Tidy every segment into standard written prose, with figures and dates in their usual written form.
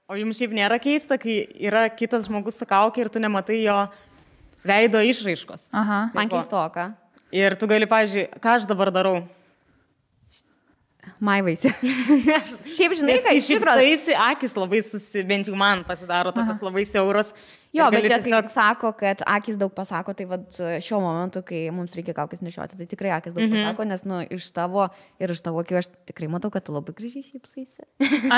O jums šiaip nėra keista, kai yra kitas žmogus su kaukė ir tu nematai jo veido išraiškos. Aha. Man keistoka. Ir tu gali, pavyzdžiui, ką aš dabar darau? Maivaisi. Šiaip žinai, kad iš tikrųjų akis labai bent jau man pasidaro tokios labai siauros. Jo, bet čia tiesiog sako, kad akis daug pasako, tai vat šiuo momentu, kai mums reikia kaukės nešioti, tai tikrai akis daug pasako, nes iš tavo ir iš tavo akių aš tikrai matau, kad tu labai gražiai šypsaisi.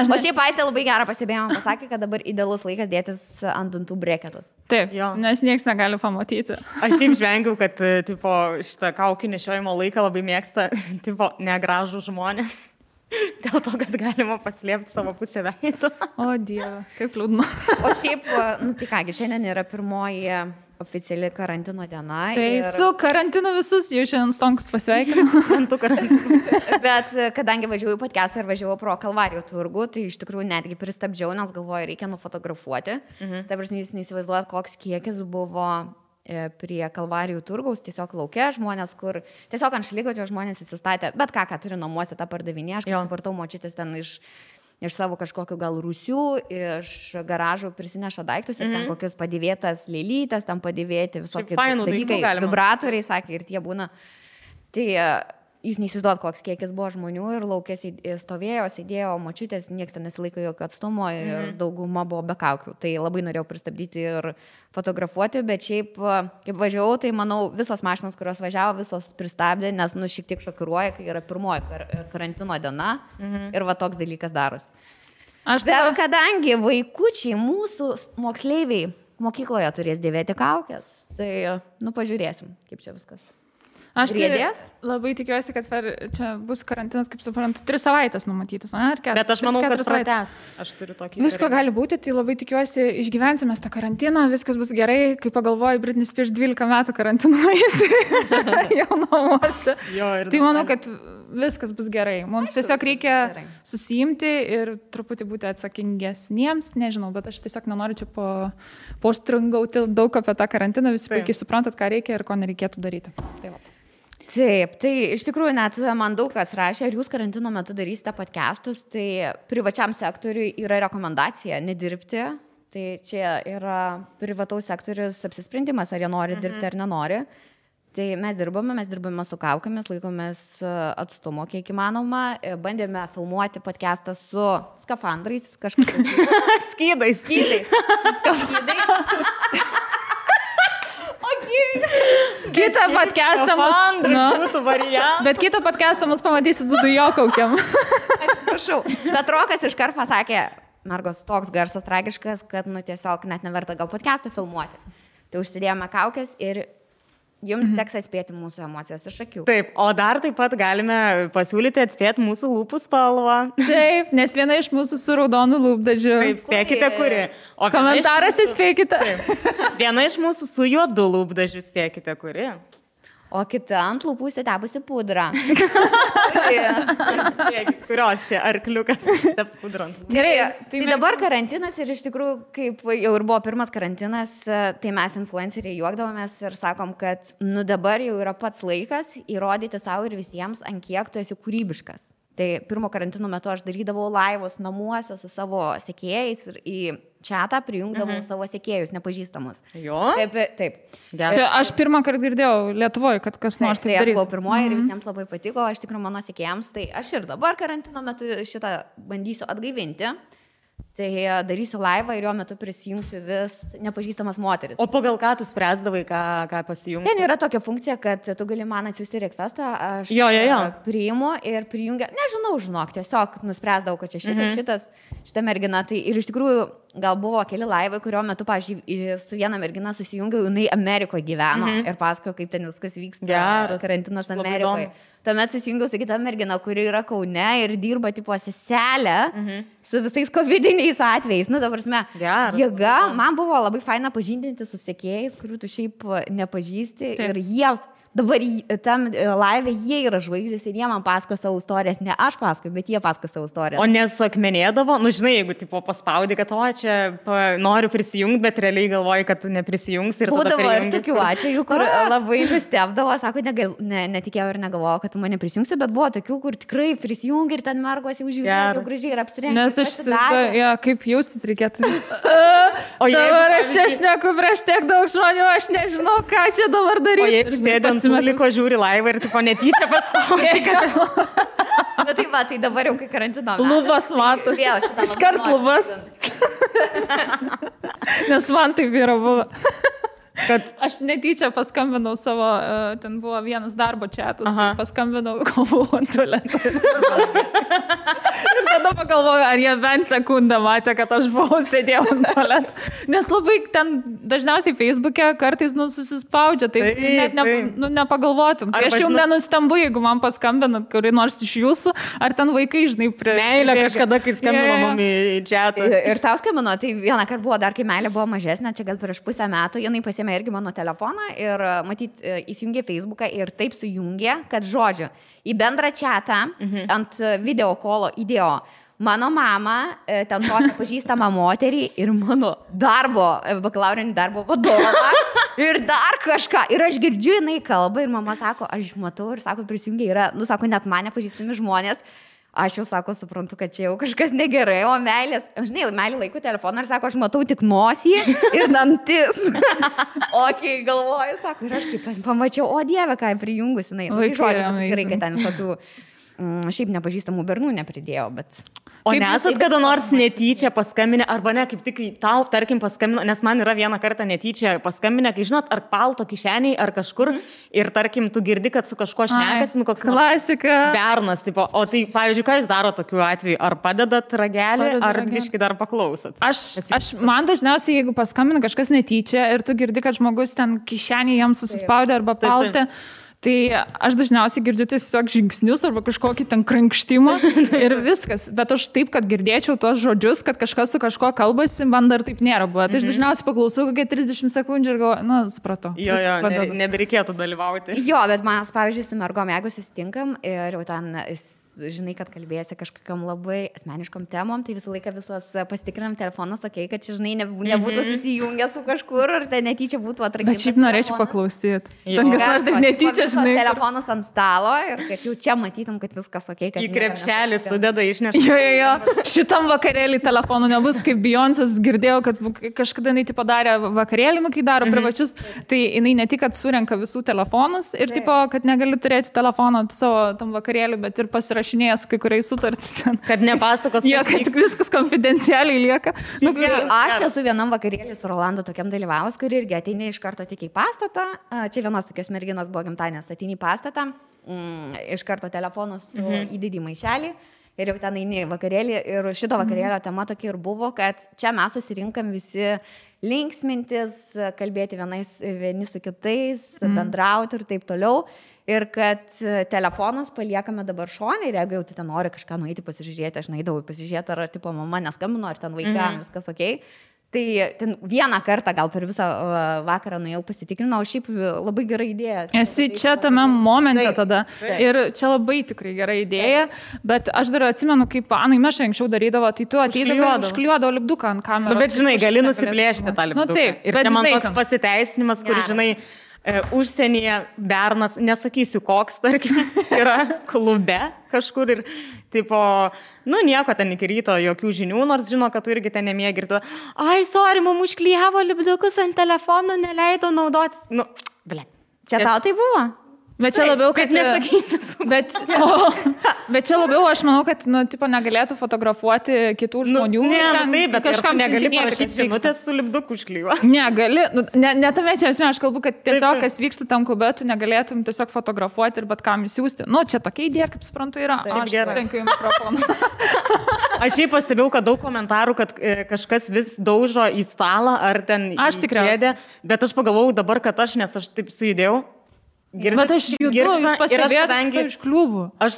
O šiaip Aistė labai gerą pastebėjimą pasakė, kad dabar idealus laikas dėtis ant dantų breketus. Taip, jo. Nes nieks negali pamatyti. Aš šiaip žvengiau, kad tipo, šitą kaukį nešiojimo laiką labai mėgsta tipo, negražų žmonės. Dėl to, kad galima paslėpti savo pusę veido. O Dieve, kaip liūdna. O šiaip, nu tai kągi, šiandien yra pirmoji oficiali karantino diena. Tai su karantinu visus jau šiandien stonkus pasveikinu. Antų karantinu. Bet kadangi važiavau į podcastą ir važiavau pro Kalvarijų turgų, tai iš tikrųjų netgi pristabdžiau, nes galvoju, reikia nufotografuoti. Tai prasme, jūs neįsivaizduojat, koks kiekis buvo prie Kalvarijų turgaus, tiesiog laukia žmonės, kur tiesiog ant šaligatvio žmonės įsistatė, bet ką turi namuose tą pardavinė, aš kaip supratau, močiutės ten iš savo kažkokių gal rūsių, iš garažų prisineša daiktus ir ten kokius padėvėtas lėlytas, ten padėvėti visokie dalykai, vibratoriai, sakė, ir tie būna. Tai jūs neįsivaizduojat, koks kiekis buvo žmonių ir laukės stovėjo, sėdėjo, močiutės, nieks ten nesilaiko jokio atstumo ir dauguma buvo be kaukių. Tai labai norėjau pristabdyti ir fotografuoti, bet šiaip, kaip važiavau, tai manau, visos mašinos, kurios važiavo, visos pristabdė, nes šiek tiek šokiruoja, kai yra pirmoji karantino diena ir va toks dalykas daros. Bet kadangi vaikučiai, mūsų moksleiviai mokykloje turės dėvėti kaukės, tai, pažiūrėsim, kaip čia viskas. Aš labai tikiuosi, kad čia bus karantinas, kaip suprantu, 3 savaitės numatytas. Bet aš manau, kad pratęs. Aš turiu tokį. Visko gali būti, tai labai tikiuosi, išgyvensime tą karantiną, viskas bus gerai. Kai pagalvoju, Britney Spears 12 metų karantinuojasi jau namuose. Tai manau, kad viskas bus gerai. Mums tiesiog reikia susiimti ir truputį būti atsakingesniems. Nežinau, bet aš tiesiog nenoriu čia postringauti daug apie tą karantiną. Visi puikiai suprantat, ką reikia ir ko nereikėtų daryti. Tai va. Taip, tai iš tikrųjų net man daug kas rašė, ar jūs karantino metu darysite podcastus, tai privačiam sektoriui yra rekomendacija nedirbti, tai čia yra privataus sektorius apsisprendimas, ar jie nori dirbti ar nenori. Tai mes dirbame su kaukėmis, laikomės atstumo kiek įmanoma, bandėme filmuoti podcastą su skafandrais, kažkaip skydais. Su skafandrais. Kitą podcastą bet kitą podcastą mus pamatysit su dujokaukiam. Prašau. Bet Rokas iškart pasakė, Margos, toks garsas tragiškas, kad tiesiog net neverta gal podcastą filmuoti. Tai užsidėjome kaukės ir jums teks atspėti mūsų emocijas iš akių. Taip, o dar taip pat galime pasiūlyti atspėti mūsų lūpų spalvą. Taip, nes viena iš mūsų su raudonu lūpdažiu. Taip, spėkite, kuri. O komentaras įspėkite. Viena iš mūsų su juodu lūpdažiu, spėkite, kuri. O kita ant lūpų įsitepusi pudrą. Kurios čia arkliukas pudrant. Gerai, tai dabar karantinas ir iš tikrųjų, kaip jau ir buvo pirmas karantinas, tai mes influenceriai juokdavomės ir sakom, kad dabar jau yra pats laikas įrodyti savo ir visiems, ant kiek tu esi kūrybiškas. Tai pirmo karantino metu aš darydavau laivus namuose su savo sekėjais ir į chatą prijungdavau savo sekėjus nepažįstamus. Jo? Taip. Čia aš pirmą kartą girdėjau Lietuvoje, kad kas nors taip darytų. Tai aš buvau pirmoji ir visiems labai patiko, aš tikrai mano sekėjams, tai aš ir dabar karantino metu šitą bandysiu atgaivinti. Tai darysiu laivą ir jo metu prisijungsiu vis nepažįstamas moteris. O pagal ką tu spręsdavai, ką pasijungti? Ten yra tokia funkcija, kad tu gali man atsiųsti requestą, aš priimu ir prijungia, žinok, tiesiog nuspręsdavau, kad čia šita mergina. Tai ir iš tikrųjų gal buvo keli laivai, kurio metu, pavyzdžiui, su viena mergina susijungiau, jinai Amerikoje gyveno ir pasakojo, kaip ten viskas vyksta, karantinas Amerikoje. Tuomet susijungiau su kita mergina, kuri yra Kaune ir dirba tipo seselę su visais covidiniais atvejais. Ta prasme, jėga. Man buvo labai faina pažindinti su sekėjais, kurių tu šiaip nepažįsti ir jie dabar tam live jie yra žvaigždės ir jie man pasako savo istorijas, ne aš pasakoju, bet jie pasako savo istorijas. O nesuakmenėdavo, nu žinai, jeigu tipo paspaudi, kad čia noriu prisijungti, bet realiai galvoji, kad neprisijungs ir tada būdavo ir tokių atvejų, kur labai nustebdavo, sako, netikėjau ir negalvojau, kad tu mane prisijungsi, bet buvo tokių, kur tikrai prisijungi ir ten mergos jau žiūrėjo, jau gražiai ir apsirengė. Nes aš įsivaizduoju, kaip jaustis reikėtų. O dabar aš šneku prieš tiek daug žmonių, aš nežinau, ką čia dabar daryti. O jeigu sėdant liko žiūri laivą ir tipo netyčia paspaudė. Na tai va, tai dabar jau kai karantino. Lubas matos. Iškart lubas. Nes man taip yra buvo. Kad aš netyčia paskambinau savo, ten buvo vienas darbo čatus, tai paskambinau, kol buvau ant tualeto. Ir tada pagalvoju, ar jie bent sekundą matė, kad aš buvau sėdėjau ant tualeto. Nes labai ten dažniausiai Facebook'e kartais susispaudžia, tai net nepagalvotum. Tai aš jau nenustembu, jeigu man paskambinat kurį nors iš jūsų, ar ten vaikai, žinai, prie... Meilė kažkada, kai skambino mum į čatą. Ir tau skambino, tai vieną kartą buvo dar, kai meilė buvo mažesnė, čia gal prieš pusę metų, jinai pasiėmė irgi mano telefoną ir matyt įsijungė Facebooką ir taip sujungė, kad žodžiu, į bendrą čatą ant video kolo įdėjo mano mama, ten tokia pažįstama moterį ir mano bakalaurinį darbo vadovą ir dar kažką. Ir aš girdžiu, jinai kalba ir mama sako, aš matau ir sako, prisijungė yra, nu sako, net mane pažįstami žmonės. Aš jau, sako, suprantu, kad čia jau kažkas negerai, o meilės, žinai, meilė laiku telefoną ir sako, aš matau tik nosį ir dantis. O kai galvoju, sako, ir aš kaip pamačiau, o Dieve, ką prijungus, jinai. Tai žodžiu, tikrai, kad ten visokių šiaip nepažįstamų bernų nepridėjo, bet... O nesat kada nors netyčia paskambinę, arba ne, kaip tik tau, tarkim, paskambino, nes man yra vieną kartą netyčia paskambinę, kai žinot, ar palto kišeniai, ar kažkur, ir tarkim, tu girdi, kad su kažkuo šnekas, nu koks klasika. Bernas, tipo, o tai, pavyzdžiui, ką jūs daro tokiu atveju, ar padedat ragelį, ar biškai dar paklausot? Man dažniausiai, jeigu paskambina kažkas netyčia ir tu girdi, kad žmogus ten kišenį jam susispaudė arba paltė, tai aš dažniausiai girdžiu tiesiog žingsnius arba kažkokį ten krankštimą ir viskas. Bet aš taip, kad girdėčiau tos žodžius, kad kažkas su kažko kalbasi, man dar taip nėra buvo. Tai aš dažniausiai paklausau kokią 30 sekundžių ir galvoju, nu, supratau. Jo, nebereikėtų dalyvauti. Jo, bet mes, pavyzdžiui, su mergom, jeigu susitinkam ir jau ten... žinai, kad kalbėsi kažkokiam labai asmeniškom temom, tai visą laiką visos pasitikrinam telefonus, sakei, kad žinai, nebūtų susijungę su kažkur, ar tai netyčia būtų atrakintas. Bet šiaip norėčiau paklausyti. Tankas nors taip netyčia, žinai. Telefonus ant stalo ir kad jau čia matytum, kad viskas okei. Į krepšelį sudeda išneša. Jo. Šitam vakarėlį telefonų nebus, kaip Beyoncé's girdėjau, kad kažkada jinai padarė vakarėlį, kai daro privačius, tai jinai ne tik, kad surenka visų telefonus ir tipo, kad negali turėti telefoną savo tam vakarėlį, bet ir pasirašyti su kai kuriais sutartis ten. Kad nepasakos, kad viskas konfidencialiai lieka. Aš esu vienam vakarėlį su Rolandu tokiam dalyvavus, kur irgi ateini iš karto tik į pastatą. Čia vienos tokios merginos buvo gimtadienis, ateini į pastatą, iš karto telefonus įdedi maišelį ir jau ten eini vakarėlį. Ir šito vakarėlio tema tokia ir buvo, kad čia mes susirinkam visi linksmintis, kalbėti vieni su kitais, bendrauti ir taip toliau. Ir kad telefonas paliekame dabar šone ir jeigu jau tu ten nori kažką nueiti pasižiūrėti, aš nueidavau pasižiūrėti, ar tipo mama neskambino, ar ten vaikam viskas okei. Tai ten vieną kartą gal per visą vakarą nuėjau pasitikrinau, šiaip labai gera idėja. Esi čia tame momente tada. Ir čia labai tikrai gera idėja, bet aš dar atsimenu, kaip Anai Meša anksčiau darydavo, tai tu ateidavai užklijuodavo lipduką ant kameros. Bet žinai, gali nusiplėšti tą lipduką. Taip, ir čia man toks pasiteisinimas, kur žinai, užsienyje bernas, nesakysiu koks, tarkim, yra klube kažkur ir, tipo, nu nieko ten iki ryto, jokių žinių, nors žino, kad tu irgi ten nemėgi ir tu, sorry, mum užklijavo lipdukus ant telefono, neleido naudotis. Nu, ble. Čia tau tai buvo? Bet čia labiau, kad nesakysiu. Bet čia labiau, aš manau, kad, nu, tipo, negalėtų fotografuoti kitų žmonių. Bet kažkam negali parašyti žinutės su lipduku užklijuo. Negali. Ne tame čia esmė, aš kalbu, kad tiesiog, kas vyksta tam klube, tu negalėtum tiesiog fotografuoti ir bet kam įsiųsti. Nu, čia tokia idėja, kaip suprantu, yra. Aš trenkiu į mikrofoną. Aš šiaip pastebėjau, kad daug komentarų, kad kažkas vis daužo į stalą ar ten į kėdę. Bet aš pagalvojau dabar, kad nes aš taip sujudėjau. Bet aš judu, jūs pastebėjote iš kliūvų. Aš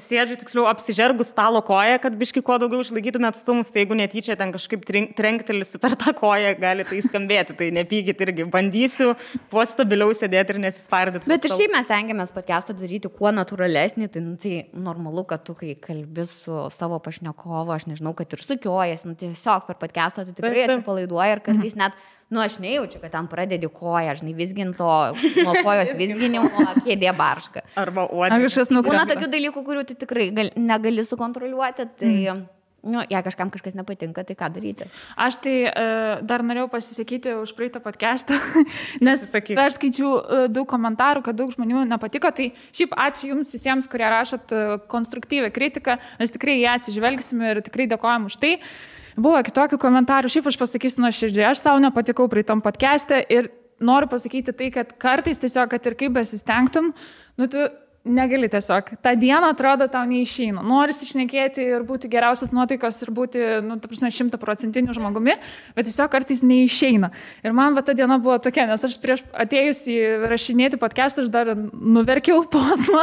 sėdžiu, tiksliau, apsižergus stalo koją, kad biški kuo daugiau išlaikytume atstumus, tai jeigu netyčia ten kažkaip trenktelisiu per tą koją, gali tai skambėti, tai nepykit irgi. Bandysiu kuo stabiliau sėdėti ir nesispardyti. Bet ir šiaip mes tengiamės podcastą daryti kuo natūralesnį, tai normalu, kad tu, kai kalbi su savo pašnekovu, aš nežinau, kad ir sukiojasi, tiesiog per podcastą tu tikrai atsipalaiduoji ir kartais net aš nejaučiu, kad tam pradedi koją, žinai, visginto, nuo kojos visginimo, kėdė barška. Arba uodė. Būna tokių dalykų, kurių tu tikrai negali sukontroliuoti, tai, jei kažkam kažkas nepatinka, tai ką daryti? Aš tai dar norėjau pasisakyti už praeitą podcastą, nes aš skaičiau daug komentarų, kad daug žmonių nepatiko, tai šiaip ačiū jums visiems, kurie rašot konstruktyvę kritiką, mes tikrai ją atsižvelgsime ir tikrai dėkojam už tai. Buvo kitokių komentarų, šiaip aš pasakysiu nuoširdžiai, aš tau nepatikau praeitam podcast'e ir noriu pasakyti tai, kad kartais tiesiog, kad ir kaip besistengtum, tu negali tiesiog. Ta diena atrodo tau neišeina. Norisi šnekėti ir būti geriausias nuotaikos ir būti, 100% žmogumi, bet tiesiog kartais neišeina. Ir man ta diena buvo tokia, nes aš prieš atėjus į rašinėti podcast'ą, aš dar nuverkiau posmą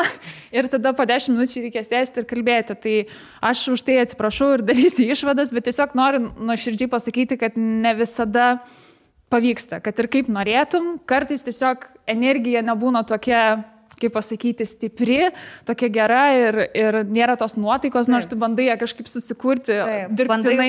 ir tada po 10 minučių reikės tęsti ir kalbėti. Tai aš už tai atsiprašau ir darysiu išvadas, bet tiesiog noriu nuoširdžiai pasakyti, kad ne visada pavyksta, kad ir kaip norėtum, kartais tiesiog energija nebūna tokia, kaip pasakyti, stipri, tokia gera ir nėra tos nuotaikos, nors tu bandai ją kažkaip susikurti, dirbtinai.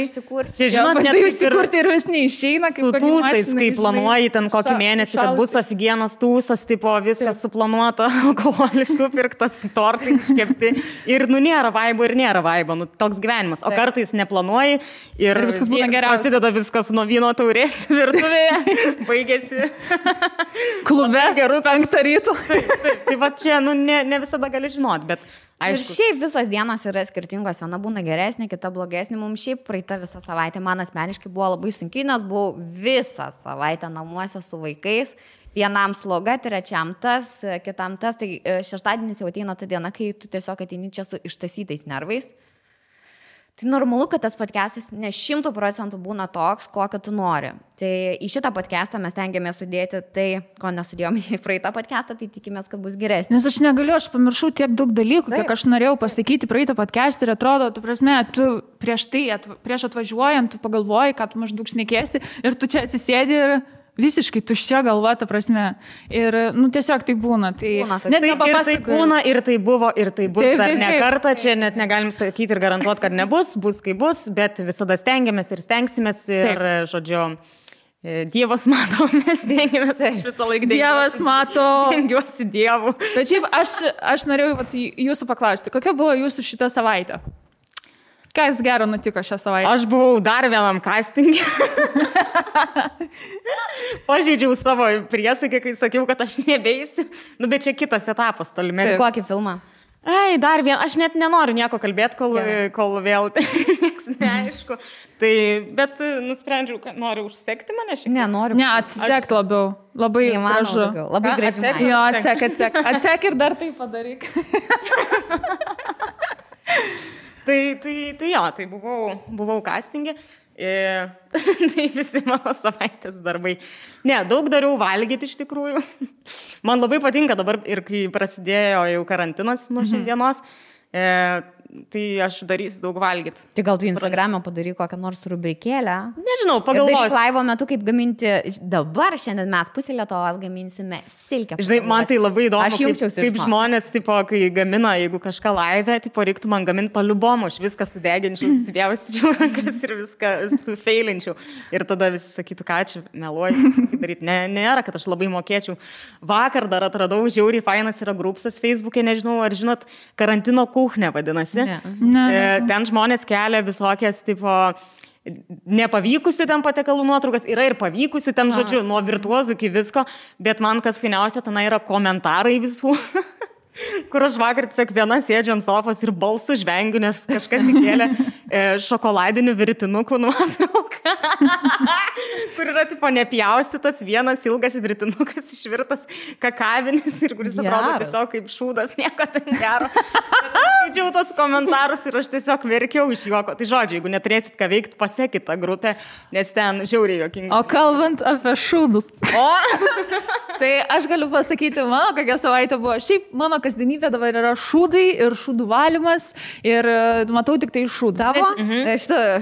Čia, žinot, bandai susikurti ir vis neišeina. Su tūsais, kai planuoji ten kokį mėnesį, kad bus afigienas tūsas, tipo viskas suplanuota, alkoholis supirktas, tortai iškepti ir nėra vaibo ir nėra vaibo, toks gyvenimas. O kartais neplanuoji ir viskas būna geriausia. Prasideda viskas nuo vyno taurės virtuvėje, baigėsi klube, 5 ryto. Tai va čia, ne visada gali žinoti, bet aišku. Ir šiaip visas dienas yra skirtingos, viena būna geresnė, kita blogesnė. Mums šiaip praeita visą savaitę, man asmeniškai buvo labai sunkiai, nes buvau visą savaitę namuose su vaikais. Vienam sloga, trečiam tas, kitam tas. Tai šeštadienis jau ateina ta diena, kai tu tiesiog ateini čia su ištasytais nervais. Tai normalu, kad tas podcastas ne 100% būna toks, kokio tu nori. Tai į šitą podcastą mes tengiamės sudėti tai, ko nesudėjome į praeitą podcastą, tai tikimės, kad bus geresnis. Nes aš negaliu, aš pamiršau tiek daug dalykų, kiek aš norėjau pasakyti praeitą podcastą ir atrodo, tu prasme, tu prieš atvažiuojant, tu pagalvoji, kad tu maždaug šnekėsi ir tu čia atsisėdi ir visiškai tuščia galva, ta prasme. Ir, tiesiog tai būna. Tai net ir tai būna, ir tai buvo, ir tai bus dar ne kartą. Čia net negalim sakyti ir garantuoti, kad nebus, bus kaip bus, bet visada stengiamės ir stengsimės ir, žodžiu, Dievas mato, mes stengiamės, aš visą laiką Dievas mato. Dengiuosi Dievu. Bet šiaip aš norėjau jūsų paklausti, kokia buvo jūsų šitą savaitę? Kas gero nutiko šią savaitę? Aš buvau dar vienam castingė. Pažeidžiau savo priesaiką, kai sakiau, kad aš nebeisiu. Bet čia kitas etapas tolimesnis. Kokį filmą? Dar vieną, aš net nenoriu nieko kalbėti, kol vėl nieks neaišku. Tai, bet nusprendžiau, kad noriu užsekti mane šiek tiek. Nenoriu. Ne, atsek labiau. Labai gražu. Labai gražu. Jo, atsek. Atsek ir dar tai padaryk. Tai buvau castingė. Tai visi mano savaitės darbai. Ne, daug dariau valgyti iš tikrųjų. Man labai patinka dabar ir kai prasidėjo jau karantinas nuo šiandienos, tai aš darysiu daug valgyti. Tai gal tu Instagram'e padaryk kokią nors rubrikėlę? Nežinau, pagalvosiu. Daryk laivo metu, kaip gaminti, dabar šiandien mes pusę Lietuvos gaminsime silkę. Žinai, man tai labai įdomu, kaip žmonės, tipo, kai gamina, jeigu kažką laive, tipo, reiktų man gaminti paliubomų, aš viską sudeginčiau, susipjaustyčiau rankas ir viską sufeilinčiau. Ir tada visi sakytų, ką čia meluoju, daryti. Nėra, kad aš labai mokėčiau. Vakar dar atradau, žiauriai fainas yra grupsas Facebook'e, nežinau, ar žinot, karantino kuchnė vadinasi. Ten žmonės kelia visokias, tipo, nepavykusių ten patiekalų nuotraukas, yra ir pavykusių ten, žodžiu, nuo virtuozų iki visko, bet man kas fainiausia, ten yra komentarai visų, kur aš vakar tiesiog viena sėdžiu ant sofos ir balsų žvengiu, nes kažkas įkėlė šokoladinių virtinukų nuotrauką, kur yra, tipo, nepjaustytas vienas ilgas virtinukas išvirtas kakavinis ir kuris atrodo tiesiog kaip šūdas, nieko ten gero. skaičiau tos komentarus ir aš tiesiog verkiau iš juoko. Tai žodžiu, jeigu neturėsit ką veikti, pasekit tą grupę, nes ten žiauriai juokinga. O kalbant apie šūdus. Tai aš galiu pasakyti, mano kokia savaitė buvo. Šiaip mano kasdienybė dabar yra šūdai ir šūdų valymas ir matau tik tai šūdų. Tavo?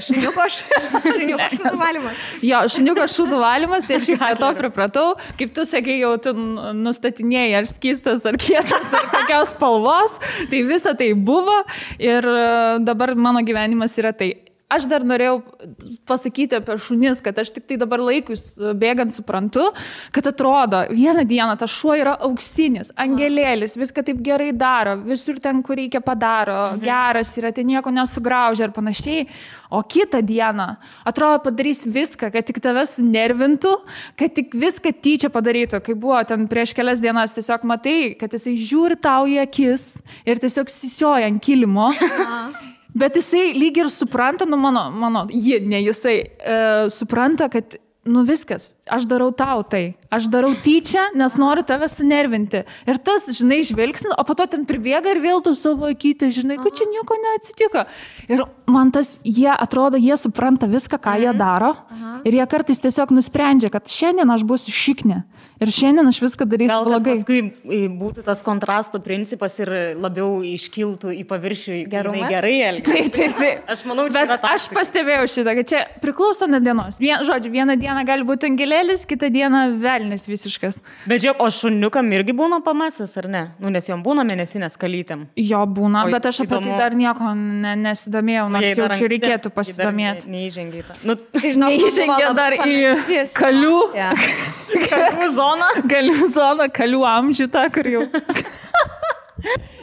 Šuniuko šūdų valymas. Jo, šuniuko šūdų valymas, tai aš jau prie to pripratau. Kaip tu sakai, jau tu nustatinėjai, ar skystas, ar kietas, ar kokios spalvos. Tai visa tai buvo ir dabar mano gyvenimas yra tai. Aš dar norėjau pasakyti apie šunis, kad aš tik tai dabar laikus bėgant suprantu, kad atrodo, vieną dieną tas šuo yra auksinis, angelėlis, viską taip gerai daro, visur ten, kur reikia padaro, geras yra, tai nieko nesugraužia ir panašiai. O kitą dieną, atrodo, padarys viską, kad tik tave sunervintų, kad tik viską tyčia padarytų. Kai buvo ten prieš kelias dienas, tiesiog matai, kad jisai žiūri tau į akis ir tiesiog sisioja ant kilimo. Bet jisai lyg ir supranta, supranta, kad, viskas, aš darau tau tai. Aš darau tyčia, nes noriu tave sunervinti. Ir tas, žinai, žvilgsnis, o po to ten pribėga ir vėl tu savo akytę, žinai, kad čia nieko neatsitiko. Ir man tas, jie supranta viską, ką jie daro. Ir jie kartais tiesiog nusprendžia, kad šiandien aš būsiu šiknė. Ir šiandien aš viską darysiu blogai. Gal paskui būtų tas kontrasto principas ir labiau iškiltų į paviršių gerai elgtis. Taip. Aš manau, čia bet aš pastebėjau šitą, kad čia priklauso nuo dienos. Vieną dieną gali būti angelėlis, kitą dieną velnis visiškas. Bet žiūrėk, o šuniukam irgi būna pamasas, ar ne? Nes jom būna mėnesinės kalytėm. Jo būna, bet aš apie tai dar nieko nesidomėjau, nors jau čia reikėtų pasidomėti. Neįžengia į tą. Neįžengia dar į kalių. Kalių zoną, kalių amžių tą, kur jau.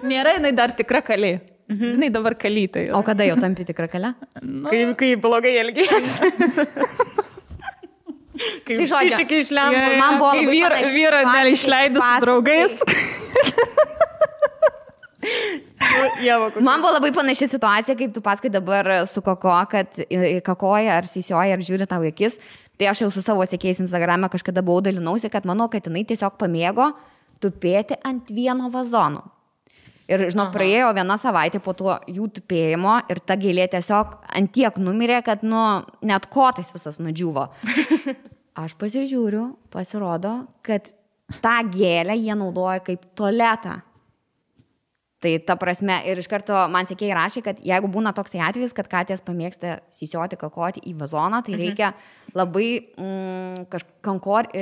Nėra jinai dar tikra kalė. Jinai dabar kalytai. O kada jau tampi tikra kalė? Kai blogai elgiasi. Kai išsišykiai išlemba. Man buvo labai vyrą neišleidus su draugais. Man buvo labai panaši situacija, kaip tu paskui dabar su Koko, kad kakoja ar sisioja ar žiūri tau akis. Tai aš jau su savo sekėjais Instagrame kažkada buvau dalinausi, kad manau, kad jinai tiesiog pamėgo tupėti ant vieno vazono. Ir, praėjo viena savaitė po to jų tupėjimo ir ta gėlė tiesiog ant tiek numirė, kad, net kotais visas nudžiuvo. Aš pasižiūriu, pasirodo, kad tą gėlę jie naudoja kaip tualetą. Tai ta prasme, ir iš karto man sekėjai rašė, kad jeigu būna toksai atvejis, kad katės pamėgsta sisioti, kakoti į vazoną, tai reikia labai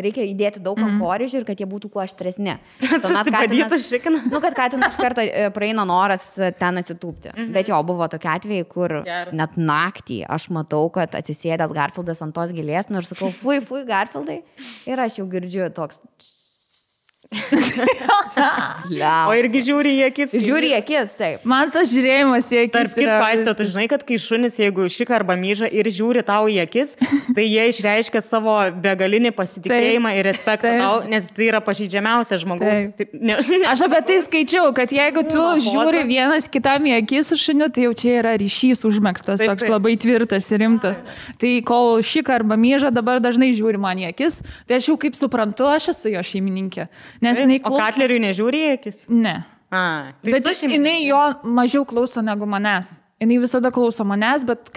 reikia įdėti daug kankorėžių ir kad jie būtų kuo aštresni. Susibadytas šikinas. Kad katinų iš karto praeina noras ten atsitūpti. Bet jo, buvo tokie atvejai, kur net naktį aš matau, kad atsisėdęs Garfieldas ant tos gėlės, ir sakau, fui, Garfieldai. Ir aš jau girdžiu toks... O irgi žiūri į akis. Žiūri į akis, taip. Man tas žiūrėjimas į akis. Tarp kitko, Aiste, tu žinai, kad kai šunis, jeigu šika arba myža ir žiūri tau į akis, tai jie išreiškia savo begalinį pasitikėjimą ir respektą tau, nes tai yra pažeidžiamiausias žmogaus. Aš apie tai skaičiau, kad jeigu tu žiūri vienas kitam į akis su šuniu, tai jau čia yra ryšys užmegztas, toks labai tvirtas ir rimtas. Tai kol šika arba myža dabar dažnai žiūri man į akis, tai aš jau kaip suprantu, aš esu jo šeimininkė. O Katleriui nežiūri į akis? Ne. Bet jinai jo mažiau klauso negu manęs. Jinai visada klauso manęs, bet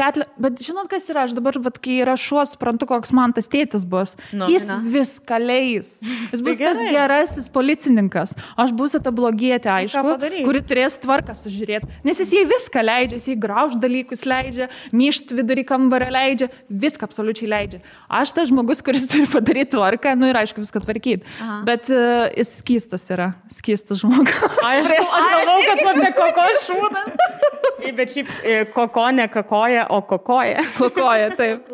žinot, kas yra, aš dabar, kai yra šuo, suprantu, koks man tas tėtis bus. Jis viską leis. Jis bus tas gerasis policininkas. Aš būsiu ta blogietė, aišku, kuri turės tvarką sužiūrėti. Nes jis jai viską leidžia, jis jai grauž dalykus leidžia, myšt vidurį kambarą leidžia, viską absoliučiai leidžia. Aš tas žmogus, kuris turi padaryti tvarką, ir aišku, viską tvarkyti. Bet jis skystas yra, skystas žmogus. Aš galvau, kad apie Koko šūdas. Bet šiaip Koko ne kakoja, o kokoja. Kokoja, taip.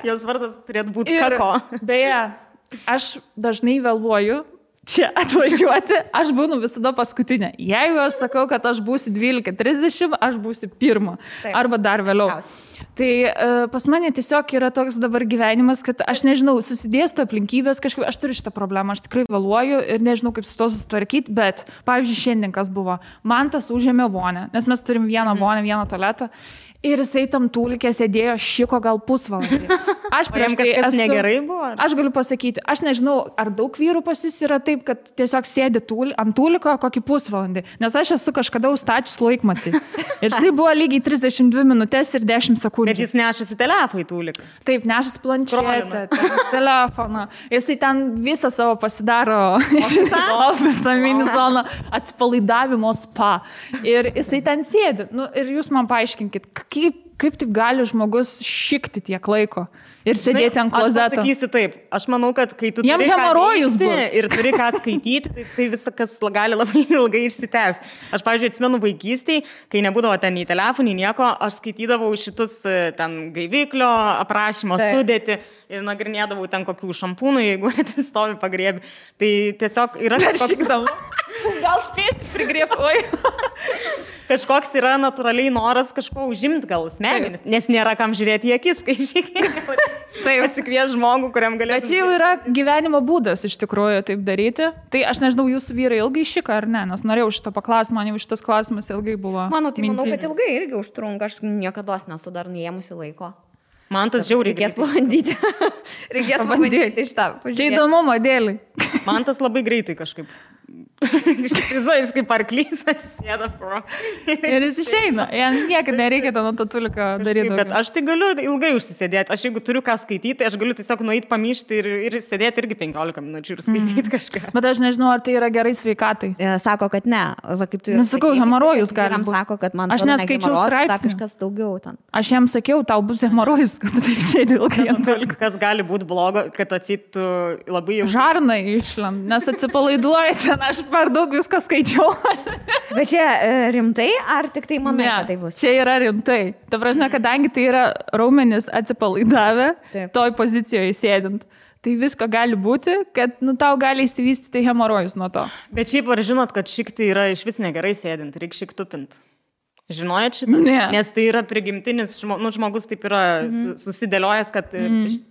Jos vardas turėtų būti Kako. Beje, aš dažnai vėluoju čia atvažiuoti, aš būnu visada paskutinė. Jeigu aš sakau, kad aš būsiu 12:30, aš būsiu pirma. Arba dar vėliau. Tai pas mane tiesiog yra toks dabar gyvenimas, kad aš nežinau, susidėsto aplinkybės kažkaip, aš turiu šitą problemą, aš tikrai vėluoju ir nežinau, kaip su to susitvarkyti, bet, pavyzdžiui, šiandien kas buvo, man tas užėmė vonę, nes mes turim vieną vonę, vieną tualetą. Ir jisai tam tūlikė sėdėjo šiko gal pusvalandį. Aš prieš tai negerai buvo. Aš galiu pasakyti, aš nežinau, ar daug vyrų pas jūs yra taip, kad tiesiog sėdi ant tūliko kokį pusvalandį, nes aš esu kažkada užstačius laikmatį. Ir tai buvo lygiai 32 minutės ir 10 sekundžių. Bet jis nešasi telefoną į tūliką. Taip, nešasi planšetę, telefoną. Jisai ten visą savo pasidaro ofisą, mini zoną, atsipalaidavimo spa. Ir jisai ten sėdi. Nu, ir jūs man paaiškinkit, kaip taip gali žmogus šikti tiek laiko ir sėdėti ant klozeto? Aš pasakysiu taip, aš manau, kad kai tu turi hemorojus ir turi ką skaityti, tai viskas gali labai ilgai išsitęsti. Aš, pavyzdžiui, atsimenu vaikystėj, kai nebūdavo ten į telefonį, nieko, aš skaitydavau šitus ten gaiviklio aprašymo sudėti ir nagrinėdavau ten kokių šampūnų, jeigu atsistovi pagriebi. Tai tiesiog yra Gal spėsi prigrėpoj. Kažkoks yra natūraliai noras kažko užimti gal smegenis, nes nėra kam žiūrėti į akis, kai šiek pasikvies žmogų, kuriam galėtų. Bet čia jau yra gyvenimo būdas iš tikrųjų taip daryti. Tai aš nežinau, jūsų vyrai ilgai šika ar ne, nes norėjau šito paklausti, man jau šitas klausimas ilgai buvo. Manau, kad ilgai irgi užtrunka, aš niekada nesu dar neėmusi laiko. Man tas žiauriai reikės pabandyti. Reikės pabandyti šitą. Čia įdomumo dėlį. Man tas labai greitai kažkaip. Jis kaip arklys atsisėda pro. Ir jis išeina. Jam niekada nereikia ten ant tatuliko daryti. Bet aš tai galiu ilgai užsisėdėti. Aš jeigu turiu ką skaityti, aš galiu tiesiog nueiti pamyšti ir sėdėti irgi 15 minučių ir skaityti kažką. Bet aš nežinau, ar tai yra gerai sveikatai. Sako, kad ne. Va, kaip tu nesakau, hemorojus gali būti. Sako, kad man aš neskaičiau straipsnį. Kažkas daugiau ten. Aš jam sakiau, tau bus hemorojus, kad tu taip sėdi ilgai ant tuliko. Kas gali būti blogo, kad atsitų labai ilgai. Žarnai išlend, nes atsipalaiduoji ten, aš per daug viską skaičiau. Bet čia rimtai, ar tik tai manai, kad tai bus? Čia yra rimtai. Ta prasme, kadangi tai yra raumenis atsipalaidavę, toj pozicijoje sėdint, tai visko gali būti, kad tau gali įsivystyti hemorojus nuo to. Bet šiaip ar žinot, kad šikti yra iš vis negerai sėdint, reikia šiktupinti? Žinojat šitą? Ne. Nes tai yra prigimtinis, žmogus taip yra susidėliojęs, kad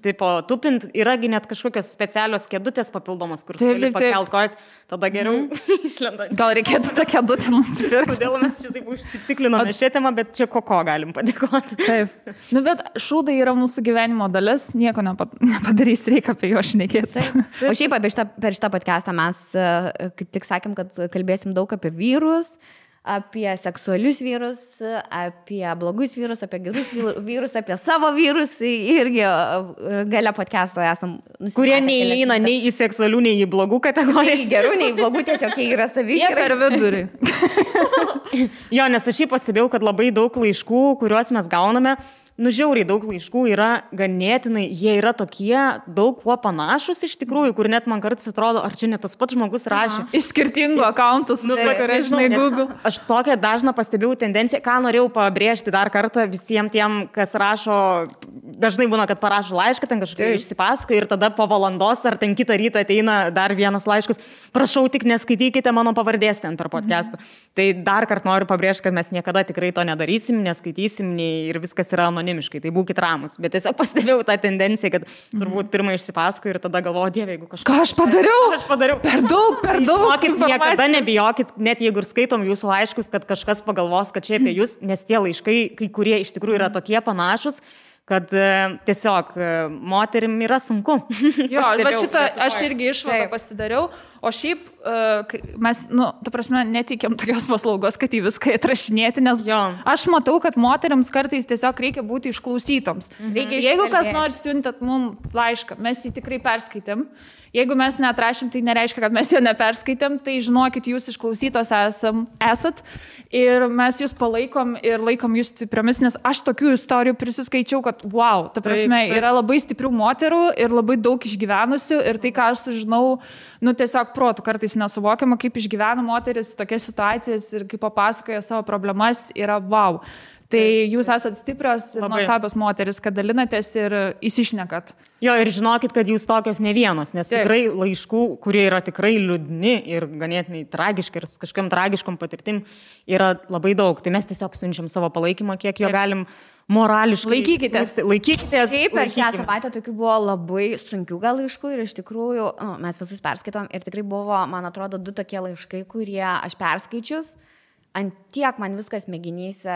tipo tupint yragi net kažkokios specialios kėdutės papildomos, kur gali pakelt kojas, tada geriau išlenda. Gal reikėtų tą kėdutę nusipirkti? Kodėl mes čia taip užsiciklinome šią temą, bet čia ko galim padėkoti. Taip. Bet šūdai yra mūsų gyvenimo dalis, nieko nepadarys, reikia apie juos šnekėti. O šiaip per šitą podcastą mes kaip tik sakėm, kad kalbėsim daug apie vyrus, apie seksualius vyrus, apie blogus vyrus, apie gerus vyrus, apie savo vyrus. Irgi gale podcast'o esam nusipratę. Kurie neįeina nei į seksualių, nei į blogų kategoriją. Nei gerų, nei blogų, tiesiog jie yra savi. Jie per vidurį. Jo, nes aš šiaip pastebėjau, kad labai daug laiškų, kuriuos mes gauname, žiauriai daug laiškų yra ganėtinai, jie yra tokie daug kuo panašus iš tikrųjų, kur net man kartais atrodo, ar čia ne tas pats žmogus rašė. Iš skirtingų akauntų žinai, Google. Aš tokią dažną pastebėjau tendenciją, ką norėjau pabrėžti dar kartą visiems tiem, kas rašo, dažnai būna, kad parašo laišką, ten kažkaip išsipasako ir tada po valandos ar ten kitą rytą ateina dar vienas laiškas, prašau tik neskaitykite mano pavardės ten per podcastą. Tai dar kartą noriu pabrėžti, kad mes niekada tikrai to nedarysim, neskaitysim ir viskas yra anonimiškai, tai būkit ramus. Bet tiesiog pastebėjau tą tendenciją, kad turbūt pirmą išsipasako ir tada galvoju, Dieve, jeigu kažką. Ką aš padariau? Per daug. Niekada nebijokit, net jeigu ir skaitom jūsų laiškus, kad kažkas pagalvos, kad čia apie jūs, nes tie laiškai, kai kurie iš tikrųjų yra tokie panašus, kad tiesiog moterim yra sunku. Jo, bet šitą aš irgi išvadą pasidariau, o šiaip mes, ta prasme, netikėm tokios paslaugos, kad į viską atrašinėti, nes aš matau, kad moteriams kartais tiesiog reikia būti išklausytoms. Jeigu kas nors siuntat mums laišką, mes jį tikrai perskaitėm. Jeigu mes neatrašym, tai nereiškia, kad mes jo neperskaitėm, tai žinokit, jūs išklausytos esat ir mes jūs palaikom ir laikom jūs stipriomis, nes aš tokių istorijų prisiskaičiau, kad wow, ta prasme, yra labai stiprių moterų ir labai daug išgyvenusių ir tai, ką aš sužinau, tiesiog protų kartais nesuvokiama, kaip išgyvena moteris tokias situacijas ir kaip papasakoja savo problemas, yra wow. Tai jūs esat stiprios ir nuostabios moteris, kad dalinatės ir įsišnekat. Jo, ir žinokit, kad jūs tokios ne vienos, nes tikrai laiškų, kurie yra tikrai liūdni ir ganėtinai tragiški ir kažkam tragiškom patirtim, yra labai daug. Tai mes tiesiog siunčiam savo palaikymą, kiek jo galim morališkai. Laikykitės. Taip, per šią savaitę tokių buvo labai sunkių gal laiškų ir iš tikrųjų mes visus perskaitom ir tikrai buvo, man atrodo, 2 tokie laiškai, kurie aš perskaičius. Ant tiek man viskas mėginyse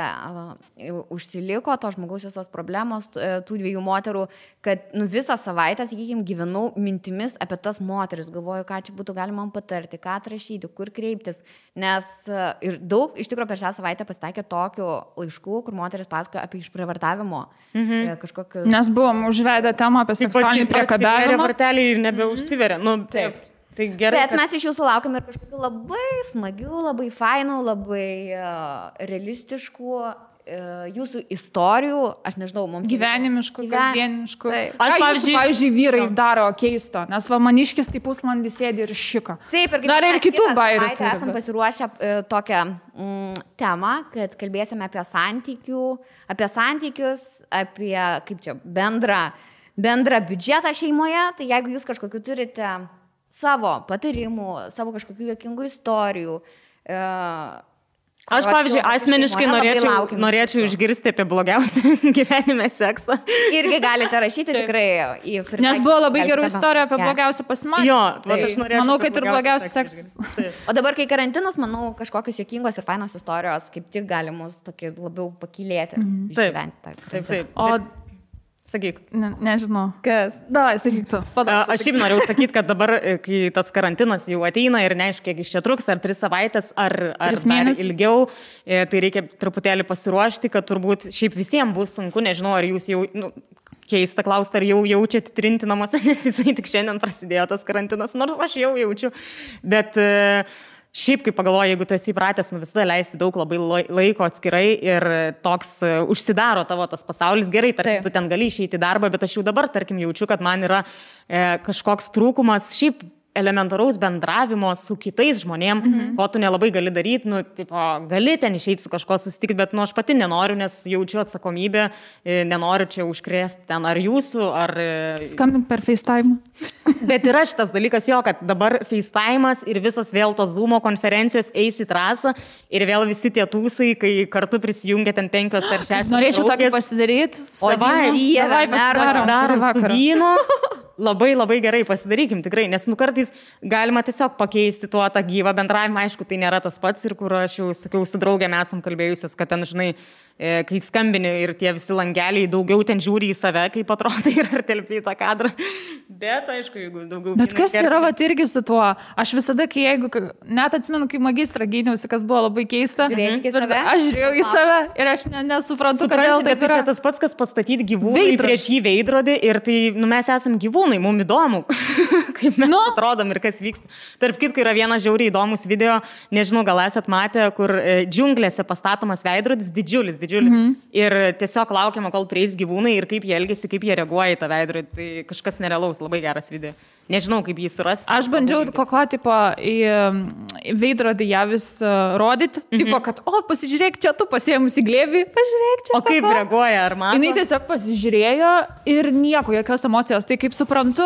užsiliko, to žmogaus visos problemos, tų 2 moterų, kad visą savaitę, sakykime, gyvenau mintimis apie tas moteris, galvoju, ką čia būtų galima man patarti, ką atrašyti, kur kreiptis, nes ir daug, iš tikrųjų, per šią savaitę pasitaikė tokių laiškų, kur moteris pasakojo apie išprievartavimo. Nes buvom užvedę temą apie seksualinį priekabiavimą. Varteliai ir nebeužsiveria. Taip. Tai gerai, bet mes iš jūsų laukiam ir kažkokių labai smagių, labai fainų, labai realistiškų jūsų istorijų, aš nežinau, mums... Gyvenimiškų, kasdieniškų. Aš, pavyzdžiui, vyrai daro keisto, nes va maniškis tai pusvalandį sėdi ir šika. Taip, ir dar ir kitų bairių. Esam pasiruošę tokią temą, kad kalbėsime apie santykius, apie, kaip čia, bendrą biudžetą šeimoje, tai jeigu jūs kažkokiu turite savo patarimų, savo kažkokių juokingų istorijų. Aš, pavyzdžiui, asmeniškai norėčiau išgirsti apie blogiausią gyvenime seksą. Irgi galite rašyti tikrai. Nes buvo labai gerų istorijų apie blogiausią pasimatymą. Jo, aš norėčiau. Manau, kad ir blogiausias seksas. O dabar, kai karantinas, manau, kažkokios juokingos ir fainos istorijos kaip tik gali mus tokį labiau pakylėti. Taip. Sakyk. Nežinau. Kas? Davai, sakyk tu. Aš šiaip norėjau sakyti, kad dabar, kai tas karantinas jau ateina ir neaišku, kiek iš čia truks, ar 3 savaitės, ar dar ilgiau, tai reikia truputėlį pasiruošti, kad turbūt šiaip visiems bus sunku, nežinau, ar jūs jau... Keista klausti, ar jau jaučiat trinti namuose, nes jisai tik šiandien prasidėjo tas karantinas, nors aš jau jaučiu, bet... Šiaip, kaip pagalvoju, jeigu tu esi įpratęs visada leisti daug labai laiko atskirai ir toks užsidaro tavo tas pasaulis, gerai, tarkim, tu ten gali išeiti į darbą, bet aš jau dabar, tarkim, jaučiu, kad man yra kažkoks trūkumas šiaip elementaraus bendravimo su kitais žmonėm, ko tu nelabai gali daryti, gali ten išeiti su kažko susitikti, bet aš pati nenoriu, nes jaučiu atsakomybę, nenoriu čia užkrėsti ten ar jūsų, ar... Skambink per FaceTime. Bet yra šitas dalykas jo, kad dabar FaceTime'as ir visos vėl tos Zoom'o konferencijos eis į trasą ir vėl visi tie tūsai, kai kartu prisijungia ten 5 ar 6. Norėčiau tokį pasidaryti. Pasidarom su vynu. Labai gerai pasidarykim tikrai, nes kartais galima tiesiog pakeisti tą gyvą bendravimą, aišku, tai nėra tas pats ir kur aš jau sakiau, su draugėm esam kalbėjusios, kad ten, žinai, kai skambini ir tie visi langeliai daugiau ten žiūri į save, kaip atrodo ir ar telpi į tą kadrą. Bet, aišku, jeigu daugiau... Bet kas yra vat irgi su tuo? Aš visada, net atsimenu, kai magistrą gyniausi, kas buvo labai keista. Aš žiūrėjau į save ir aš nesuprantu, kodėl taip yra. Bet čia tas pats, kas pastatyti gyvūnai prieš jį veidrodį ir tai, mes esam gyvūnai, mums įdomu, kaip mes atrodom ir kas vyksta. Tarp kitko yra vienas žiauriai įdomus video, nežinau, gal esat matę, kur džiunglėse pastatomas veidrodis, didžiulis. Ir tiesiog laukiama, kol prieis gyvūnai ir kaip jie elgiasi, kaip jie reaguoja į tą veidrodį. Tai kažkas nerealaus, labai geras video. Nežinau, kaip jį surasti. Aš bandžiau kokio tipo į veidrodį ją vis rodyti. Tipo, kad, pasižiūrėk, čia tu pasiėmus į glėbį, pažiūrėk čia. O kaip reaguoja, ar mato? Jinai tiesiog pasižiūrėjo ir nieko, jokios emocijos. Tai kaip suprantu,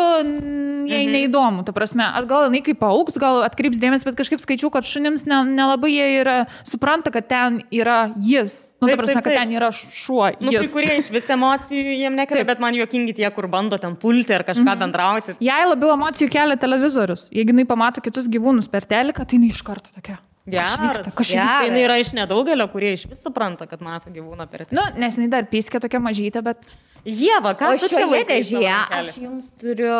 jai neįdomu. Ta prasme, gal jinai kaip paaugs, gal atkreips dėmesį, bet kažkaip skaičiu, kad šunims nelabai jie yra, supranta, kad ten yra jis. Ta prasme, kad ten yra šuo. Kai kurie iš vis emocijų jiem nekelia, bet man juokingi tie, kur bando ten pulti ar kažką bendrauti. Jai labiau emocijų kelia televizorius. Jeigu jinai pamato kitus gyvūnus per teliką, tai jinai iš karto tokia. Jinai yra iš nedaugelio, kurie iš vis supranta, kad mato gyvūną per teliką. Nes jinai dar pyskė tokia mažytė, bet... Ieva, ką tu čia dėžėje? Aš jums turiu,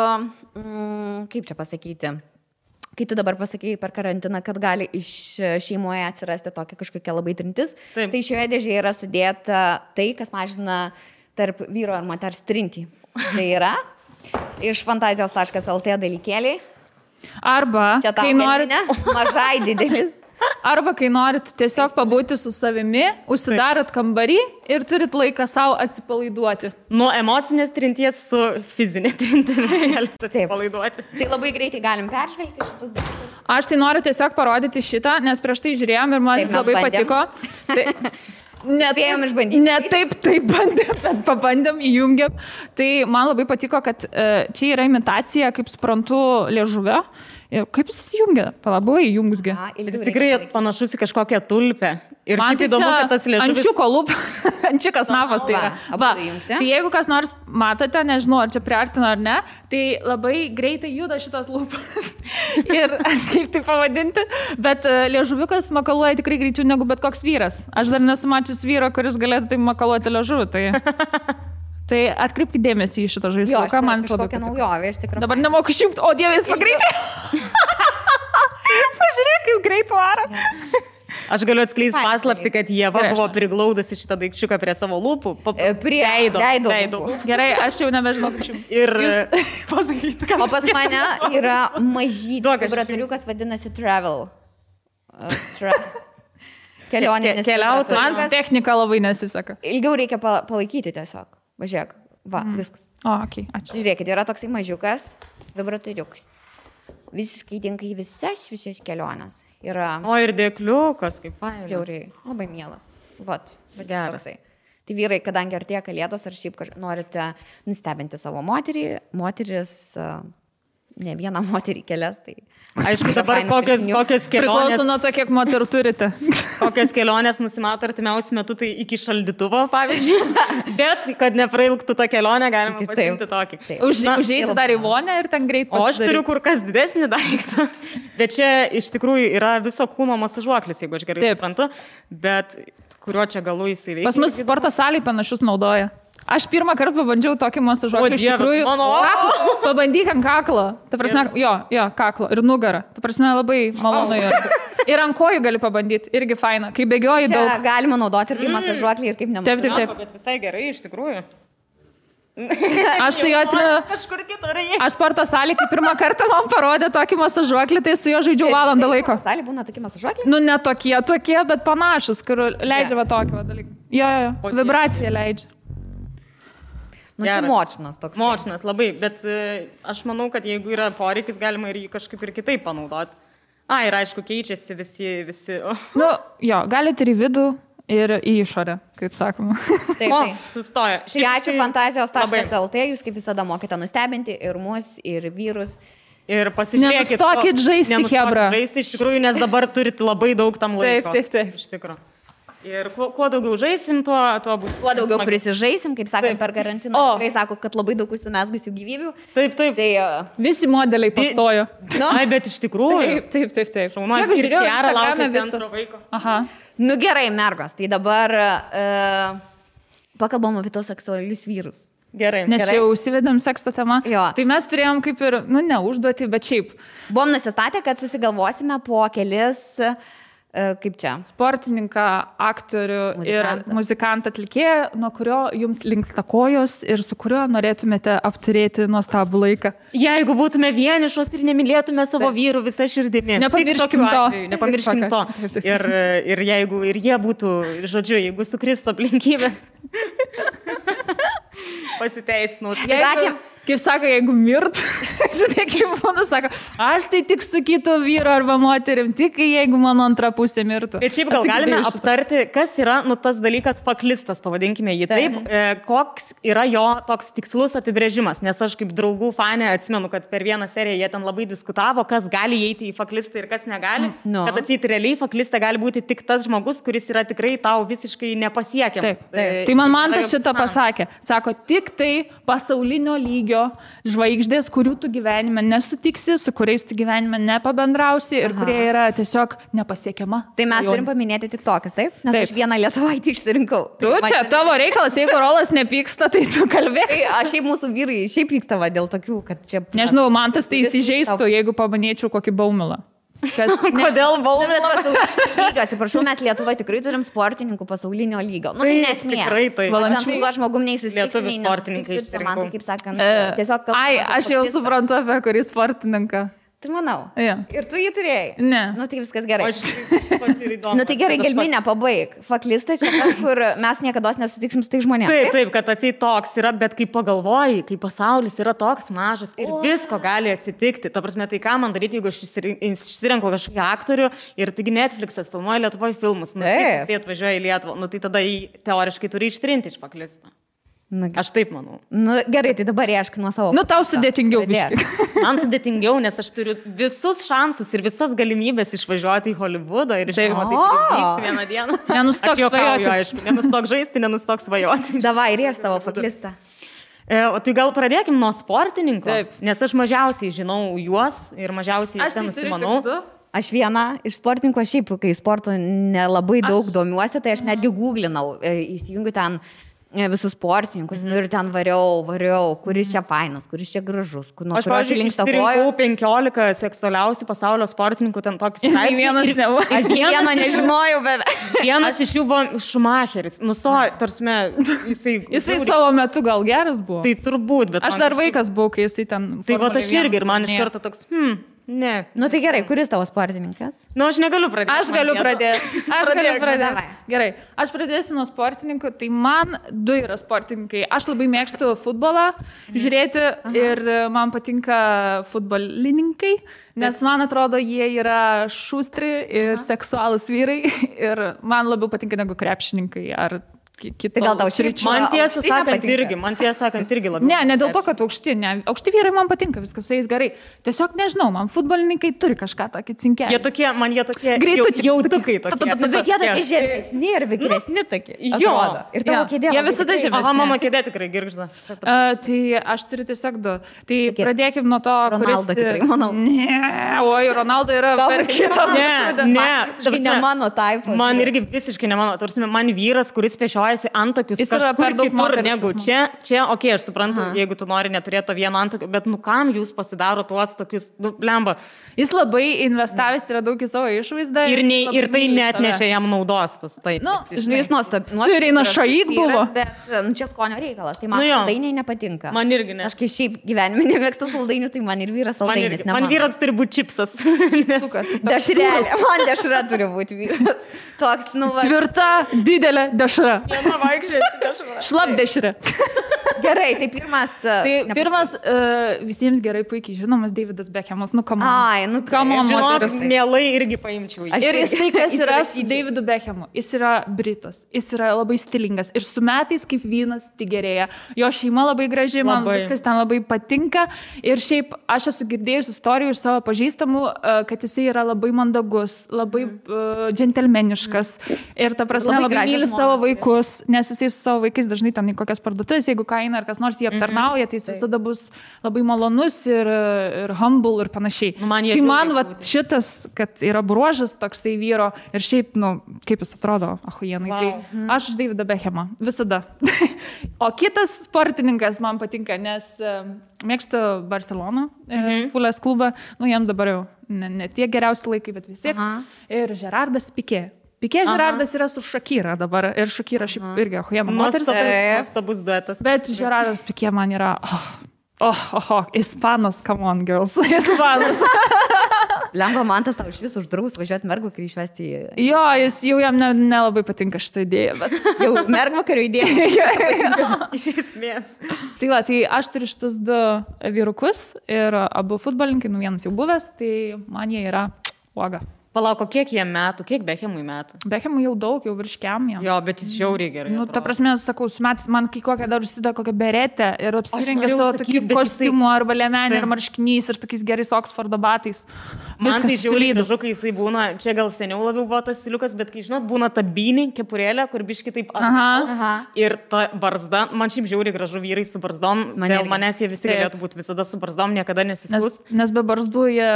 kaip čia pasakyti... Kai tu dabar pasakėjai per karantiną, kad gali iš šeimoje atsirasti tokia kažkokia labai trintis, tai šioje dėžėje yra sudėta tai, kas mažina tarp vyro ir moters trintį. Tai yra iš fantazijos.lt dalykėliai. Arba, kai norit... Mažai didelis. Arba, kai norit tiesiog pabūti su savimi, užsidarot kambarį ir turit laiką savo atsipalaiduoti. Nuo emocinės trinties su fizinė trintimi galite atsipalaiduoti. Tai labai greitai galim peržvelgti šitus dalykus. Aš tai noriu tiesiog parodyti šitą, nes prieš tai žiūrėjom ir man jis labai patiko. Spėjom išbandyti. Ne taip bandėm, bet pabandėm, įjungėm. Tai man labai patiko, kad čia yra imitacija, kaip suprantu, liežuvio. Kaip jis įjungia? Labai įjungsgi. Jis tikrai panašus į kažkokią tulpę. Ir man tai įdomu, kad tas liežuvis... Ančiuko lūp, ančiukas napas tai yra. Va, tai jeigu kas nors matote, nežinau, ar čia priartina ar ne, tai labai greitai juda šitas lūpas. Ir aš kaip tai pavadinti, bet liežuviukas makaluoja tikrai greičiau negu bet koks vyras. Aš dar nesu mačius vyro, kuris galėtų tai makaluoti liežuvį. Tai atkreipkite dėmesį į šitą žaisliuką, man jis labai patiko. Naujovė, iš tikrųjų. Dabar nemoku išjungti, o Dieve, jis pagreitai. Pažiūrėk, kaip greit varo. Aš galiu atskleisti paslapti, kad Ieva buvo priglaudusi šitą daikčiuką prie savo lūpų. Prie veido. Gerai, aš jau nebežinau, kaip čia. Ir pasakyti, kad... O pas mane yra mažytis vibratoriukas, vadinasi Travel. Kelionė. Keliauti. Man technika labai nesiseka. Ilgiau reikia palaikyti tiesiog. Važiuok. Va, viskas. O, okei, ačiū. Žiūrėkit, yra toksai mažiukas vibratoriukas. Visiškai tinka į visas keliones. Yra... O ir dėkliukas, kaip faina. Žiauriai, labai mielas. Vat, geras. Tai vyrai, kadangi artėja kalėdos, ar šiaip norite nustebinti savo moterį, moteris, ne vieną moterį kelias, tai... Aišku, dabar kokios kelionės... Priklauso nuo to, kiek moterų turite. Kokios kelionės nusimato artimiausiu metu, tai iki šaldytuvo, pavyzdžiui. Bet, kad neprailgtų tą kelionę, galima pasiimti tokį. Užeiti dar į vonę ir ten greit pasidaryti. O aš turiu kur kas didesnį daiktą. Bet čia iš tikrųjų yra viso kūno masažuoklis, jeigu aš gerai suprantu. Bet kuriuo čia galu jisai veikia. Pas mus sporto salėje panašus naudoja. Aš pirmą kartą pabandžiau tokį masažuoklį, iš tikrųjų, pabandyk ant kaklo, ta prasme, jo, kaklo ir nugarą, ta prasme labai malonu yra. Ir ant kojų gali pabandyti, irgi faina, kai bėgioji daug. Galima naudoti ir kaip masažuoklį, ir kaip nemasažuoklį. Taip. Bet visai gerai, iš tikrųjų. Aš su juo atsimenu, aš sporto salėje, kai pirmą kartą man parodė tokį masažuoklį, tai su juo žaidžiau valandą laiko. Salėje būna tokie masažuokliai? Nu, ne tokie, bet panašus, kur leidžia va tokį dalyką. Jo, vibraciją leidžia. Nu, tai močinas toks. Močinas labai, bet aš manau, kad jeigu yra poreikis, galima ir jį kažkaip ir kitaip panaudoti. Ir aišku, keičiasi visi. Nu, jo, galite ir į vidų, ir į išorę, kaip sakoma. Taip. Sustoja. Tai ačiū fantazijos.lt, jūs kaip visada mokite nustebinti ir mus, ir vyrus. Ir pasižiūrėkit. Nenustokit žaisti, hebra. Žaisti iš tikrųjų, nes dabar turite labai daug tam laiko. Taip. Iš tikrųjų. Ir kuo daugiau žaisim, tuo bus. Kuo daugiau prisižaisim, kaip sakant, per karantiną. Tikrai sako, kad labai daug užsimesgusių gyvybių. Taip. Tai visi modeliai pastojo. Bet iš tikrųjų. Taip. Šaunuolis ir Čiara laukia antro vaiko. Aha. Nu gerai, mergos, tai dabar pakalbam apie tos seksualius vyrus. Gerai. Nes jau užsivedėm seksto temą. Jo. Tai mes turėjom kaip ir, neužduoti, bet šiaip. Buvom nusistatę, kad susigalvosime po kelis... Kaip čia? Sportininką, aktorių ir muzikantą atlikėją, nuo kurio jums linksta kojos ir su kuriuo norėtumėte apturėti nuostabų laiką. Jeigu būtume vienišos ir nemylėtume savo vyrų visą širdimi. Nepamirškim to. Ir jeigu ir jie būtų, žodžiu, jeigu sukristų aplinkybės. Pasiteisinu. Kaip sako, jeigu mirt, žinai, kaip būna, sako, aš tai tik su kitu vyru arba moterim, tik jeigu mano antra pusė mirtų. Bet šiaip gal galime aptarti, kas yra, tas dalykas faklistas, pavadinkime jį taip, koks yra jo toks tikslus apibrėžimas, nes aš kaip draugų fanė atsimenu, kad per vieną seriją jie ten labai diskutavo, kas gali įeiti į faklistą ir kas negali, kad atseit realiai faklista gali būti tik tas žmogus, kuris yra tikrai tau visiškai nepasiekiamas. Taip. Tai man tas šitą pasakė. Sako, tik tai pasaulinio lygio žvaigždės, kurių tu gyvenime nesutiksi, su kuriais tu gyvenime nepabendrausi ir kurie yra tiesiog nepasiekiama. Tai mes turim paminėti tik tokias, taip? Nes aš vieną Lietuvaitį išsirinkau. Tu čia, tavo reikalas, jeigu Rolas nepyksta, tai tu kalbėk. Aš šiaip mūsų vyrai šiaip pyksta dėl tokių, kad čia... Nežinau, man tas tai įsižeistų, jeigu paminėčiau kokį baumilą. Kodėl baumilą? Atsiprašau, mes Lietuva tikrai turim sportininkų pasaulinio lygio. Nu, tai nesmė. Tikrai tai. Aš ten tuo žmogum neįsisitiksiu. Lietuvių sportininkai išsirinkau. Kaip sakant, tiesiog... Aš jau suprantu apie kurį sportininką. Tai manau. Ja. Ir tu jį turėjai? Ne. Nu, tai viskas gerai. Aš pati įdomu. Nu, tai gerai, gelminę pabaig. Faklista čia kažkur mes niekada nesutiksim su tai žmonėmis. Taip, kad atsiai toks yra, bet kai pagalvoji, kai pasaulis yra toks mažas ir visko gali atsitikti. Ta prasme, tai ką man daryti, jeigu aš išsirenku kažkokį aktorių ir taigi Netflixas filmuoja Lietuvoje filmus, nu, jis atvažiuoja į Lietuvą, nu, tai tada jį teoriškai turi ištrinti iš Faklistą. Aš taip manau. Nu, gerai, tai dabar iešk nuo savo. Nu, tau sudėtingiau biškai. Man sudėtingiau, nes aš turiu visus šansus ir visas galimybės išvažiuoti į Holivudą ir žinoma, tai privyks vieną dieną. Nenustok svajoti. Aišku, nenustok žaisti, nenustok svajoti. Davai, rieš savo Faklistą. O tai gal pradėkim nuo sportininkų, Taip. Nes aš mažiausiai žinau juos ir mažiausiai aš ten nusimanau. Aš viena iš sportininkų, šiaip, kai sporto nelabai daug domiuosi, tai aš netgi googlinau, įsijungiu ten visus sportininkus, nu ir ten variau, kuris čia fainas, kuris čia gražus, Aš, pavyzdžiui, išsirinkau 15 seksualiausių pasaulio sportininkų, ten tokį straipsnį. Vienas nebuvo. Aš vieną nežinojau, bet vienas iš jų buvo Schumacheris. Nu, tarsime, Jisai savo metu gal geras buvo. Tai turbūt, bet... Aš dar vaikas buvau, kai jisai ten... Tai va, aš irgi ir man iš karto toks, ne. Nu tai gerai, kuris tavo sportininkas? Nu, aš negaliu pradėti. Aš galiu pradėti. Gerai, aš pradėsiu nuo sportininkų, tai man du yra sportininkai. Aš labai mėgstu futbolą žiūrėti ir man patinka futbolininkai, nes man atrodo, jie yra šustri ir seksualūs vyrai ir man labiau patinka negu krepšininkai ar Tai gal tau sričių. Man tiesą sakant irgi labiau. Ne dėl to, kad aukšti vyrai man patinka, viskas su jais gerai. Tiesiog nežinau, man futbolininkai turi kažką tokį cinkelį. Jie tokie jautukai tokie. Bet jie tokie žemesni ir vikresni tokie. Atrodo. Ir tavo kėdė. Jie visada žemesni. Aha, mano kėdė tikrai girgžda. Tai aš turiu tiesiog du. Tai pradėkim nuo to, Ronaldo tikrai, manau. Ne, oi, Ronaldo yra per kitą. Ne mano taip. Man irgi visiškai ne mano. Tarsi man vyras, kuris pešioja antakius kažkur kitur negu čia, okei, aš suprantu, jeigu tu nori neturėti to vieno antakio, bet nu kam jūs pasidaro tuos tokius, nu, blemba. Jis labai investavęs yra daug į savo išvaizdą. Ir tai net nešia jam naudos tas. Nu, žinai, jis nuostabus. Reina Šaik buvo. Bet čia skonio reikalas, tai man saldainiai nepatinka. Man irgi ne. Aš kai šiaip gyvenime nemėgstu saldainių, tai man ir vyras saldainis. Man vyras turi būti čipsas. Dešrelė, man dešra turi būti vyras. Toks, nu, va. Tvirta, didelė dešra. Šlap dešrė. Gerai, tai pirmas... Pirmas visiems gerai puikiai žinomas Davidas Beckhamas. Nu, come on. Ai, nu, come on, žinok, mielai irgi paimčiau. Ir jis tai, kas yra su Davidu Beckhamu. Jis yra britas. Jis yra labai stilingas. Ir su metais kaip vynas tik gerėja. Jo šeima labai graži, man viskas ten labai patinka. Ir šiaip aš esu girdėjus istorijų iš savo pažįstamų, kad jisai yra labai mandagus, labai džentelmeniškas. Ir ta prasme labai myli savo vaikus, nes jisai su savo vaikais dažnai ten į kokias parduotuvės, jeigu kaina ar kas nors jį aptarnauja, tai jis visada bus labai malonus ir humble ir panašiai. Tai man šitas, kad yra bruožas toksai vyro ir šiaip, nu, kaip jis atrodo, ahujenai, tai aš už Davidą Beckhamą, visada. O kitas sportininkas man patinka, nes mėgstu Barceloną, Fulės klubą, nu, jam dabar jau ne tie geriausi laikai, bet vis tiek. Ir Gerardas Piqué. Piqué Gerardas yra su Shakira dabar ir Shakira šiaip irgi ahujena moteris. Nuostabus duetas. Bet Gerardas Piqué man yra, ispanas, come on girls, ispanas. Lemba man tas tau iš vis uždraus važiuoti mergvakarių išvesti į... Jo, jis jau jam nelabai patinka šitą idėją, bet... Jau mergvakarių idėja. Iš esmės. Tai va, tai aš turiu šitus du vyrukus ir abu futbolininkai, nu vienas jau buvęs, tai man jie yra uoga. Palauk, kiek jie metų, kiek Beckhamui metų? Beckhamui jau daug, jau virškiam jam. Jo, bet jis žiauriai gerai. Nu, ta prasme, sakau, su metais man kai kokią dar užsideda kokią beretę ir apsirengė savo tokį kostiumų arba liemenį ir marškinys ir tokiais gerais Oksfordo batais. Man tai žiauriai gražu, kai jisai būna, čia gal seniau labiau buvo tas stiliukas, bet kai žinot, būna ta bynė, kepurėlė, kur biški taip atgal. Ir ta barzda, man šiaip žiauriai gražu vyrai su barzdom, dėl manęs jie visi galėtų būti visada su barzdom, niekada nesiskus. Nes be barzdų jie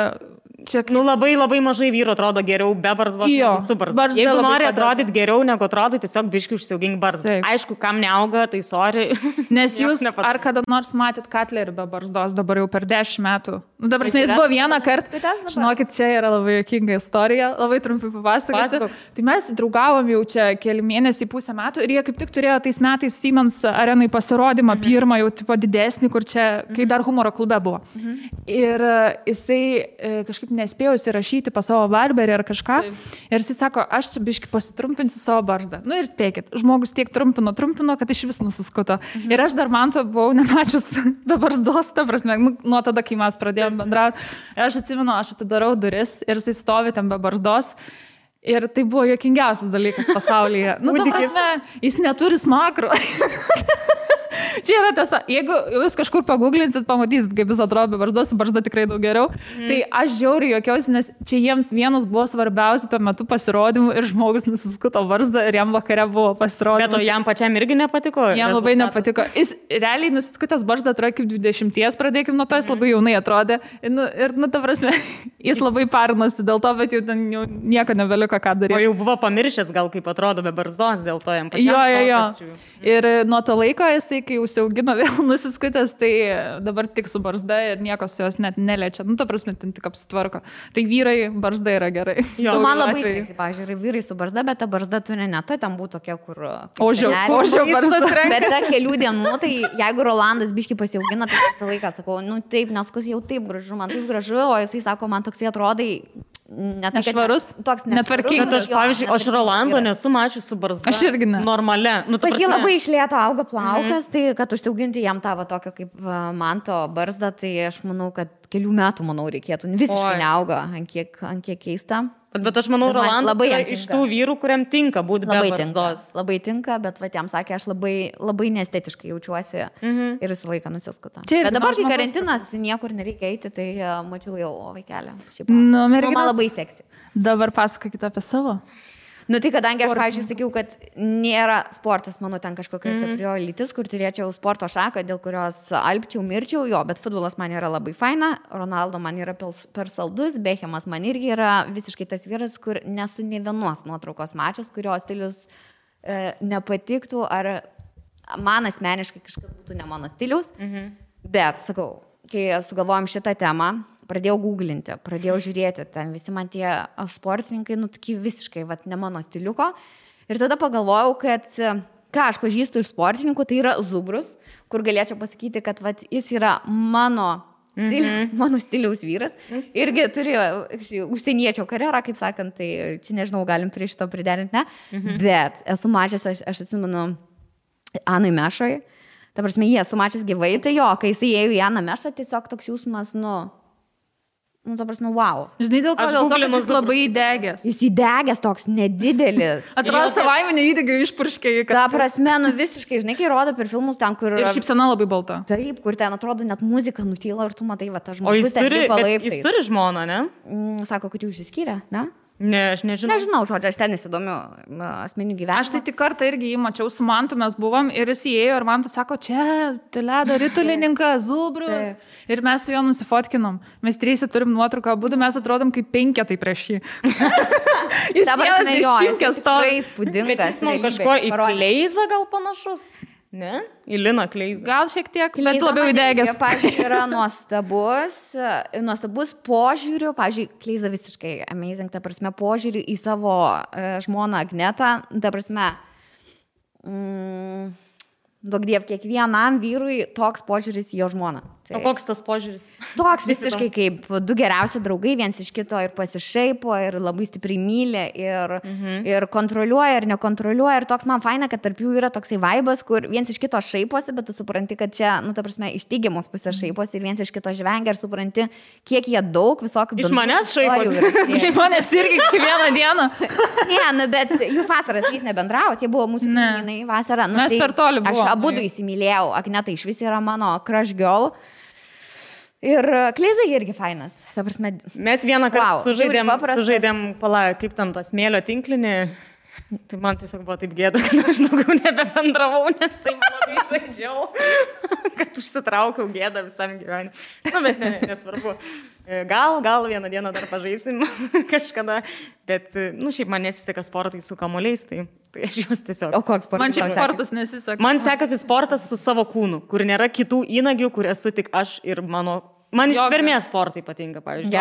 čia... Nu, labai mažai vyrų atrodo geriau be barzdos negu su barzda. Jeigu nori atrodyti geriau negu atrodo, tiesiog biškai užsiaugink barzdą. Aišku, kam neauga, tai sorry. Nes jūs ar kada nors matėt Katlerį be barzdos, dabar jau per 10 metų. Nu, dabar jis buvo vieną kartą. Žinokit, čia yra labai juokinga istorija, labai trumpai papasakosiu. Tai mes draugavom jau čia keli mėnesiai, pusę metų ir jie kaip tik turėjo tais metais Siemens arenai pasirodymą, pirmą jau tipo didesnį, kur čia, kai dar humoro klube buvo. Ir jisai kažkaip nespėjo įsirašyti pas savo barberį ar kažką. Ir jisai sako, aš čia biškai pasitrumpinsiu savo barzdą. Nu ir spėkit, žmogus tiek trumpino, kad iš vis nusiskuto. Ir aš dar man to buvau nemačius be barzdos, ta prasme, nuo tada, kai mes pradėjom bendrauti. Ir aš atsimenu, aš atidarau duris ir jisai stovi ten be barzdos. Ir tai buvo juokingiausias dalykas pasaulyje. Nu, ta prasme, jis neturi smakro. Čia yra tiesa, jeigu jūs kažkur paguglinsit, pamatysit, kaip jis atrodo be barzdos, su barzda tikrai daug geriau. Tai aš žiauriai juokiausi, nes čia jiems vienas buvo svarbiausių tuo metu pasirodymų ir žmogus nusiskuto barzdą ir jam vakare buvo pasirodymas. Bet o jam pačiam irgi nepatiko? Jam labai nepatiko. Jis realiai nusiskutęs barzdą atrodo kaip 20, pradėkim nuo to, jis labai jaunai atrodė. Ir ta prasme, jis labai parinosi dėl to, bet jau ten jau nieko nebeliko ką daryti. O jau buvo pamiršęs gal kaip atrodo be barzdos, dėl to jam pačiam. Jo. Ir nuo to laiko jisai, kai užsiaugino vėl nusiskutęs, tai dabar tik su barzda ir niekas jos net neliečia. Nu, ta prasme, ten tik apsitvarko. Tai vyrai, barzda yra gerai. Jo, man labai seksi, pažiūrėjau, vyrai su barzda, bet ta barzda turi ne ta, ten būtų tokia, kur... Ožio barzda. Bet ta kelių dienų, tai jeigu Rolandas biškai pasiaugina, tai visą laiką sakau, nu taip, nes kas jau taip gražu, man taip gražu, o jisai sako, man toksai atrodai... Nešvarus, toks netvarkingas. Bet aš, pavyzdžiui, aš Rolando nesu mačius su barzda. Aš irgi ne. Normalia. Nu, pas jį labai išlėto auga plaukas, tai kad užsiauginti jam tavo tokio kaip manto barzdą, tai aš manau, kad kelių metų, reikėtų. Visiškai neauga, ant kiek keista. Bet aš manau, Rolandas yra iš tų vyrų, kuriam tinka būti be barzdos. Labai tinka, bet va, jam sakė, aš labai neestetiškai jaučiuosi ir visą laiką nusiskutą. Bet dabar, kai karantinas, niekur nereikia eiti, tai mačiau jau vaikelę. Man labai seksi. Dabar pasakokite apie savo. Nu tai kadangi aš, pavyzdžiui, sakiau, kad nėra sportas mano ten kažkokia stiprioji lytis, kur turėčiau sporto šaką, dėl kurios alpčiau, mirčiau, jo, bet futbolas man yra labai faina, Ronaldo man yra per saldus, Bechemas man irgi yra visiškai tas vyras, kur nesu ne vienos nuotraukos mačias, kurio stilius nepatiktų, ar man asmeniškai kažkas būtų ne mano stilius, bet, sakau, kai sugalvojom šitą temą, pradėjau googlinti, pradėjau žiūrėti, ten visi man tie sportininkai, nu, tokie visiškai, vat, ne mano stiliuko. Ir tada pagalvojau, kad ką aš pažįstu iš sportininkų, tai yra Zubrus, kur galėčiau pasakyti, kad vat, jis yra mano stiliaus vyras. Irgi turi užsieniečio karjerą, kaip sakant, tai čia nežinau, galim prie šito priderinti, ne? Bet esu mačias, aš atsimenu, Anai Mešoj. Ta prasme, jie esu mačias gyvai, tai jo, kai jis įėjo į Aną Mešą, tiesiog toks jausmas, nu, ta prasme, wow. Žinai, dėl ko, kad jis labai įdegęs. Jis įdegęs toks nedidelis. Atrodo, savaiminio įdegio išpurškė. Ta prasme, nu visiškai, žinai, kai rodo per filmus ten, kur... Ir šypsena labai balta. Taip, kur ten atrodo net muzika nutyla ir tu matai, va, ta žmogus ten lipa laiptais. Jis turi žmoną, ne? Sako, kad jau išsiskyrė, ne? Ne, aš nežinau. Nežinau, žodžiu, aš ten nesidomiu asmeninių gyvenimų. Aš tai tik kartą irgi jį mačiau su Mantu, mes buvom ir jis įėjo ir Mantas sako, čia ledo ritulininkas, Zubrus. Ir mes su juo nusifotkinom. Mes trys turim nuotrauką, abudu mes atrodom kaip 5 prieš jį. Jis vienas dešimtkės to. Įspūdingas. Bet jis man kažko į Kleizą gal panašus? Ne? Į Liną Kleizą. Gal šiek tiek, bet labiau įdegęs. Pavyzdžiui, yra nuostabus požiūrių. Pavyzdžiui, Kleiza visiškai amazing, ta prasme, požiūrių į savo žmoną Agnetą. Ta prasme, duok diev, kiekvienam vyrui toks požiūris į jo žmoną. Tai. O koks tas požiūris? Toks visiškai kaip du geriausi draugai, viens iš kito ir pasišaipo, ir labai stipriai myli, ir kontroliuoja, ir nekontroliuoja. Ir toks man faina, kad tarp jų yra toksai vaibas, kur viens iš kito šaiposi, bet tu supranti, kad čia, nu, ta prasme, iš teigiamos pusės šaiposi, ir viens iš kito žvengia, ir supranti, kiek jie daug visokių... Iš manęs šaiposi. Iš manęs irgi kiekvieną dieną. Ne, nu, bet jūs vasaras jais nebendraujat, jie buvo mūsų kaimynai vasarą. Nu, mes per toli buvome. Aš abudu įsimylėjau, Agneta iš vis yra mano crush girl. Ir Kleiza irgi fainas. Mes vieną kartą sužaidėm, kaip tam tas smėlio tinklinį. Tai man tiesiog buvo taip gėda, kad aš daugiau nebebendravau, nes taip labai žaidžiau, kad užsitraukiau gėdą visam gyvenimui. Na, bet nesvarbu. Gal vieną dieną dar pažaisim kažkada, bet, šiaip man nesiseka sportai su kamuoliais, tai aš juos tiesiog. O koks sportas? Man šiaip sportas nesiseka. Man sekasi sportas su savo kūnu, kur nėra kitų įnagių, kur esu tik aš ir Man ištvermės sportai patinka, pavyzdžiui.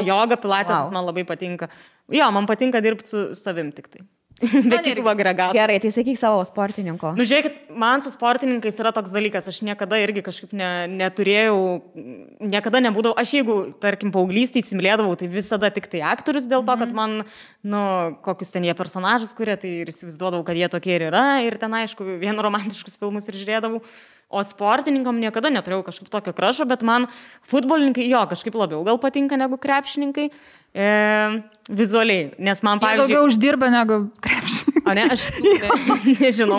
Joga, pilates man labai patinka. Jo, man patinka dirbti su savim tik tai. Be kitų agregatų. Gerai, tai sakyk savo sportininko. Žiūrėkit, man su sportininkais yra toks dalykas, aš niekada irgi kažkaip neturėjau, niekada nebūdavau, aš jeigu, tarkim, paauglystėj įsimylėdavau, tai visada tik tai aktorius dėl to, kad man, kokius ten jie personažus kuria, tai ir įsivaizduodavau, kad jie tokie ir yra, ir ten, aišku, vien romantiškus filmus ir žiūrėdavau. O sportininkam niekada neturėjau kažkaip tokio krašo, bet man futbolininkai kažkaip labiau gal patinka negu krepšininkai. Vizualiai, nes man, pavyzdžiui... Daugiau uždirba negu krepšininkai. O ne, aš nežinau,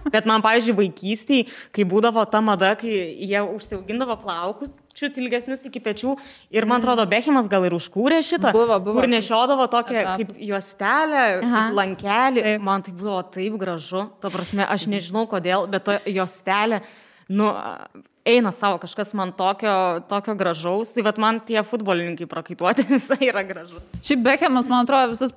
bet man, pavyzdžiui, vaikystėj, kai būdavo ta mada, kai jie užsiaugindavo plaukus, čiut ilgesnius iki pečių, ir man atrodo, Bechemas gal ir užkūrė šitą, kur nešiodavo tokią kaip juostelę, kaip lankelį, man tai buvo taip gražu, ta prasme, aš nežinau kodėl, bet ta juostelė, eina savo, kažkas man tokio gražaus, tai vat man tie futbolininkai prakaituoti visai yra gražu. Šiaip Bechemas, man atrodo, visus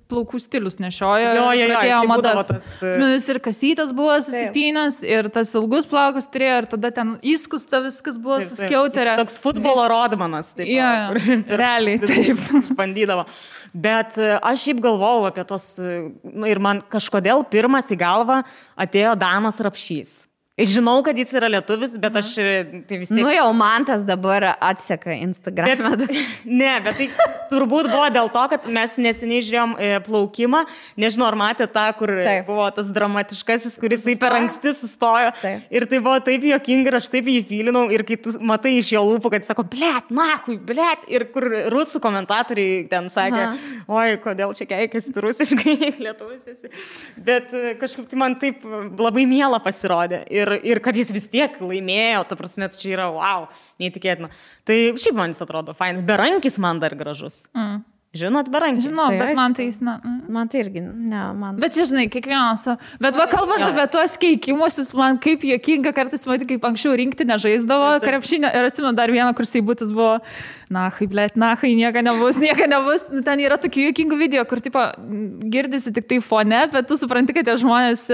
plaukų stilius nešiojo. Jo, madas. Atsimenu, ir kasytas buvo susipynęs, ir tas ilgus plaukus turėjo, ir tada ten įskusta viskas buvo suskiauterė. Toks futbolo rodmanas, taip. Realiai, taip. Bandydavo. Bet aš šiaip galvojau apie tos, ir man kažkodėl pirmas į galvą atėjo Danas Rapšys. Žinau, kad jis yra lietuvis, bet aš tai vis tiek... Jau Mantas dabar atseka Instagram'ą. Bet tai turbūt buvo dėl to, kad mes neseniai žiūrėjom plaukimą. Nežinau, ar matė tą, kur buvo tas dramatiškasis, kuris per anksti sustojo. Taip. Ir tai buvo taip juokinga ir aš taip jį fylinau. Ir kai tu matai iš jo lūpų, kad jis sako, blet, nahui, blet. Ir kur rusų komentatoriai ten sakė, oi, kodėl čia keikasi rusiškai, lietuvis esi. Bet kažkaip tai man taip labai miela pasirodė. Ir kad jis vis tiek laimėjo, ta prasme, čia yra, wow, neįtikėtina. Tai šiaip man jis atrodo fainas. Berankis man dar gražus. Žinot, berankis? Žinau, bet man tai jis, Man tai irgi, man... Bet žinai, kiekvienas... Bet kalbant apie tuos keikimus, man kaip juokinga kartais matyti, kaip anksčiau rinkti nežaisdavo krepšinio. Ir atsimenu, dar vieną, kur Seibutis buvo, nahai, nieko nebus. Ten yra tokių juokingų video, kur tipo girdisi tik tai fone, bet tu supranti, kad tie žmonės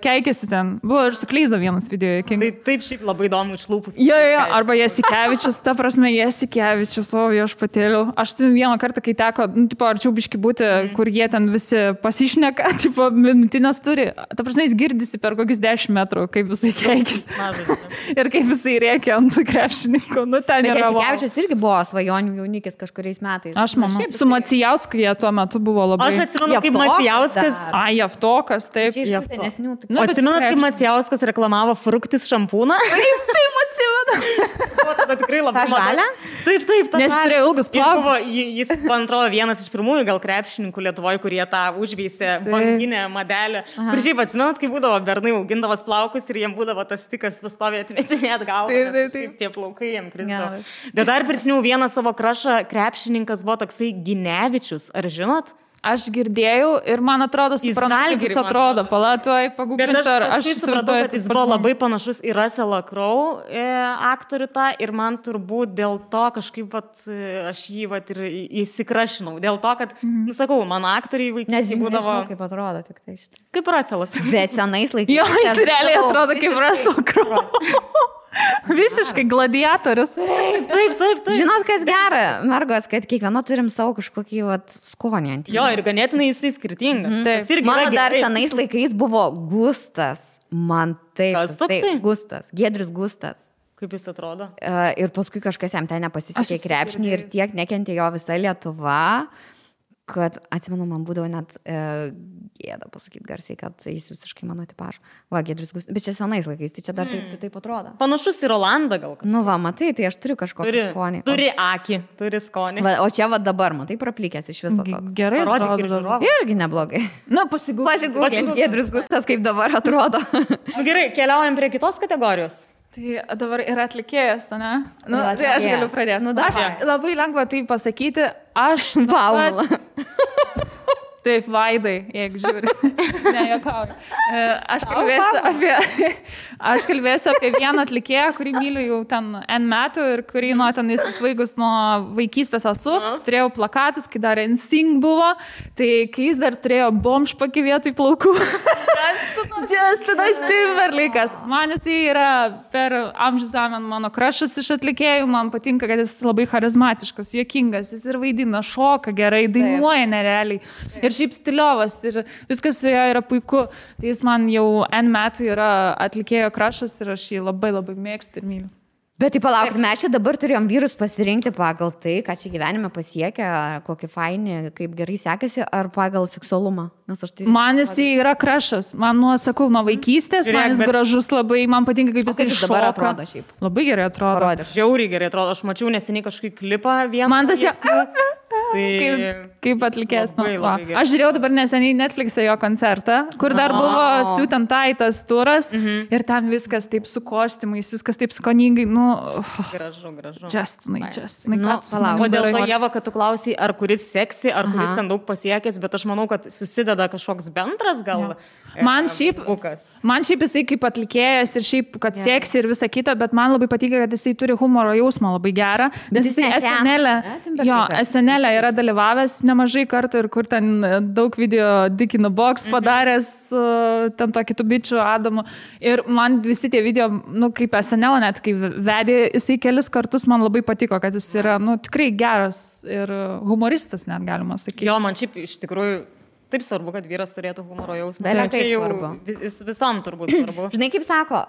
keikėsi ten. Buvo ir su Kleiza vienas video juokingas. Tai taip šiaip labai įdomu iš lūpus. Jo, arba Jasikevičius, ta prasme, Jasikevičius, o viešpatėliau. Aš tu vieną kartą, kai teko, arčiau biški būti, kur jie ten visi pasišneka, minutinės turi. Ta prasme, jis girdisi per kokius 10 metrų, kaip visai keikis. Ir kaip visai rėkia ant krepšininkų. Ten yra. Jasikevičius irgi buvo svajonių jaunikis kažkuriais metais. Aš manau. Su Macijausku jie tuo metu buvo labai... Aš atsimenu, kaip Macijauskas... Javtokas, taip. Atsimenat, kaip Macijauskas reklamavo Fruktis šampūną? Taip, atsimenu. Tada tikrai labai... Ta žalia? Taip, ta nes turėjo ilgus plaukus. Jis, man atrodo, vienas iš pirmųjų gal krepšininkų Lietuvoje, kurie tą užveisė banginę madelę. Kur šiaip atsimenat, kai būdavo bernai augindavas plaukus ir jiem būdavo tas stikas pastovė atmetinėt galvą. Taip, tie plaukai jiem krisdavo. Bet dar prisiminiau vieną savo krašą, krepšininkas buvo toksai Ginevičius, ar žinot? Aš girdėjau ir man atrodo, suprantu, kaip jis atrodo. Palatoj, paguglinsiu, ar aš supratau, kad jis buvo labai panašus į Russellą Crowe aktorių tą ir man turbūt dėl to kažkaip aš jį ir įsikrašinau. Dėl to, kad, sakau, mano aktoriai vaikystėje būdavo... Nežinau, kaip atrodo tik tai šitą. Kaip Russellas. Bet senais laikais. Jo, jis realiai atrodo kaip Russell Crowe. Visiškai gladiatorius. Taip. Žinot, kas gera, mergos, kad kiekvieno turim savo kažkokį skonį ant jį. Jo, ir ganėtinai jisai skirtingas. Mano dar senais laikais buvo Gustas. Man taip. Kas toksai? Gustas. Giedrius Gustas. Kaip jis atrodo? Ir paskui kažkas jam ten nepasisekė krepšinį ir tiek nekentė jo visa Lietuva, kad, atsimenu, man būdavo net gėda pasakyti garsiai, kad jis visiškai mano tipažo. Giedrius Gustas, bet čia senais laikais, tai čia dar taip atrodo. Panašus į Rolandą gal. Matai, tai aš turiu kažkokį skonį. Turi akį, turi skonį. O čia dabar, matai, praplikęs iš viso toks. Gerai, atrodo. Irgi neblogai. Pasigūkit, Giedrius Gustas, kaip dabar atrodo. Gerai, keliaujam prie kitos kategorijos. Tai dabar yra atlikėjas, ne? Tai aš galiu pradėti. Aš labai lengva tai pasakyti. Aš... Paula. Taip, Vaidai, jeigu žiūri. Ne, juokauju. Aš kalbėsiu apie vieną atlikėją, kurį myliu jau ten N metų ir kurį nuo ten įsisvaigus nuo vaikystės esu. Turėjau plakatus, kai dar NSYNC buvo, tai kai jis dar turėjo bomžpakį vietoj plaukų. Justinas Timberlake'as. Man jisai yra per amžių zamen mano krašas iš atlikėjų, man patinka, kad jis labai charizmatiškas, juokingas, jis ir vaidina, šoka gerai, dainuoja nerealiai. Ir šiaip stiliovas ir viskas su jo yra puiku. Tai jis man jau N metų yra atlikėjo krašas ir aš jį labai labai mėgstu ir myliu. Bet tai palauk, mes čia dabar turėjom vyrus pasirinkti pagal tai, ką čia gyvenime pasiekia, kokį fainį, kaip gerai sekasi, ar pagal seksualumą. Man jis yra krašas, man sakau, nuo vaikystės, man jis gražus labai, man patinka, kaip jis šoka. Dabar atrodo šiaip. Labai gerai atrodo. Parodė. Žiauriai gerai atrodo, aš mačiau neseniai kažkokį klipą vieną. Man tas jau... Kaip atlikės. Aš žiūrėjau dabar neseniai Netflix'e jo koncertą, kur dar buvo Suit and Tie tas turas ir ten viskas taip su kostiumais, viskas taip skoningai. Gražu. Justinai. O dėl to, Ieva, kad tu klausai, ar kuris seksi, ar kuris ten daug pasiekęs, bet aš manau, kad susideda kažkoks bendras gal. Man šiaip jisai kaip atlikėjas ir šiaip, kad seksi ir visa kita, bet man labai patinka, kad jisai turi humoro jausmą labai gerą. Nes jisai SNL yra dalyvavęs nemažai kartų ir kur ten daug video Dick in the Box padaręs, ten to kitų bičių Adamu. Ir man visi tie video, kaip SNL net, kai vedė jisai kelis kartus, man labai patiko, kad jis yra, tikrai geras ir humoristas, net galima sakyti. Jo, man šiaip iš tikrųjų taip svarbu, kad vyras turėtų humoro jausmą. Tai svarbu. Visam turbūt svarbu. Žinai, kaip sako,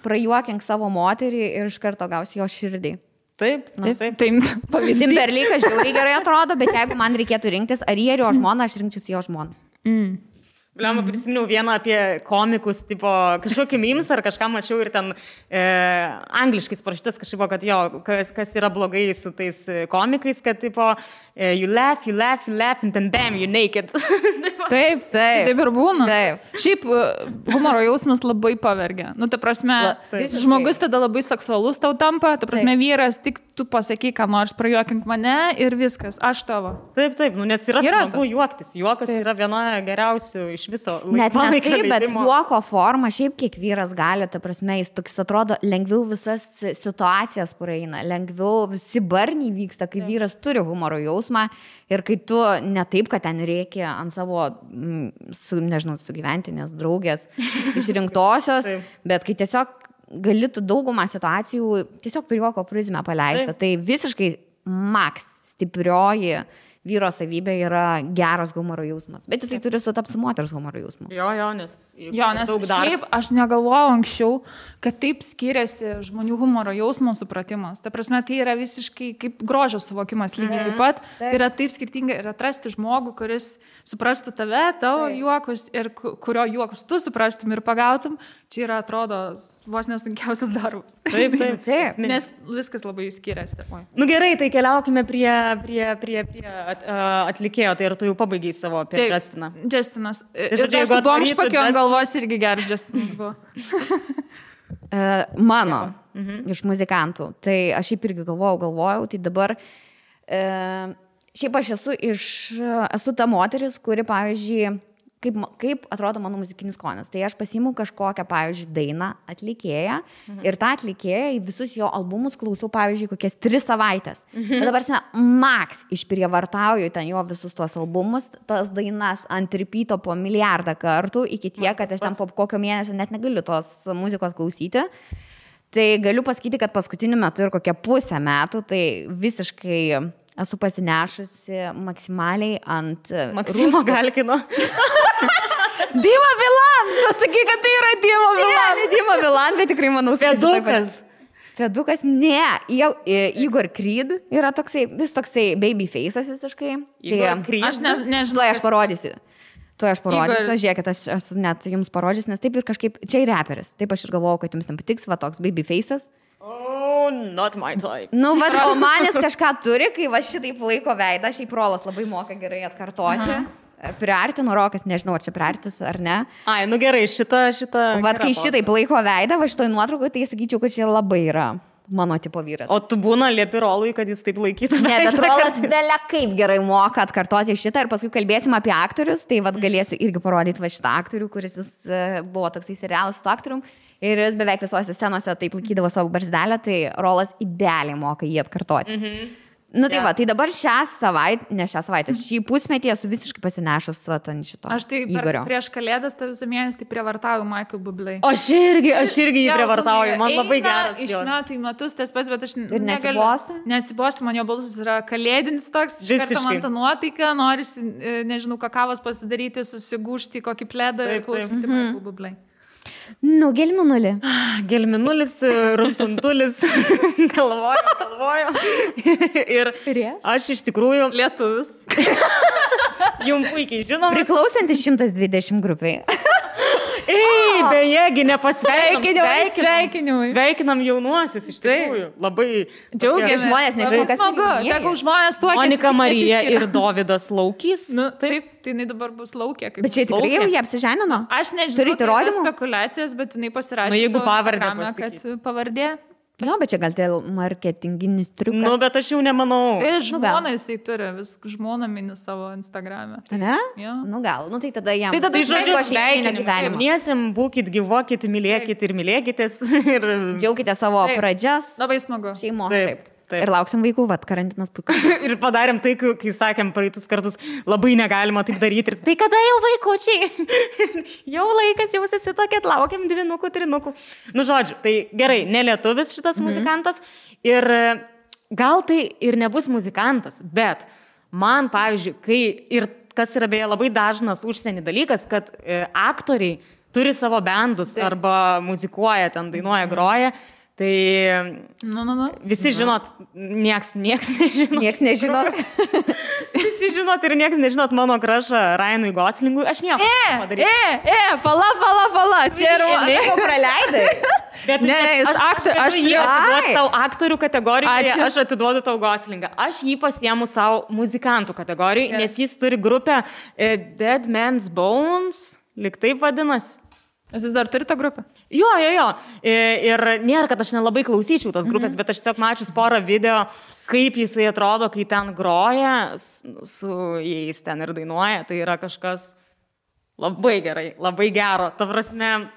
prajuokink savo moterį ir iš karto gausi jo širdį. Taip. Timberlake'as žiauriai gerai atrodo, bet jeigu man reikėtų rinktis, ar jį ir jo žmoną, aš rinkčiausi jo žmoną. Bliamba, prisiminiau vieną apie komikus, tipo, kažkokį memes ar kažką mačiau ir ten angliškai parašytas kažkaip, kad jo, kas yra blogai su tais komikais, kad tipo, you laugh, and then bam, you naked. Taip ir būna. Taip. Šiaip humoro jausmas labai pavergia. Ta prasme, žmogus tada labai seksualus tau tampa, ta prasme, vyras, tik tu pasakyk, ką nors, prajuokink mane ir viskas, aš tavo. Taip, nes yra smagu juoktis. Juokas yra viena geriausių iš viso laisvalaikio leidimo. Bet juoko forma, šiaip kiek vyras gali, ta prasme, jis toks atrodo, lengviau visas situacijas praeina, lengviau visi barniai vyksta, kai vyras turi humoro jausmą ir kai tu ne taip, kad ten reikia ant savo, sugyventinės draugės išrinktosios, bet kai tiesiog gali tu daugumą situacijų tiesiog per juoko prizmę paleista. Tai visiškai maks stiprioji vyro savybė yra geras humoro jausmas. Bet jisai turi sutapti su moters humoro jausmu. Nes šiaip aš negalvojau anksčiau, kad taip skiriasi žmonių humoro jausmo supratimas. Ta prasme, tai yra visiškai kaip grožio suvokimas lygiai taip pat. Tai yra taip skirtinga ir atrasti žmogų, kuris suprastų tave, tavo juokus ir kurio juokus tu suprastum ir pagautum. Čia yra, atrodo, vos nesunkiausias darbas. Taip. Nes viskas labai skiriasi. Gerai, tai keliaukime prie atlikėjo, tai ir tu jau pabaigiai savo apie Justiną. Justinas. Ir su bomžpakiu ant galvos irgi geras Justinas buvo. Mano, iš muzikantų. Tai aš šiaip irgi galvojau, tai dabar šiaip aš esu ta moteris, kuri, pavyzdžiui, kaip atrodo mano muzikinis skonis. Tai aš pasiimu kažkokią, pavyzdžiui, dainą atlikėją ir tą atlikėją į visus jo albumus klausau, pavyzdžiui, kokias 3 savaitės. Bet dabar maks išprievartauju ten jo visus tuos albumus, tas dainas ant repeato po milijardą kartų, iki tiek, kad aš ten po kokio mėnesio net negaliu tos muzikos klausyti. Tai galiu pasakyti, kad paskutiniu metu ir kokią pusę metų, tai visiškai esu pasinešusi maksimaliai ant... Maksimo Galkino. Dima Bilan! Pasakyk, kad tai yra Dima Bilan. Ne, Dima Bilan, bet tikrai manau... Fedukas, ne. Igor Creed yra toksai, vis toksai babyface'as visiškai. Igor Creed? Aš nežinau. Aš parodysiu. Žiūrėkit, aš net jums parodžius, nes taip ir kažkaip... Čia ir reperis. Taip aš ir galvojau, kad jums ten patiks, va toks babyface'as. Not my type. O manis kažką turi, kai va šitaip laiko veidą, šiaip Rolas labai moka gerai atkartoti. Priartino Rokas, nežinau, ar čia priartis ar ne. Gerai, šitą. Vat kai šitaip laiko veidą, va šitoj nuotraukoje, tai sakyčiau, kad čia labai yra mano tipo vyras. O tu būna liepi Rolui, kad jis taip laikytų? Ne, bet Rolas belė kaip gerai moka atkartoti šitą ir paskui kalbėsim apie aktorius, tai vad galėsiu irgi parodyti va šitą aktorių, kuris jis buvo toksai serialas su aktorium ir jis beveik visose scenose taip laikydavo savo barzdelę, tai Rolas idealiai moka jį atkartoti. Nu tai va, tai dabar šį pusmetį esu visiškai pasinešęs ant šito. Aš tai prieš kalėdas tą visą mėnesį tai prievartauju Michael Bublé. Aš irgi jį prievartauju, man labai geras. Iš metų į metus tas pats, bet aš neatsibosta, man jo balsas yra kalėdinis toks, iš karto man tą nuotaiką, norisi, nežinau, kakavos pasidaryti, susigūžti kokį pledą ir klausyti Michael Bublé. Nu, gelminulį. Gelminulis, runtuntulis, galvoju. Ir aš iš tikrųjų lietuvis. Jums puikiai žinoma. Priklausantis 120 grupiai. Ei, bejegi, Sveikinimai. Sveikinam jaunuosius, iš tikrųjų. Labai džiaugiamės. Žmonės nežinau, kas tegul žmonės tuokėsi. Monika Marija ir Dovydas Laukys. Nu, taip, tai jinai dabar bus Laukė. Bet čia tikrai jau jie apsiženino? Aš nežinau, tai yra spekulacijas, bet jinai pasirašė. Jeigu pavardę, kad pavardė. Nu, bet čia gal tai marketinginis triukas. Nu, bet aš jau nemanau. Žmona jisai turi, vis žmona mini savo Instagram'e. Ne? Ja. Nu, gal. Nu, tai tada jam. Tai tada žodžiu, sveikinimiem, būkit, gyvokit, mylėkit ir mylėkitės. Ir džiaukite savo pradžias. Labai smagu. Šeimos. Taip. Ir lauksim vaikų, karantinas puikus. Ir padarėm tai, kai sakėm praeitus kartus, labai negalima taip daryti. Ir tai kada jau vaikučiai? Jau laikas, jau susitokėt, laukiam 2, 3. Nu, žodžiu, tai gerai, nelietuvis šitas muzikantas. Ir gal tai ir nebus muzikantas, bet man, pavyzdžiui, kai ir kas yra beje labai dažnas užsienį dalykas, kad aktoriai turi savo bendus arba muzikuoja, ten dainuoja, groja. Tai visi žinot, nieks nežino. Nieks nežino. Visi žinot ir nieks nežinot mano krašą Ryanui Goslingui. Aš nieko padaryti. Pala. Čia yra... Nieko praleidai. Ne, jis aktorius. Aš jį atiduodu tau aktorių kategorijoje, aš atiduodu tau Goslingą. Aš jį pasiemu savo muzikantų kategorijoje, nes jis turi grupę Dead Man's Bones, lyg taip vadinasi. Jūs dar turite grupę? Jo. Ir nėra, kad aš nelabai klausyčiau tos grupės, bet aš tiesiog mačius porą video, kaip jisai atrodo, kai ten groja, su jais ten ir dainuoja. Tai yra kažkas labai gerai, labai gero. Ta prasme...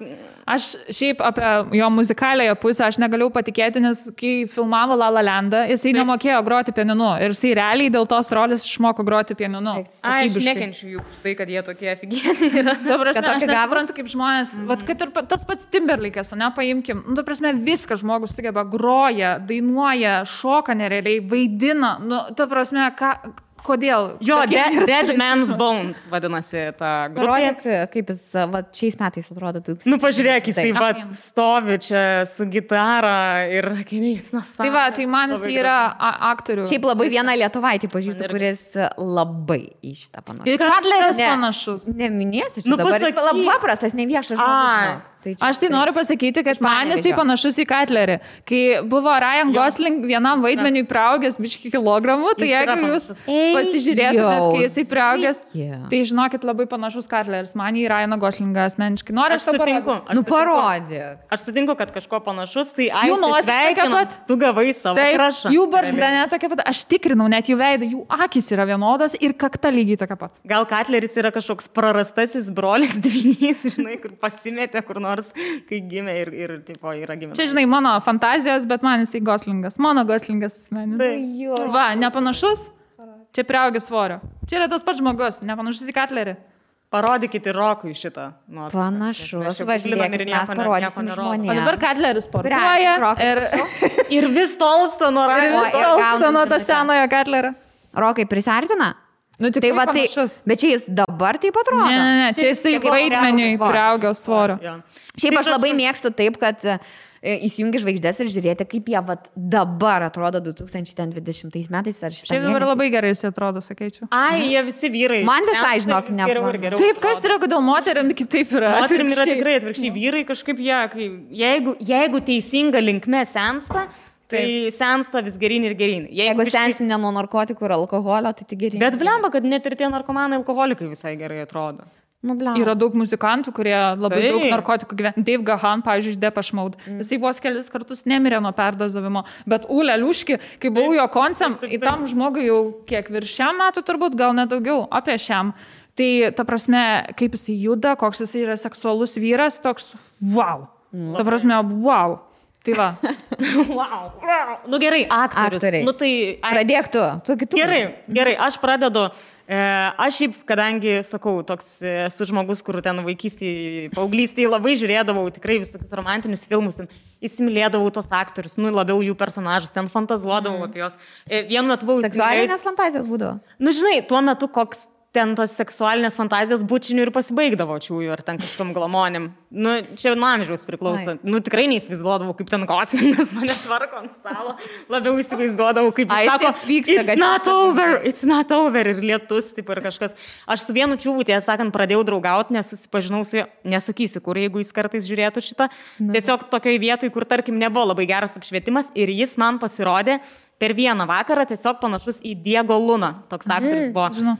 Aš šiaip apie jo muzikalėje pusę aš negaliu patikėti, nes kai filmavo La La Landą, jisai nemokėjo groti pianinu. Ir jisai realiai dėl tos rolės išmoko groti pianinu. Aš nekenčiu jų už tai, kad jie tokie aфиgieniai yra. Ta prasme, aš nesuprantu, kaip žmonės, vat, kad ir tas pats Timberlake'as, paimkim, ta prasme, viską žmogus sugeba, groja, dainuoja, šoka nerealiai, vaidina, ta prasme, kodėl? Jo, Dead Man's Bones vadinasi ta grupė. Parodyk, kaip jis šiais metais atrodo. Nu, pažiūrėk, jisai stovi čia su gitara ir akiniais. Tai va, tai man jis yra aktorių. Šiaip labai vieną lietuvaitį pažįstu, kuris labai į šitą panašus. Ir Cutleris panašus. Neminėsiu, čia dabar jis labai paprastas, neviešas žmogus. Aš tai noriu pasakyti, kad man jisai panašus į Cutlerį. Kai buvo Ryan Gosling vienam vaidmeniui priaugęs biškį kilogramų, tai jeigu jūs pasižiūrėtumėt, kai jisai priaugęs, tai žinokit, labai panašus Cutleris. Man į Ryaną Goslingą asmeniškai. Noriu aš sutinku. Parodyk. Aš sutinku, kad kažko panašus, tai sveikinu, tu gavai savo krašą. Jų barzda net tokia pat. Aš tikrinau net jų veidą, jų akys yra vienodas ir kakta lygiai tokia pat. Gal Cutleris yra kažkoks prarastasis brolis dvynys, žinai, kur pasimetė, kur nors, kai gimė ir tipo, yra gimė. Čia, žinai, mano fantazijos, bet man jisai Goslingas. Mano Goslingas asmeninis. Va, nepanašus? Čia priaugęs svorio. Čia yra tas pats žmogus, nepanašus į Cutlerį. Parodykite Rokui šitą. Panašus. Važiuojame ir mes parodysim žmonėms. O dabar Cutleris sportuoja ir vis tolsta nuo Ryan. Ir vis tolsta nuo to senojo Cutlerio. Rokai prisartina? Nu, tai va, tai, bet čia jis dabar taip atrodo? Ne, čia jisai vaidmeniui priaugęs svorio. Šiaip aš labai mėgstu taip, kad įsijungi žvaigždės ir žiūrėti, kaip jie dabar atrodo 2020 metais ar šitą. Šiaip dabar labai gerai jis atrodo, sakyčiau. Jie visi vyrai. Man visai, žinok, nepavyzdžiui. Taip, kas yra, kodėl moterim kitaip yra? Moterim yra tikrai atvirkščiai. Vyrai kažkaip jeigu teisinga linkme sensta, tai sensta vis gerin ir gerin. Jeigu sensti ne nuo narkotikų ir alkoholio, tai tik gerin. Bet blemba, kad net ir tie narkomanai alkoholikai visai gerai atrodo. Yra daug muzikantų, kurie labai daug narkotikų gyvena. Dave Gahan, pavyzdžiui, iš Depeche Mode. Jisai vos kelis kartus nemirė nuo perdozavimo. Bet Ule Liuški, kai buvau jo koncert, į tam žmogui jau kiek virš šiam metų turbūt, gal nedaugiau, apie šiam. Tai ta prasme, kaip jisai juda, koks jisai yra seksualus vyras, toks wow. Ta prasme, wow. Tai va. Wow. Nu gerai, aktoriai. Nu tai... Pradėk tu. Gerai, aš pradedu. Aš šiaip, kadangi, sakau, toks esu žmogus, kur ten vaikystėje, paauglystėje labai žiūrėdavau tikrai visokius romantinius filmus, ten įsimylėdavau tos aktorius, nu labiau jų personažus, ten fantazuodavau apie juos. Vienu metu buvau... Seksualinės fantazijos būdavo? Nu žinai, tuo metu koks ten tos seksualinės fantazijos bučinių ir pasibaigdavo čiųjų ar ten kažkom glamonim. Nu, čia nuo amžiaus priklauso. Nu, tikrai neįsivaizduodavau, kaip ten Goslingas mane tvarko ant stalo. Labiau įsivaizduodavau, kaip jis sako, it's not over ir lietus, taip ir kažkas. Aš su vienu čiūvu, tiesą sakant, pradėjau draugauti, nes susipažinau su juo, nesakysiu, kur, jeigu jis kartais žiūrėtų šitą. Tiesiog tokioj vietoj, kur, tarkim, nebuvo labai geras apšvietimas ir jis man pasirodė per vieną vakarą tiesiog panašus į Diego Luna. Toks aktorius buvo,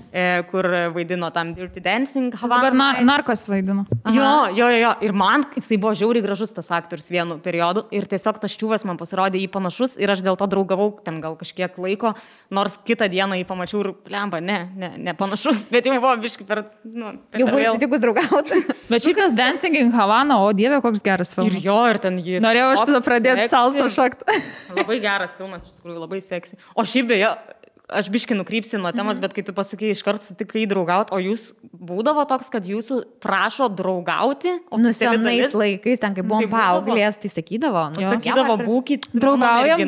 kur vaidino tam Dirty Dancing. Dabar narkos vaidino. Jo. Ir man jisai buvo žiauriai gražus tas aktorius vienu periodu. Ir tiesiog tas čiūvas man pasirodė jį panašus ir aš dėl to draugavau ten gal kažkiek laiko. Nors kitą dieną jį pamačiau ir lemba, ne panašus, bet jau buvo biškai per... Jau buvo įsitikus draugauti. Bet šitas Dancing in Havana, o dieve, koks geras filmas. Ir ten jis... Norėjau aš tada pradėti salsą šoktą. Labai geras filmas, iš tikrųjų, labai seksi. O šiaip beje, aš biškai nukrypsiu nuo temos, bet kai tu pasakai, iškart sutikai draugauti, o jūs būdavo toks, kad jūsų prašo draugauti? Nu, senais laikais, ten kai buvom paauglės, tai sakydavo. Sakydavo, būkit draugaujam.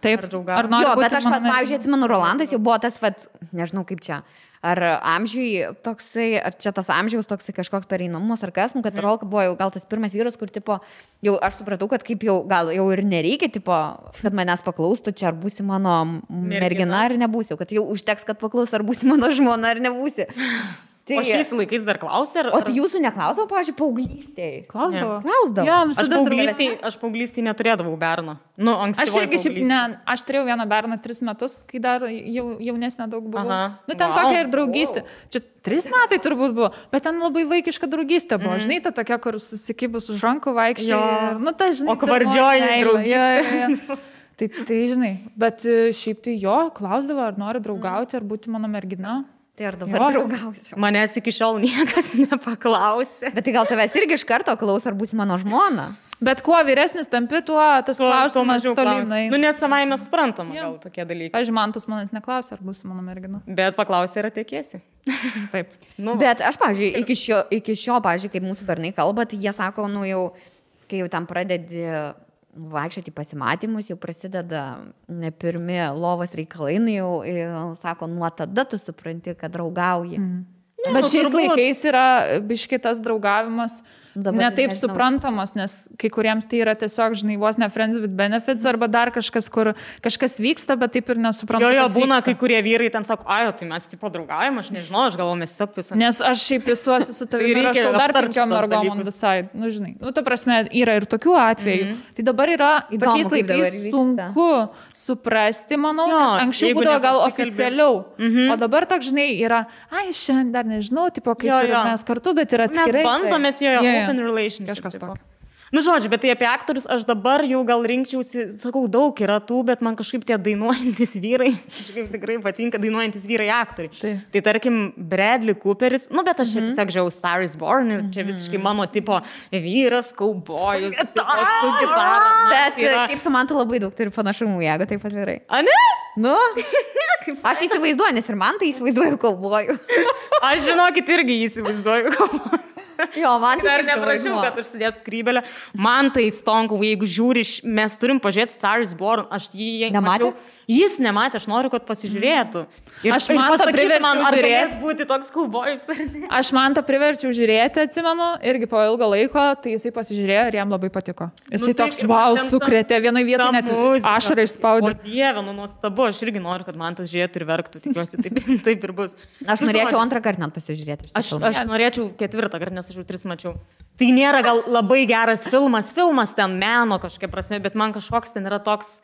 Taip, ar nori būti bet aš, pavyzdžiui, atsimenu, Rolandas jau buvo tas, nežinau kaip čia. Ar amžiui toksai, ar čia tas amžiaus toksai kažkoks pereinamumas, ar kas, kad Rolka buvo jau gal tas pirmas vyras, kur, tipo, jau aš supratau, kad kaip jau, gal jau ir nereikia, tipo, kad manęs paklaustų, čia ar būsi mano mergina, ar nebūsi, kad jau užteks, kad paklaus, ar būsi mano žmona, ar nebūsi. Tai, o šiais laikais dar klausė? O tai jūsų neklausdavo, pavyzdžiui, paauglystėje? Klausdavo. Ja, aš paauglystėje neturėdavau berno. Nu, aš irgi šiaip aš turėjau vieną berną 3 metus, kai dar jaunesnė daug buvo. Nu, ten tokia ir draugystė. Čia 3 metai turbūt buvo, bet ten labai vaikiška draugystė buvo. Žinai, ta tokia, kur susikibus už rankų vaikščiai. Nu, ta, žinai, o kvardžioji draugystė. Tai žinai, bet šiaip tai jo, klausdavo, ar nori draugauti, ar būti mano mergina. Tai ar dabar draugausiu? Manęs iki šiol niekas nepaklausė. Bet tai gal tavęs irgi iš karto klaus, ar būsi mano žmona? Bet kuo vyresnis tampi, tuo tas klausimas tolinai. Nu, nes savai mes suprantama gal tokie dalykai. Pavyzdžiui, man tas manęs neklausė, ar būsi mano mergina. Bet paklausė, ar tekėsi. Taip. Bet aš, pavyzdžiui, iki šio, pavyzdžiui, kaip mūsų bernai kalba, tai jie sako, nu jau, kai jau tam pradedi vaikščioti pasimatymus, jau prasideda ne pirmi lovos reikalai, jau sako, nuo tada tu supranti, kad draugauji. Bet šiais laikais yra biškitas draugavimas ne taip suprantamas, nes kai kuriems tai yra tiesiog, žinai, vos ne friends with benefits arba dar kažkas, kur kažkas vyksta, bet taip ir nesuprantu. Jo, būna, kai kurie vyrai ten sako, tai mes tipo draugaujam, aš nežinau, aš galvoju, mes tiesiog visą. Nes aš šiaip visuosi su tavimi ir rašau dar 5 mergom on the side. Nu, žinai, ta prasme, yra ir tokių atvejų. Tai dabar yra tokiais laikais sunku suprasti, manau, nes anksčiau būdavo gal oficialiau. O dabar toks, žinai, yra, šiandien dar nežinau, tipo, kaip ir mes kartu, bet yra atskirai. Mes bandomės open relationship. Kažkas tokio. Nu, žodžiu, bet tai apie aktorius aš dabar jau gal rinkčiausi, sakau, daug yra tų, bet man kažkaip tie dainuojantis vyrai, kažkaip tikrai patinka dainuojantis vyrai aktoriai. Tai tarkim, Bradley Cooperis, nu, bet aš čia tiesiog žiūrėjau Star is Born ir čia visiškai mano tipo vyras, kaubojus, su gitara. Bet šiaip su man tu labai daug turi panašumų, jeigu taip atvirai. A ne? Nu, aš įsivaizduoju, nes ir man tai įsivaizduoju kaubojų. Aš žinokit irgi įsivaizduoju kaubojų. Jo, man tai dar neprašiau, kad užsidėtų skrybelę. Man tai stonku, jeigu žiūri, mes turim pažiūrėti Star is Born, aš jį nemačiau. Jis nematė, aš noriu, kad pasižiūrėtų. Ir aš man tą priverčiau žiūrėti. Būti toks kaubojus. Aš man tą priverčiau žiūrėti, atsimenu, irgi po ilgo laiko, tai jisai pasižiūrėjo ir jam labai patiko. Jisai toks, wow, sukrėtė, vienoje vietoje net ašarą išspaudė. O dieve, nuostabu, aš irgi noriu, kad man tas žiūrėtų ir verktų, tikiuosi, taip ir bus. Aš norėčiau 2 kartą net pasižiūrėti. Aš norėčiau 4 kartą, nes aš jau 3 mačiau. Tai nėra gal labai geras filmas ten meno kažkokia prasme, bet man kažkoks ten yra toks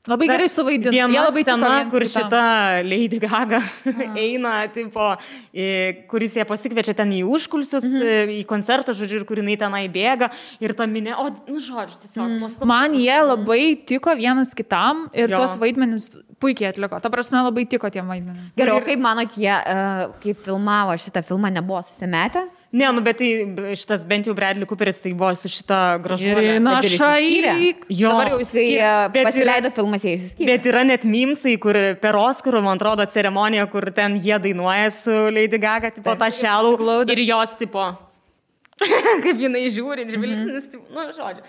Labai gerai suvaidino. Viena scena, kur šita Lady Gaga eina, tipo, kuris ją pasikviečia ten į užkulsius, į koncertą, žodžiu, ir kur jinai tenai bėga ir ta minė, žodžiu, tiesiog. Man jie labai tiko vienas kitam ir tuos vaidmenis puikiai atliko. Ta prasme, labai tiko tie vaidmenis. Gerai, o kaip manot, jie, kaip filmavo šitą filmą, nebuvo susimetę? Ne, bet tai šitas bent jau Bradley Cooperis tai buvo su šita gražuolė. Na, šaik. Jo, dabar jau jisai pasileido filmas, jie išsiskyrė. Bet yra net mimsai, kur per Oscarų, man atrodo, ceremonija, kur ten jie dainuoja su Lady Gaga, tipo tą šelų ir jos, tipo, kaip jinai žiūri, žvilgsnis, žodžiu.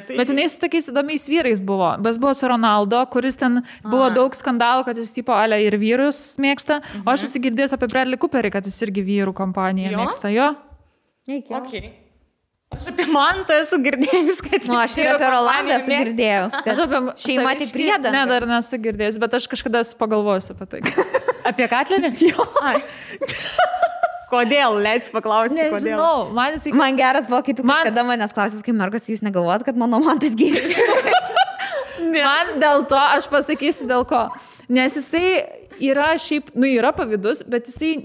Bet jinai su tokiais įdomiais vyrais buvo. Bet buvo su Ronaldo, kuris ten buvo daug skandalų, kad jis tipo ale ir vyrus mėgsta. O aš esu girdėjęs apie Bradley Cooperį, kad jis irgi vyrų kompaniją mėgsta. Jo. Okay. Aš apie Mantą esu girdėjęs, kad... aš ir apie Rolandą esu girdėjęs. Aš apie šeimą tik priedą. Ne, dar nesu girdėjęs, bet aš kažkada esu pagalvojęs apie tai. Apie Katlerį? Jo. Kodėl? Leis paklausti, kodėl. Nežinau, man geras buvo, kai tu kada manęs klausys, kai mergas, jūs negalvojat, kad mano Mantas gėris. Man dėl to, aš pasakysiu dėl ko. Nes jisai yra šiaip, yra pavydus, bet jisai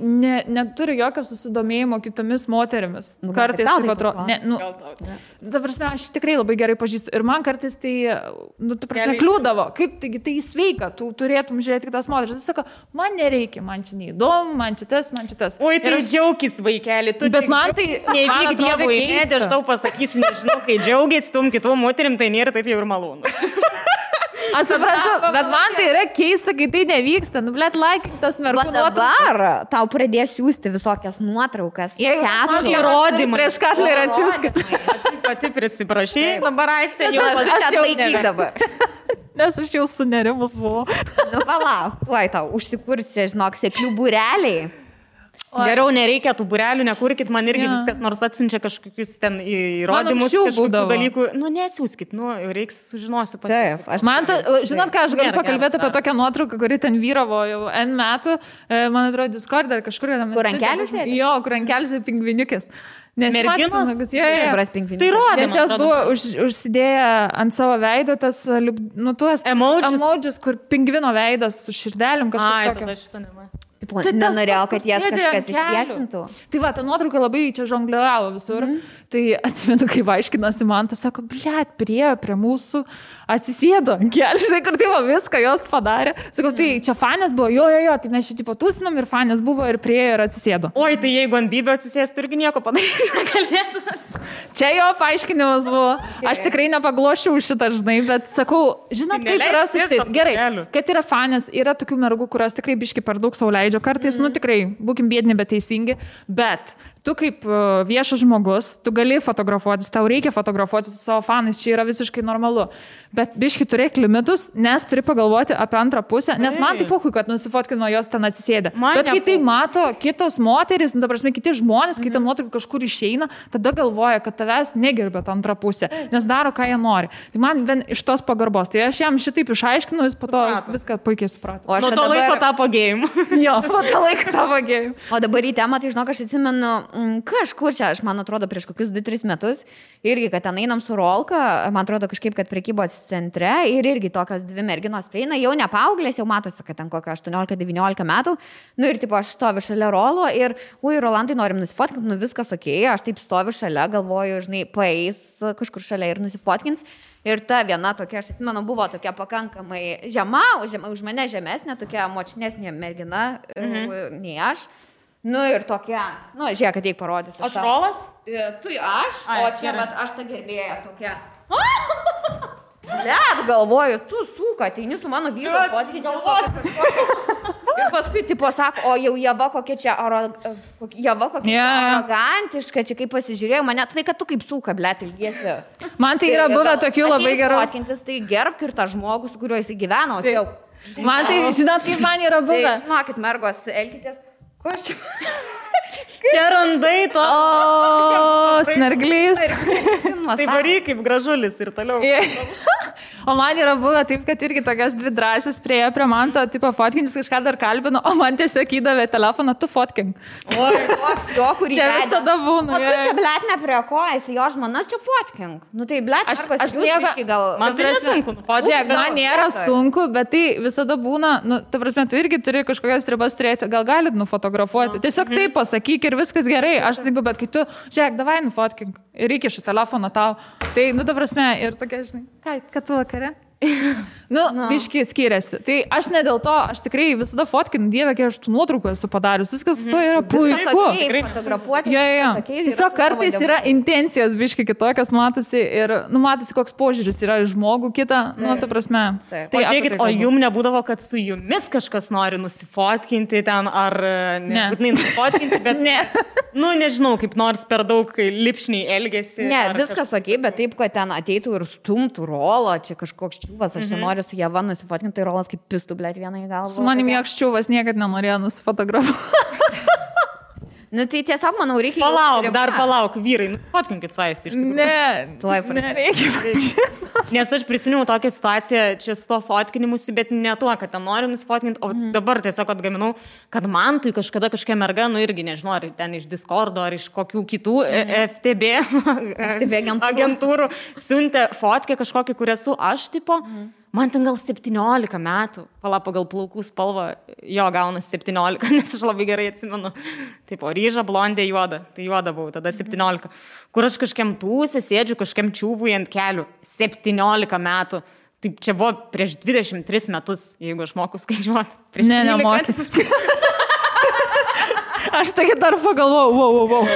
neturi jokio susidomėjimo kitomis moterimis. Kartais taip atrodo. Ta prasme, aš tikrai labai gerai pažįstu. Ir man kartais tai, tu prasme, kliūdavo. Kaip, taigi tai sveika, tu turėtum žiūrėti kitas moteris. Jis sako, man nereikia, man čia neįdomu, man čia tas. Oi, tai džiaugis, vaikeli, tu. Bet man tai nevyk Dievui, net aš tau pasakysiu, nežinau, kai džiaugis tum kitų moterim, tai nėra taip jau ir malonu. Aš suprantu, bet man tai yra keista, kai tai nevyksta. Blet, laikink tas mergų nuotraukas. Dabar tau pradės siūsti visokias nuotraukas. Jeigu įrodymai. Prieš Katlerį atsiųskit. Pati prisiprašai, dabar Aistė jau atlaikyk dabar. Nes aš jau sunerimus buvau. Palauk, tuoj tau užsikurs čia, žinok, seklių būreliai. Geriau nereikia tų būrelių, nekurkit, man irgi viskas, nors atsiunčia kažkokius ten įrodymus, kažkokių dalykų. Nesiūskit, reiks sužinosiu pati. Taip, žinot ką, aš galiu pakalbėti apie tokią nuotrauką, kuri ten vyravo jau N metų, man atrodo, Discord ar kažkur. Kur rankelis? Jo, kur rankelis ir pingvinikės. Merginos? Tai rodė. Nes jos buvo užsidėję ant savo veido tas, tuos emojis, kur pingvino veidas su širdelėm kažkas tokio. Nenorėjau, kad jas kažkas išviesintų. Tai va, ta nuotrauka labai čia žongliravo visur. Tai atsimenu, kaip aiškinosi man, tas sako, blet, prie mūsų atsisėdo ant kelių, kur tai viską jos padarė. Sakau, tai čia fanės buvo, jo, tai mes čia tipo tūsinom ir fanės buvo ir priejo ir atsisėdo. Oi, tai jeigu ant Bybio atsisėstų, irgi nieko padaryti negalėtų. Čia jo paaiškinimas buvo. Aš tikrai nepaglošiau šitą, žinai, bet sakau, žinot, kaip yra su šitais. Gerai, kad yra fanės, yra tokių mergų, kurios tikrai biški per daug sau leidžia. Kartais, tikrai, būkim biedni, bet teisingi, bet tu kaip viešas žmogus, tu gali fotografuotis, tau reikia fotografuotis su savo fanais, čia yra visiškai normalu. Bet biški turėk limitus, nes turi pagalvoti apie antrą pusę, nes man tai pohui, kad nusifotkino jos ten atsisėdę. Bet kai tai mato kitos moterys, ta prasme, kiti žmonės, kai ta nuotrauka kažkur išeina, tada galvoja, kad tavęs negerbė tą antrą pusę, nes daro, ką jie nori. Tai man vien iš tos pagarbos. Tai aš jam šitaip išaiškinu, jis po to viską puikiai suprato. O aš nuo to laiko tapo gėjim. Jo, po to laiko tapo gėjim. O dabar į temą, tai žinok, aš atsimenu, kažkur čia, aš man atrodo, prieš kokius 2-3 metus, irgi, kad ten einam su Rolka, man atrodo kažkaip, kad prekybos centre ir irgi tokios dvi merginos prieina, jau ne paauglės, jau matosi, kad ten kokio 18-19 metų, ir tipo aš stoviu šalia Rolo ir, Rolandai, norim nusifotkinti, viskas okei, aš taip stoviu šalia, galvoju, žinai, paeis kažkur šalia ir nusifotkins. Ir ta viena tokia, aš atsimenu, buvo tokia pakankamai žema, už mane žemesnė, tokia močnesnė mergina, nei aš. Ir tokia, žiūrėk, kad teik parodysiu. Aš Rolas? Tu aš, o čia, bet aš ta gerbėja tokia. Blet, galvoju, tu suka, ateini su mano vyru fotkinti. Ir paskui, tipo, sako, o jau Java kokia čia arogantiška, čia kaip pasižiūrėjau mane, tai kad tu kaip suka, blet, ilgiesi. Man tai yra buvę tokių labai gerų. Fotkintis, tai gerbk ir tą žmogų, su kuriuo jis gyveno. Man tai, žinot, kaip man yra buvę. Žinokit, mergos, elkitės. Ko aš čia? Čia randai to. O, snarglys. Tai varyk kaip gražulis ir toliau. O man yra buvę taip, kad irgi tokias dvi drąsės priejo prie man, to tipo fotkinis kažką dar kalbino, o man tiesiog įdavė telefoną, tu fotkink. O, jo, kurį čia visada būna. O tu čia, blet, ne prie ko, esi jo žmona, čia fotkink. Nu tai, blet, aš nieko, gal... Man tai nesunku. Žiūrėk, man nėra sunku, bet tai visada būna, nu, ta prasme, tu irgi turi kažkokias ribas turėti, gal galit nufotografuoti. Tiesiog taip pasakyk ir viskas gerai. Aš sutinku, bet kai tu, žiūrėk, davai nufotkink ir įkiši telefoną tau. Tai, nu, ta prasme, ir tokia, žinai, kad tu vakare? Biški skiriasi. Tai aš ne dėl to, aš tikrai visada fotkinu, Dieve, kiek aš tų nuotraukų esu padarius. Viskas su to yra puiku. Fotografuoti. Tiesiog kartais yra intencijos biški kitokios, matosi ir, nu, matosi, koks požiūris yra į žmogų kitą, nu, ta prasme. Tai žiūrėkit, o jum nebūdavo, kad su jumis kažkas nori nusifotkinti ten, ar nebūtinai nusifotkinti, bet ne. Nu, nežinau, kaip nors per daug lipšniai elgesi. Ne, viskas okei, bet taip, kad ten ateitų ir stumtų rolą, čia kažkoks čiūvas, aš čia noriu su Jeva nusifotkinti, tai rolas kaip pistų, blėt, vieną į galvą. Su manim joks čiūvas niekad nenorėjo nusifotografuoti. Nu tai tiesiog, manau, reikia... Palauk, vyrai, fotkinkit su Aisti iš tikrųjų. Nereikia. Nes aš prisiminiau tokią situaciją čia su to fotkinimusi, bet ne tuo, kad ten noriu nusifotkinti, o dabar tiesiog atgaminau, kad man tai kažkada kažkokia merga, nu irgi nežinau, ar ten iš Discordo, ar iš kokių kitų FTB agentūrų siuntė fotkę kažkokį, kur esu aš, tipo... Man ten gal 17 metų, pagal plaukų spalvą, jo gaunas 17, nes aš labai gerai atsimenu. Taip, o ryža, blondė, juoda. Tai juoda buvau, tada 17. Kur aš kažkiam tūsė, sėdžiu kažkiam čiūvui ant kelių. 17 metų. Taip, čia buvo prieš 23 metus, jeigu aš moku skaičiuoti. Ne, nemoku. Aš taigi dar pagalvojau, wow.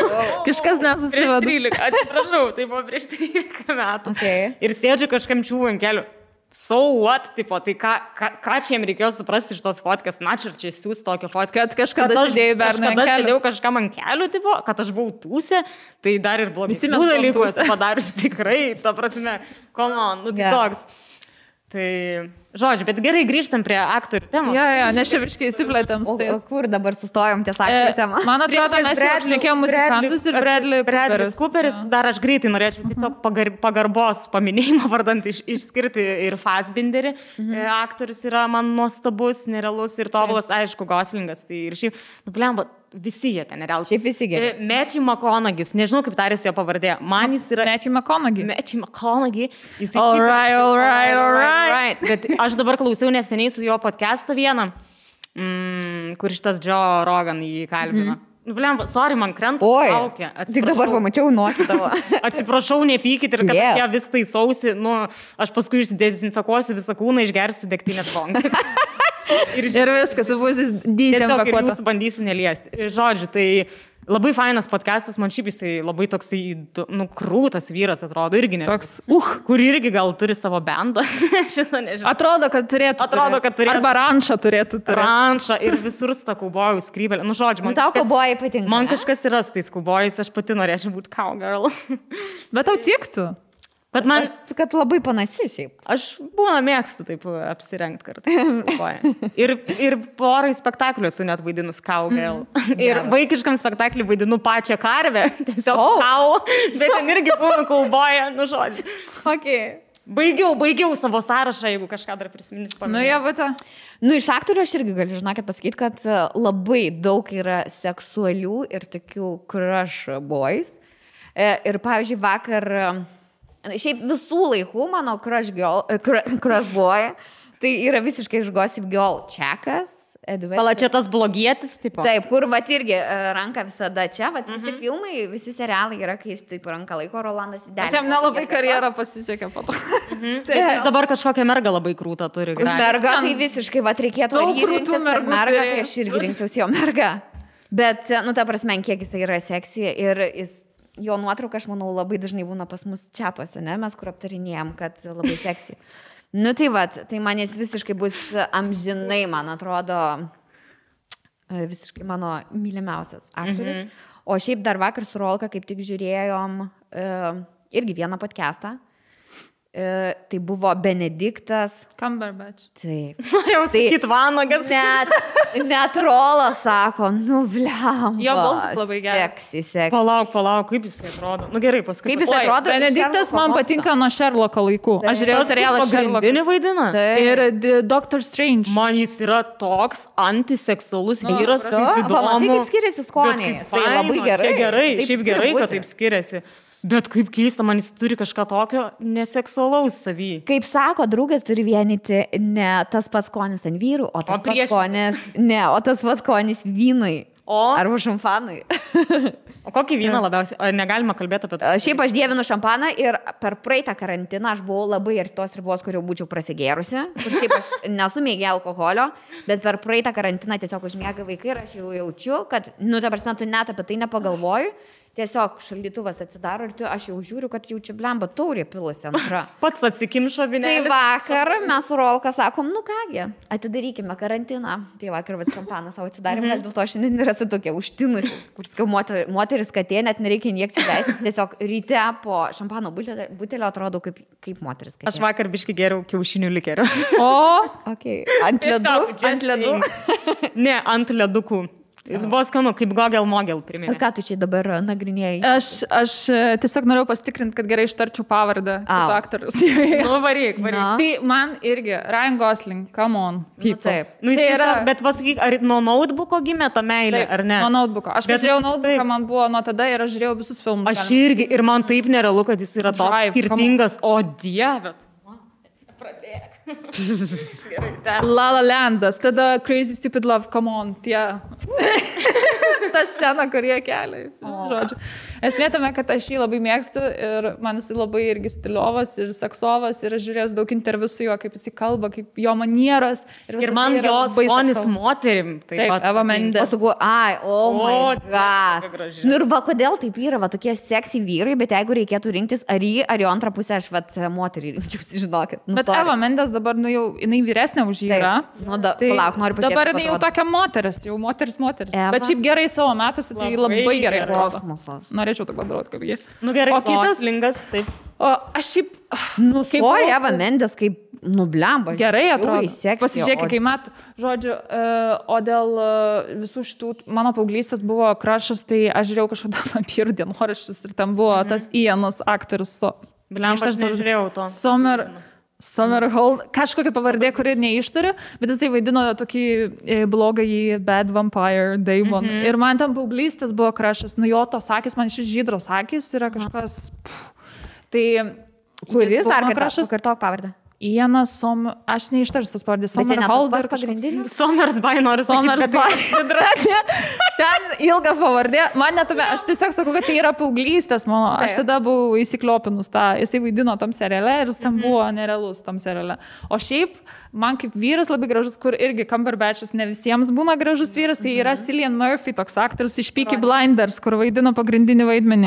Kažkas nesusiveda. Prieš 13, atsiprašau, tai buvo prieš 13 metų. Okay. Ir sėdžiu kažkiam čiūvui ant kelių. So what, tipo, tai ką čia jiems reikėjo suprasti iš tos fotkės, na čia siūs tokią fotkę. Kad kažkada sėdėjau bernai ant kelių. Kažkada sėdėjau kažkam ant kelių, tipo, kad aš buvau tūsė, tai dar ir blogesnių dalykų esu padarius tikrai, ta prasme, come on, nu tai toks. Tai, žodžiu, bet gerai grįžtam prie aktorių temos. Jo, nes čia viškai įsiplėtėm. O kur dabar sustojom ties aktorių temą? Man atrodo, mes jau šnekėjom muzikantus ir Bradley Cooperis. Dar aš greitai norėčiau tiesiog pagarbos paminėjimą vardant išskirti ir Fassbinderį. Aktorius yra man nuostabus, nerealus ir tobulas, aišku, Goslingas. Tai ir šiaip, blemba, visi jie ten nerealus. Šiaip visi gerai. Matthew McConaughey, nežinau kaip tarėsi jo pavardė. Man jis yra... Matthew McConaughey. All right. Bet aš dabar klausiau neseniai su jo podcastą vieną, kur šitas Joe Rogan jį kalbino. Blemba, sorry, man krenta kaukė. Tik dabar pamačiau nosį tavo. Atsiprašau, nepykit ir kad aš ją vis taisausi. Nu, aš paskui išsidezinfekuosiu visą kūną, išgersiu degtinės bonką. Ir viskas, bus dezinfekuota. Tiesiog ir jūsų bandysiu neliesti. Žodžiu, tai labai fainas podcastas, man šiaip jisai labai toksai, nu, krūtas vyras atrodo, irgi ne. Toks, kur irgi gal turi savo bendą. Šitą nežinau. Atrodo, kad turėtų. Arba rančą turėtų. Rančą ir visur tą kaubojų skrybelę. Nu, žodžiu, man tau kaubojai patinka. Man kažkas yra su tais kaubojais, aš pati norėčiau būti cowgirl. Bet tau tiktų. Bet man, kad labai panaši šiaip. Aš būna mėgstu taip apsirengti kartu. Ir porai spektaklių esu net vaidinus cowgirl. Ir vaikiškam spektakliui vaidinu pačią karvę. Tiesiog cow, bet ten irgi buvo kauboja, nu žodžiu. Okay. Baigiau savo sąrašą, jeigu kažką dar prisiminus paminės. Nu, jie, nu, iš aktorių aš irgi galiu, žinokit, pasakyti, kad labai daug yra seksualių ir tokių crush boys. Ir, pavyzdžiui, vakar... Šiaip visų laikų mano crush boy, tai yra visiškai iš Gossip Girl Čekas. Pala, čia tas blogietis, tipo. Taip, kur vat irgi ranka visada čia, vat visi filmai, visi serialai yra, kai jis taip ranka laiko, Rolandas įdėlė. Čia nelabai karjerą pasisekė po to. Jis dabar kažkokią mergą labai krūtą turi. Merga tai visiškai, vat reikėtų rinktis mergą, tai aš irgi rinkčiausi jo mergą. Bet, nu, ta prasme, kiek jis yra seksy ir jis... Jo nuotrauka, aš manau, labai dažnai būna pas mus čatuose, ne? Mes kur aptarinėjom, kad labai seksy. Nu tai vat, tai man jis visiškai bus amžinai, man atrodo, visiškai mano mylimiausias aktorius. O šiaip dar vakar su Rolka kaip tik žiūrėjom irgi vieną podcastą. tai buvo Benediktas. Cumberbatch. Taip. Norėjau sakyti Vanagas. Net Rolas sako, nu bliam. Jo balsas labai geras. Seksi. Palauk, kaip jis atrodo. Nu gerai, paskui. Kaip jis atrodo? Benediktas man patinka nuo Sherlocko laikų. Aš žiūrėjau serialą Sherlockas. Pagrindinį vaidina. Ir Doctor Strange. Man jis yra toks antiseksualus vyras, kaip įdomu. Pamatai, kaip skiriasi skoniai. Tai labai gerai. Gerai, šiaip gerai, kad taip skiriasi. Bet kaip keista, man jis turi kažką tokio neseksualaus savy. Kaip sako, draugas turi vienyti ne tas pats skonis ant vyrų, o tas pats skonis vynui. Arba šampanui. O kokį vyną labiausiai? Ar negalima kalbėti apie tai? Šiaip aš dievinu šampaną ir per praeitą karantiną aš buvau labai arti tos ribos, kur jau būčiau prasigėrusi. Kur šiaip aš nesu mėgė alkoholio, bet per praeitą karantiną tiesiog užmiega vaikai ir aš jau jaučiu, kad, ta prasme, tu net apie tai nepagalvoju. Tiesiog šaldytuvas atsidaro ir aš jau žiūriu, kad jau čia blemba taurė pilusi antra. Pats atsikimšo vinėlį. Tai vakar mes su Rolka sakom, kągi, atidarykime karantiną. Tai vakar šampaną savo atsidarėm, gal dėl to šiandien yra tokia užtinusi, kur skiau moteris katė, net nereikia injekcijų leistis, tiesiog ryte po šampano butelio atrodo kaip moteris katė. Aš vakar biškai geriau kiaušinių likerio. Okay. Ant ledų? Ne, ant ledukų. Jis buvo skanu, kaip Gogel-Mogel priminė. Ką tu čia dabar nagrinėjai? Aš tiesiog norėjau pasitikrinti, kad gerai ištarčiau pavardę aktorius. Varyk. Tai man irgi, Ryan Gosling, come on. Taip. Bet pasakyk, ar nuo notebooko gimė ta meilė, ar ne? Nuo notebooko. Aš pažiūrėjau notebooką, man buvo nuo tada ir aš žiūrėjau visus filmus. Aš irgi, ir man taip nerealu, kad jis yra toks skirtingas. O dieve. Pradėk. La La Landas, tada Crazy Stupid Love, come on, tie. Ta scena, kur jie kelia. Žodžiu. Esmė tame, kad aš jį labai mėgstu ir man jis labai irgi stiliovas ir seksovas ir aš žiūrėjau daug interviu su juo, kaip jis kalba, kaip jo manieras. Ir man jos skonis moterim. Taip, Eva Mendes. My God. Nu ir va, kodėl taip yra, va, tokie seksy vyrai, bet jeigu reikėtų rinktis ar jo antrą pusę, aš moterį rinkčiausi, žinokit. Bet Eva Mendes dabar, jau, jinai vyresnė už jį yra. Palauk, noriu pažiūrėti. Dabar jinai jau tokia moteris. Bet šiaip gerai savo metuose, tai labai gerai atrodo. Norėčiau taip padaroti kaip jį. Nu gerai, o kitas lingas, taip. O aš šiaip... Eva Mendes kaip nublemba. Gerai atrodo. Pasižiūrėk, kai metų. Žodžiu, o dėl visų šitų, mano paauglystės buvo krašas, tai aš žiūrėjau kažkada vampyrų dienoraščius ir ten buvo tas Ianas aktorius. Blemba, aš nežiūrėjau to. Somerhalder, kažkokia pavardė, kuri neišturiu, bet jis tai vaidino tokį blogąjį Bad Vampire Daemon. Ir man ten paauglystės buvo krašas, jo tos akis, man šis žydros akis yra kažkas... Tai... Kuris dar kartok pavardę? Ianas aš neištarsiu tas pavardės. Somerhalder pagrindinis. Somersby noriu sakyti. Ten ilga pavardė. Man netume, aš tiesiog sakau, kad tai yra paauglystės mano. Aš tada buvau įsikliopinus tą. Jis tai vaidino tam seriale ir jis ten buvo nerealus tam seriale. O šiaip, man kaip vyras labai gražus, kur irgi Cumberbatchas ne visiems būna gražus vyras, tai yra Cillian Murphy, toks aktorius iš Peaky Blinders, kur vaidino pagrindinį vaidmenį.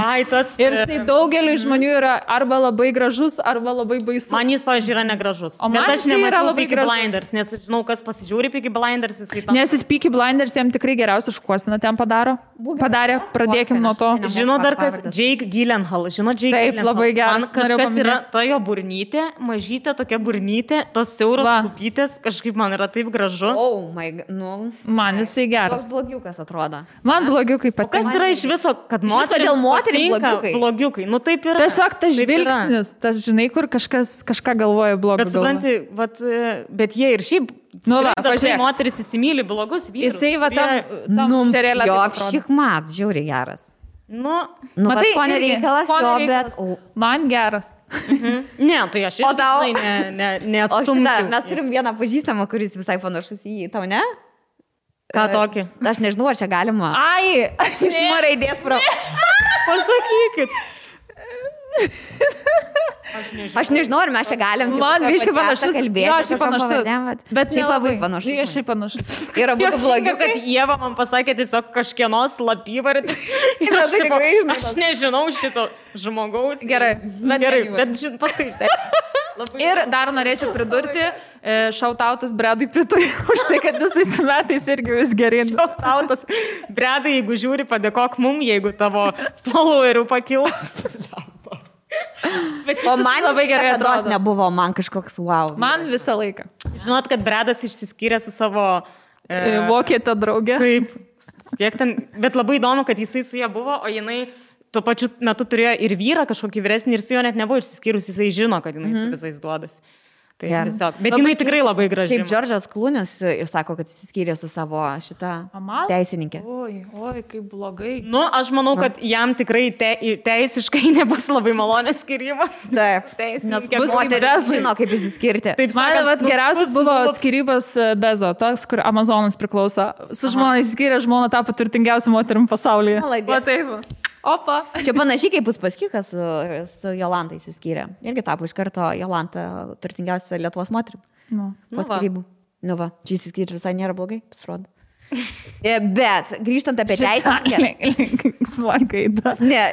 Ir jis tai daugeliu žmonių yra arba labai gražus, arba labai baisus. Man jis, pavyzdžiui, yra negražus. Bet aš nemačiau Peaky Blinders, nes žinau, kas pasižiūri Peaky Blinders. Nes jis Peaky Blinders jam tikrai geriausią šukuoseną ten padarė. Pradėkim nuo to. Žinau dar kas, Jake Gyllenhaal. Žinau, Jake Gyllenhaal. Taip, labai geras. Man kažkas yra ta jo burnytė, mažytė tokia burnytė, tos siauros kupytės, kažkaip man yra taip gražu. Man jisai geras. Toks blogiukas atrodo. Man blogiukai patinka. Kas yra iš viso, kad moteriai blogiukai? Nu taip yra. Tiesiog tas žvilgsnis, tas žinai, kur kažką galvoja blogo. Bet supranti, bet jie ir šiaip dažnai moteris įsimyli blogus vyrus. Jisai va tam serialė. Jo, apšikmat, žiauriai geras. Matai, ko nereikalas, bet man geras. Ne, tai aš neatstumčiau. Mes turim vieną pažįstamą, kuris visai panašus į jį, tau ne? Ką tokį? Aš nežinau, ar čia galima. Iš raidės pro. Pasakykit. Aš nežinau, ar mes čia galim. Man visiškai panašus. Jo, aš panašus. Bet šiaip labai panašus. Aš šiaip panašus. Yra būtų blogiau, kad Ieva man pasakė tiesiog kažkieno slapyvardį. Aš nežinau šito žmogaus. Gerai, bet paskui. Ir dar norėčiau pridurti, šautautas Bredui Pittui už tai, kad visais metais irgi vis geryn. Šautautas Bredui, jeigu žiūri, padėkok mum, jeigu tavo followerių pakils. O man labai gerai atrodo. Nebuvo, man kažkoks wow. Man visą laiką. Žinot, kad Bredas išsiskyrė su savo... Vokietė draugė. Taip, kiek ten... Bet labai įdomu, kad jisai su ją buvo, o jinai tuo pačiu metu turėjo ir vyrą kažkokį vyresnį ir su juo net nebuvo išsiskyrus, jisai žino, kad jinai su visais duodas. Tai tiesiog. Bet jinai tikrai labai graži. Kaip Džordžas Klūnis ir sako, kad jis skyrė su savo šitą teisininkė. Oi, kaip blogai. Nu, aš manau, kad jam tikrai teisiškai nebus labai malonės skyrybos. Taip, nes bus moteris žino, kaip įsiskirti. Taip, man geriausias buvo skyrybos Bezo, toks, kur Amazonas priklauso. Su žmona įskyrė, žmona tapo turtingiausia moterim pasaulyje. Va taip. Opa. Čia panašiai kaip Uspaskichas su Jolanta įsiskyrė. Irgi tapo iš karto Jolanta turtingiausia Lietuvos moterim. Po skyrybų. Nu va, čia įsiskyrė visai nėra blogai, pasirodo. Bet grįžtant apie teisininkę. Smagaida. Ne,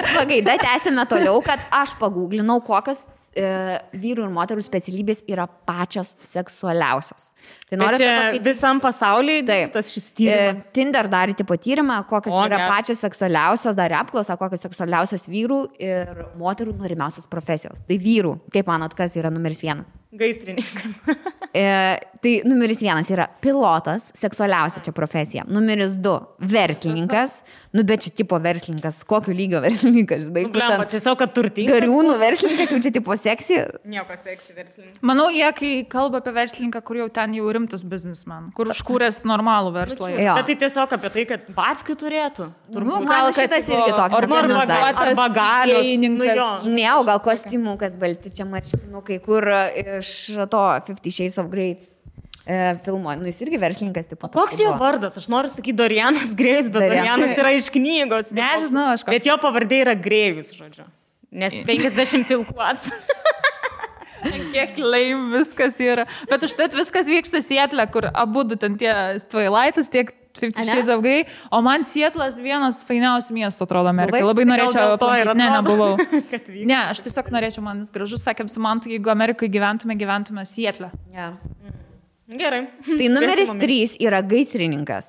smagaida, tęsime toliau, kad aš paguglinau, kokios vyrų ir moterų specialybės yra pačios seksualiausios. Tai noriu visam pasaulyje tas šis tyrimas. Tinder darė tipo tyrimą, kokios yra pačios seksualiausios, darė apklausą, kokios seksualiausios vyrų ir moterų norimiausios profesijos. Tai vyrų, kaip manot, kas yra numeris 1? Gaisrininkas. Tai numeris 1 yra pilotas, seksualiausia čia profesija. Numeris 2 verslininkas. Nu, bet čia tipo verslininkas, kokio lygio verslininkas, žinai. Blemba, tiesiog, kad turtingas. Gariūnų verslininkas, jau čia tipo seksy. Nieko seksy verslininkas. Manau, jie, kai kalba apie verslininką, kur jau ten jau rimtas biznisman, kur užkūrės normalų verslą. Bet tai tiesiog apie tai, kad babkių turėtų. Turbūt, gal šitas irgi toks. Arba galios. Ne, o gal kostiumukas balti, čia marškinukai, kur iš to 50 Shades of Grey filmo, nu jis irgi verslininkas. Tipo, koks jo vardas? Aš noriu sakyti Dorianas Grėjus, bet Dorianas yra iš knygos. Nežinau, aš ką. Bet jo pavardė yra Grėjus, žodžiu. Nes 50 pilkų atspalvių. Kiek laim viskas yra. Bet užtat viskas vyksta Sietle, kur abu ten tie Twilightas, tiek 50 Shades of Grey, o man Sietlas vienas fainiausių miestų atrodo Amerikai. Labai norėčiau aplankyti. Ne, nebuvau. Ne, aš tiesiog norėčiau, man jis gražus, sakėm su Mantu, jeigu Amerikai gyventume Sietle. Yes. Gerai. Tai numeris 3 yra gaisrininkas.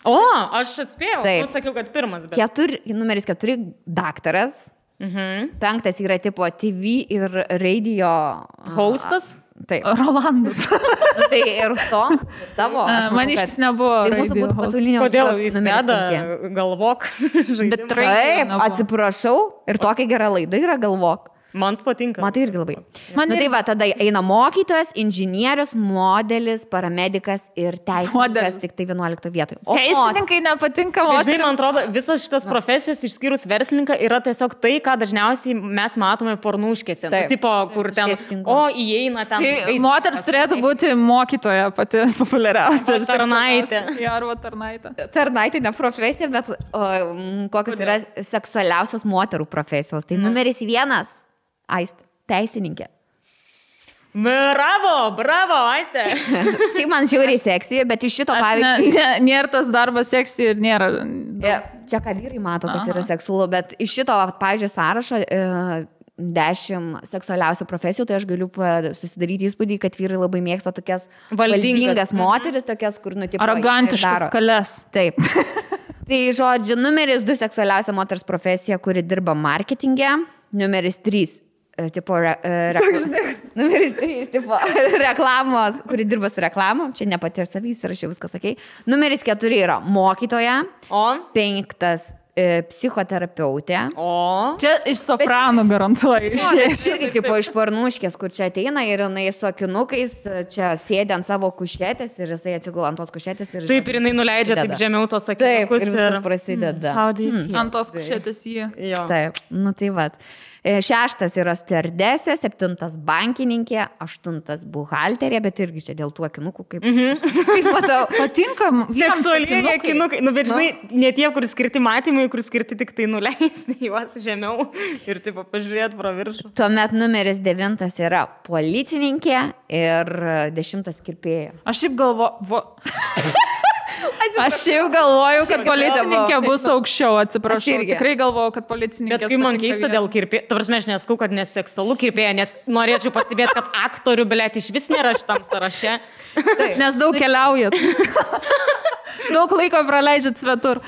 O, aš atspėjau. Taip. Aš sakiau, kad pirmas. Bet... Numeris 4 daktaras. 5 yra tipo TV ir radio hostas. Taip. Rolandas. Tai ir to tavo. Man iš vis nebuvo. Tai mūsų būtų pasaulinio. Kodėl jis veda galvok žaidimą? Taip, atsiprašau. Ir tokia gera laida yra galvok. Man patinka. Man tai irgi labai. Nu tai va, tada eina mokytojas, inžinierius, modelis, paramedikas ir teisininkas tik tai 11 vietoj. Teisininkai nepatinka moterims. Žinai, man atrodo, visas šitas profesijas išskyrus verslininką yra tiesiog tai, ką dažniausiai mes matome pornuškėse. Nu, tipo, kur ten, įeina ten. Tai moters turėtų būti mokytoja pati populiariausia. Tarnaitė. Arba tarnaitė. Tarnaitė ne profesija, bet kokios yra seksualiausios moterų profesijos. Tai numeris 1. Aistė, teisininkė. Bravo, Aistė. Tai man žiauriai seksy, bet iš šito pavyzdžiui... Nėra tas darbas seksy ir nėra... Čia ką vyrai mato, kas yra seksualu, bet iš šito, pavyzdžiui, sąrašo 10 seksualiausių profesijų, tai aš galiu susidaryti įspūdį, kad vyrai labai mėgsta tokias valdingas moteris, tokias, kur nutipo... Arogantiškas kalės. Taip. Tai žodžiu, numeris 2 seksualiausia moters profesija, kuri dirba marketinge, numeris 3 tipo numeris 3 tipo reklamos, kuri dirba su reklamom, čia nepati ir savys, rašiau viskas ok. Numeris 4 yra mokytoja, 5 psichoterapeutė. Čia iš sopranų garantuoju. Irgi tipo iš pornuškės, kur čia ateina ir jinai su akinukais, čia sėdė ant savo kušetės ir jisai atsigula ant tos kušetės. Ir taip, ir jinai nuleidžia taip žemiau tos akinukus. Taip, ir viskas prasideda. Ant tos kušetės jį. Taip, nu tai vat. 6 yra stewardesė, 7 bankininkė, 8 buhalterė, bet irgi čia dėl tų akinukų, kaip matau. Patinka seksualiniai akinukai. Nu, bet žinai, ne tie, kur skirti matymai, kur skirti tik tai nuleisti juos žemiau ir taip pažiūrėti pro viršų. Tuomet numeris 9 yra policininkė ir 10 kirpėja. Aš šiaip galvoju, kad policininkė bus aukščiau, atsiprašau. Tikrai galvoju, kad policininkė. Bet kai man keista dėl kirpėjo, tu prasme, aš neskau, kad neseksualu kirpėja, nes norėčiau pastebėti, kad aktorių, blėt, iš vis nėra šitam sąraše. Nes daug keliaujat. Daug laiko praleidžiat svetur.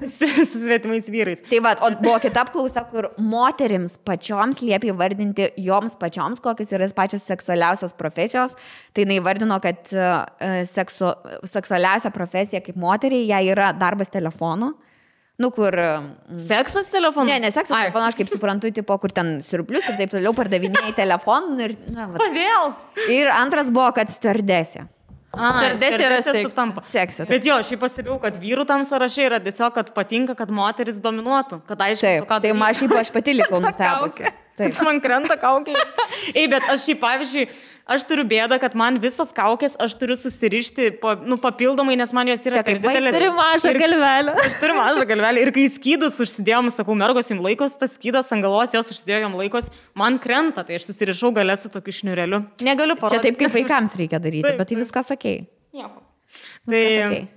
Su svetimais vyrais. Tai va, o buvo kita apklausa, kur moterims pačioms liepia įvardinti joms pačioms, kokios yra pačios seksualiausios profesijos. Tai jinai vardino, kad seksualiausia profesija kaip moteriai, jai yra darbas telefonu. Nu, kur... Seksas telefonu? Ne seksas telefonu, aš kaip suprantu, tipo, kur ten siurblius ir taip toliau pardavinėjai telefonų. Ir, na, Kodėl? Ir antras buvo, kad stardesė. Stardesė yra sutampa. Seksas. Bet jo, aš pastebėjau, kad vyrų tam sąraše yra tiesiog, kad patinka, kad moteris dominuotų. Kad aišku, taip, ką tai aš pati likau nustebusi. Taip. Man krenta kaukė. Ei, bet aš pavyzdžiui, aš turiu bėdą, kad man visos kaukės aš turiu susirišti papildomai, nes man jos yra kaip didelės. Turi mažą galvelę. Aš turiu mažą galvelę. Ir kai skydus užsidėjom, sakau, mergos jums laikos, tas skydas ant galos, jos užsidėjo jums laikos, man krenta, tai aš susirišau galę su tokiu šniureliu. Negaliu parodyti. Čia taip, kaip vaikams reikia daryti, taip, bet tai viskas okei. Nieko. Viskas okei.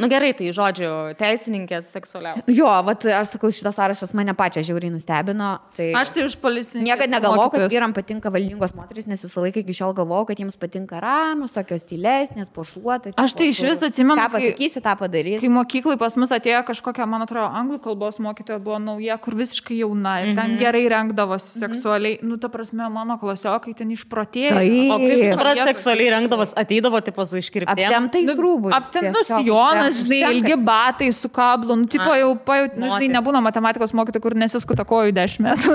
Nu gerai, tai žodžiu, teisininkės seksualiausios. Jo, vat, aš sakau, šitas sąrašas mane pačią žiauriai nustebino. Tai Aš tai už policininkės. Niekada negalvojau, kad vyram patinka valdingos moteris, nes visą laiką iki šiol galvojau, kad jiems patinka ramios, tokios tylesnės, pošluotai. Aš tai iš vis atsimenu, ką pasakysi, tą padarys. Kai mokyklai pas mus atėjo kažkokia, man atrodo, anglų kalbos mokytoja buvo nauja, kur visiškai jauna ir ten gerai rengdavosi seksualiai. Nu, ta prasme, mano klasiokai ten išprotėjo. O kaip supras, seksualiai rengdavos, ateidavo tipo su iškirptėm? Aptemtais rūbais. Aptemtus Jonas, žinai, ilgi batai su kablu, nu, tipo jau, žinai, nebūna matematikos mokytojų, kur nesiskuta kojų 10 metų.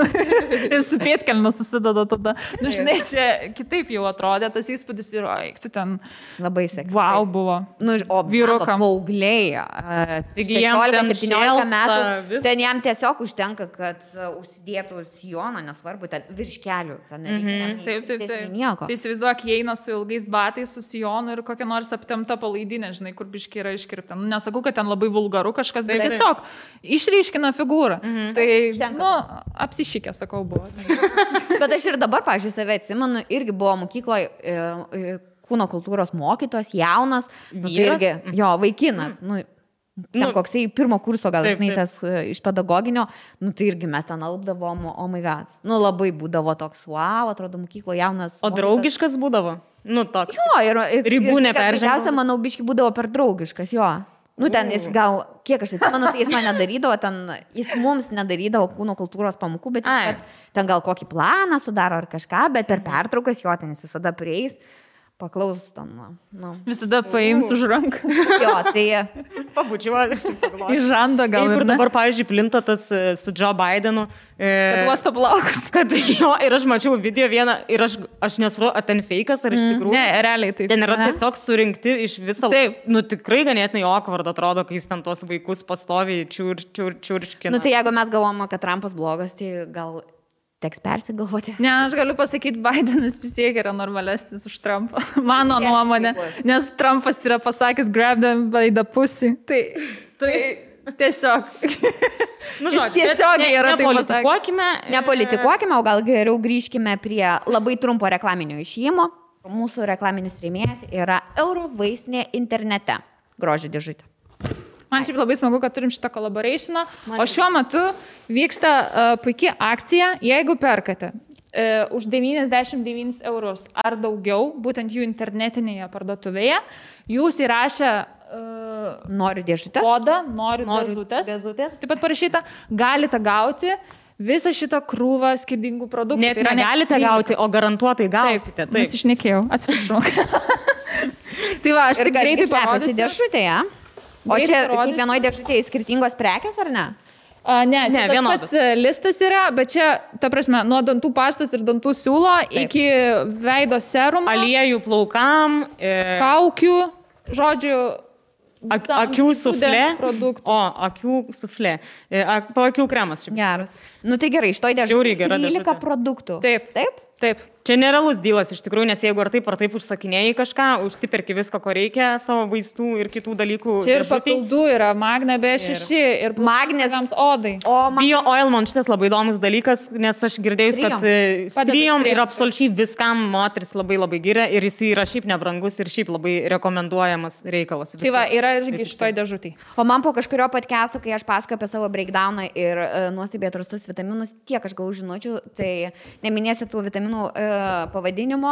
Ir su pėtkelniu susideda tada. Nu, žinai, čia kitaip jau atrodė, tas įspūdis ir, tu ten... Labai seksy. Wow buvo. Nu, o vyrukam. Paaugliai, 16-17 metų, ten jam tiesiog užtenka, kad užsidėtų sijoną, nesvarbu, ten virš kelių. Taip. Tai įsivaizduok, jie eina su ilgais batais, su sijonu ir kokia nors aptemta palaidinė, žinai, kur biški yra iškirpta. Nu, nesakau, kad ten labai vulgaru kažkas, bet tiesiog išryškina figūrą. Tai, nu, apsišykė, sakau, buvo. Bet aš ir dabar, pažiūrėjau, save atsimenu, irgi buvo mokykloje kūno kultūros mokytos, jaunas, nu, tai irgi, jo, vaikinas, nu, ten koksai pirmo kurso, gal žinai, tas iš pedagoginio, nu, tai irgi mes ten alpdavom, oh my god, nu, labai būdavo toks, wow, atrodo, mokyklo jaunas. O draugiškas būdavo? Nu, toks. Jo, ir ribų neperžengdavo. Pirmiausia, manau, biški būdavo per draugiškas, jo. Nu, ten jis gal, kiek aš atsimenu, tai jis man nedarydavo, jis mums nedarydavo kūno kultūros pamokų, bet jis ten gal kokį planą sudaro ar kažką, bet per pertraukas jo ten jis visada prieis, paklaus ten. Nu. Visada paims už ranką. Jo, tai... Pabučiuoju. Į žandą gal. Ir dabar, pavyzdžiui, plinta tas su Joe Bidenu. Kad uosto plaukus. Kad jo, ir aš mačiau video vieną, ir aš nesupratau, ar ten feikas, ar iš tikrųjų. Ne, realiai taip. Ten yra tiesiog surinkti iš viso. Taip. Nu, tikrai ganėtinai awkward atrodo, kai jis ten tos vaikus pastoviai čiurčkina. Nu, tai jeigu mes galvojame, kad Trumpas blogas, tai gal... Teks persigalvoti. Ne, aš galiu pasakyti, Bidenas vis tiek yra normalesnis už Trumpą. Mano nuomonė. Nes Trumpas yra pasakęs grab them by the pussy. Tai tiesiog. Nu, žodžiu, tiesiog yra taip pasakęs. Nepolitikuokime, o gal geriau grįžkime prie labai trumpo reklaminio išėjimo. Mūsų reklaminis rėmėjas yra Eurovaistinė internete. Grožio dėžutė. Man šiaip labai smagu, kad turim šitą collaborationą, o šiuo metu vyksta puikia akcija, jeigu perkate už 99 eurus ar daugiau, būtent jų internetinėje parduotuvėje, jūs įrašę noriu dėžutės, kodą, noriu dėžutės, taip pat parašyta, galite gauti visą šitą krūvą skirtingų produktų. Net tai negalite gauti, o garantuotai gausite. Taip, nes išnekėjau, atsiprašau. Tai va, aš tik greitai parodysiu. Dėžutėje. O čia kiekvienoje dėžutėje skirtingos prekės, ar ne? Ne, tas pats listas yra, bet čia, ta prasme, nuo dantų pastas ir dantų siūlo iki veido serumo. Aliejų plaukam. Kaukių, žodžiu, akių suflė. O, akių suflė. Po akių kremas. Geras. Nu tai gerai, iš to dėžutė 13 produktų. Taip. Čia nerealus dylas iš tikrųjų, nes jeigu ar taip užsakinėjai kažką, užsiperki viską, ko reikia, savo vaistų ir kitų dalykų. Čia ir papildų yra Magna B6 ir Magnės odai. Bio oil man šitas labai įdomus dalykas, nes aš girdėjus, kad strijom ir absoliučiai viskam moteris labai labai giria ir jis yra šiaip nebrangus ir šiaip labai rekomenduojamas reikalas. Tai va, yra irgi šitoj dėžutėj. O man po kažkurio podcast'o, kai aš pasakoju apie savo breakdowną ir nuostabiai atrastus vitaminus, tiek aš gavau žinučių, tai neminėsiu tų vitaminų pavadinimo,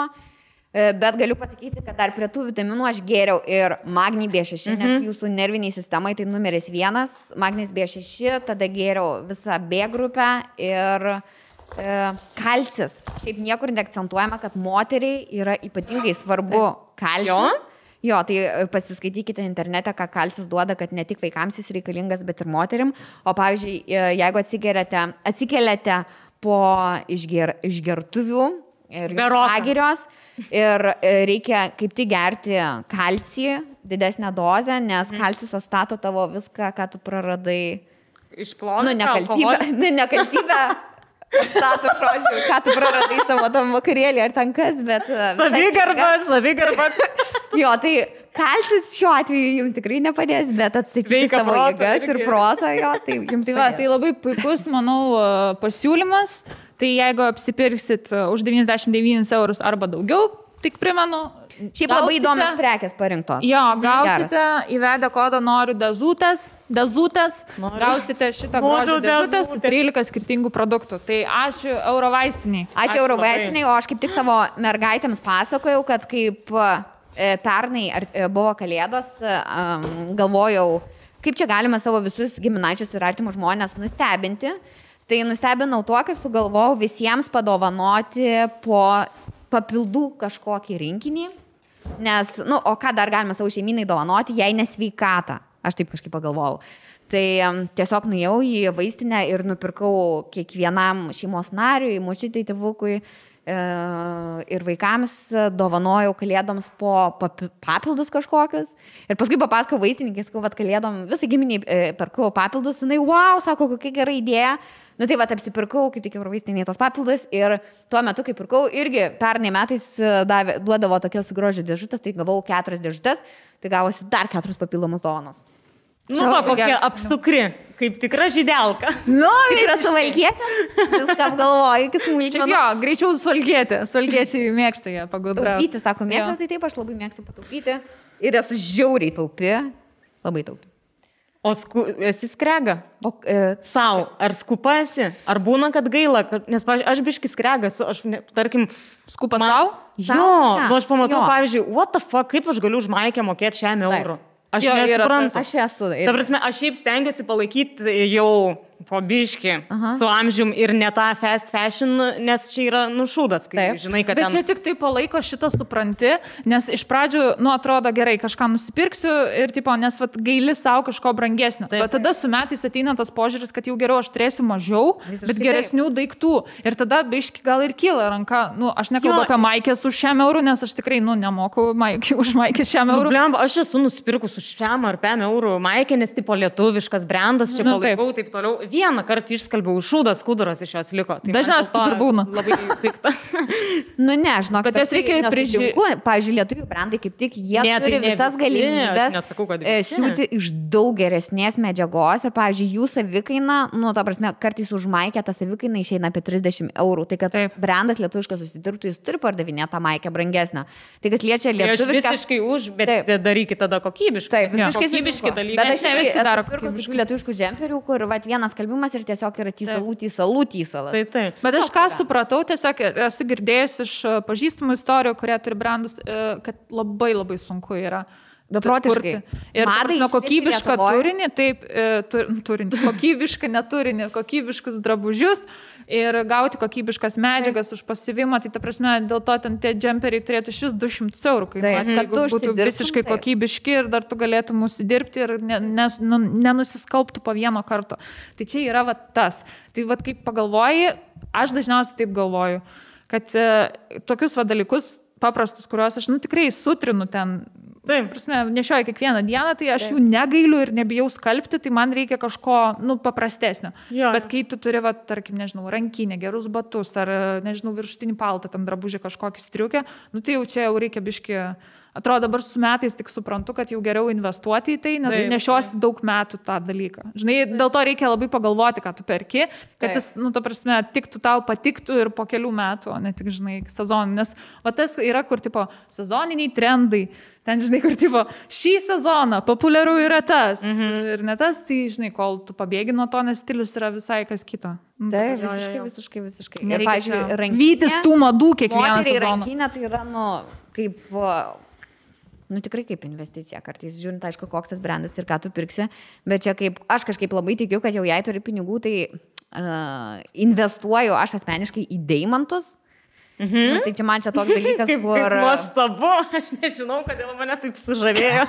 Bet galiu pasakyti, kad dar prie tų vitaminų aš gėriau ir magnį B6, nes jūsų nerviniai sistemai tai numeris 1, magnis B6, tada gėriau visą B grupę ir kalcis. Šiaip niekur neakcentuojama, kad moteriai yra ypatingai svarbu kalcis. Jo, tai pasiskaitykite internete, ką kalcis duoda, kad ne tik vaikams jis reikalingas, bet ir moterim. O pavyzdžiui, jeigu atsikeliate po išgertuvių ir pagirios ir reikia kaip tik gerti kalcį, didesnę dozę, nes kalcis atstato tavo viską, ką tu praradai. Išplovė. Nekaltybę. Stato, žodžiu, ką tu praradai savo tam vakarėlį ar ten kas, bet... Savigarbas. Jo, tai kalcis šiuo atveju jums tikrai nepadės, bet atstatyti savo jėgas ir protą, jo, tai jums padės. Tai labai puikus, manau, pasiūlymas. Tai jeigu apsipirksit už 99 eurus arba daugiau, tik primenu... Šiaip labai įdomios prekės parinktos. Jo, gausite įvedę kodą noriu dezutės, gausite šitą grožio dėžutę su 13 skirtingų produktų. Tai ačiū Eurovaistiniai. Ačiū Eurovaistiniai, o aš kaip tik savo mergaitėms pasakojau, kad kaip pernai buvo Kalėdos, galvojau, kaip čia galima savo visus giminaičius ir artimus žmonės nustebinti. Tai nustebinau tuo, kad sugalvojau visiems padovanoti po papildų kažkokį rinkinį. Nes, o ką dar galima savo šeiminai dovanoti, jei nesveikatą. Aš taip kažkaip pagalvojau. Tai tiesiog nuėjau į vaistinę ir nupirkau kiekvienam šeimos nariui, močiutei, tėvukui ir vaikams dovanojau Kalėdoms po papildus kažkokius. Ir paskui papasakau vaistininkės, kad Kalėdom visai giminiai perkau papildus. Jinai, wow, sako, kokia gera idėja. Nu tai va, apsipirkau, kaip tik Eurovaistiniai tos papildus ir tuo metu, kai pirkau, irgi pernai metais duodavo tokias grožio dėžutės, tai gavau 4 dėžutės, tai gavosi dar 4 papildomus dovanos. Kokia apsukri, kaip tikra žydelka. Tikra suvalkietė, viską apgalvoju, iki smulkmenų. Jo, greičiau suvalkietė, suvalkiečiai mėgsta ją pagudrauti. Taupyti, sako, mėgsta, tai taip, aš labai mėgstu pataupyti ir esu žiauriai taupi, labai taupi. O esi skrega? Sau, ar skupasi? Ar būna, kad gaila? Nes, pavyzdžiui, aš biški skregas, tarkim... Skupa sau? Jo, aš pamatau, pavyzdžiui, what the fuck, kaip aš galiu už maikę mokėti 100 eurų? Aš nesuprantu. Aš esu. Ta prasme, aš šiaip stengiuosi palaikyti jau po biškį su amžium ir ne tą fast fashion, nes čia yra nušūdas, kai žinai, kad... Bet čia tik tai palaiko šitą supranti, nes iš pradžių, atrodo gerai, kažką nusipirksiu ir, nes gaili savo kažko brangesnio. Bet tada su metais ateina tas požiūris, kad jau geriau aš turėsiu mažiau, bet geresnių daiktų. Ir tada biški gal ir kyla ranka. Aš nekalbu apie maikės už 100 eurų, nes aš tikrai, nemoku už maikės 100 eurų. Aš esu nusipirkus už 100 ar 5 eurų maikę, nes tipo lietuviškas brandas, čia palaikau, taip toliau. Vieną kartą išskalbiau, šūdas, skuduras iš jos liko. Tai dažniausiai taip ir būna. Labai pikta. Žinok, bet jas reikia ir prižiūrėti. Pavyzdžiui, lietuvių brandai kaip tik, jie turi visas galimybės siūti iš daug geresnės medžiagos ir, pavyzdžiui, jų savikaina, ta prasme, kartais už maikę ta savikaina išeina apie 30 eurų. Tai kad brandas lietuviškas susidirbtų, jis turi pardavinėti tą maikę brangesnę. Tai kas liečia lietuvišką... Visiškai už, bet darykit tada kokybiškai. Taip, kokybiškai dalykai. Bet aš esu pirkus lietuviškų džemperių, kur vienas skalbimas ir tiesiog yra tysalas. Taip. Bet aš ką supratau, tiesiog esu girdėjęs iš pažįstamų istorijų, kurie turi brandus, kad labai labai sunku yra. Beprotiškai. Ir kokybišką turinį, kokybišką neturinį, kokybiškus drabužius ir gauti kokybiškas medžiagas už pasiuvimą, tai ta prasme, dėl to ten tie džemperiai turėtų šis 200 eurų, jeigu būtų visiškai kokybiški ir dar tu galėtum užsidirbti ir nenusiskalbtų po vieno karto. Tai čia yra tas. Tai kaip pagalvoji, aš dažniausiai taip galvoju, kad tokius dalykus paprastus, kuriuos aš tikrai sutrinu ten, nešioju kiekvieną dieną, tai aš jų negailiu ir nebijau skalbti, tai man reikia kažko, paprastesnio. Bet kai tu turi, tarkim, rankinę, gerus batus ar, viršutinį paltą, tam drabužį kažkokį striukę, tai jau čia jau reikia biški... Atrodo, dabar su metais tik suprantu, kad jau geriau investuoti į tai, nes nešiosi daug metų tą dalyką. Žinai, dėl to reikia labai pagalvoti, ką tu perki, kad jis, ta prasme, tiktų tau patiktų ir po kelių metų, o ne tik, sezonį. Nes tas yra, kur, sezoniniai trendai. Ten, kur, šį sezoną populiaru yra tas. Ir ne tas, tai, kol tu pabėgi nuo to, nes stilius yra visai kas kita. Taip, visiškai. Ir, pavyzdžiui, vytis tų madų kiekvieną sezoną. Rankinė tai yra, kaip, nu tikrai kaip investicija kartais, žiūrint, aišku, koks tas brandas ir ką tu pirksi, bet čia kaip, aš kažkaip labai tikiu, kad jau jei turi pinigų, tai investuoju aš asmeniškai į deimantus. Nu, tai čia man čia toks dalykas, kur... Kaip nuostabu, aš nežinau, kodėl mane taip sužavėjo.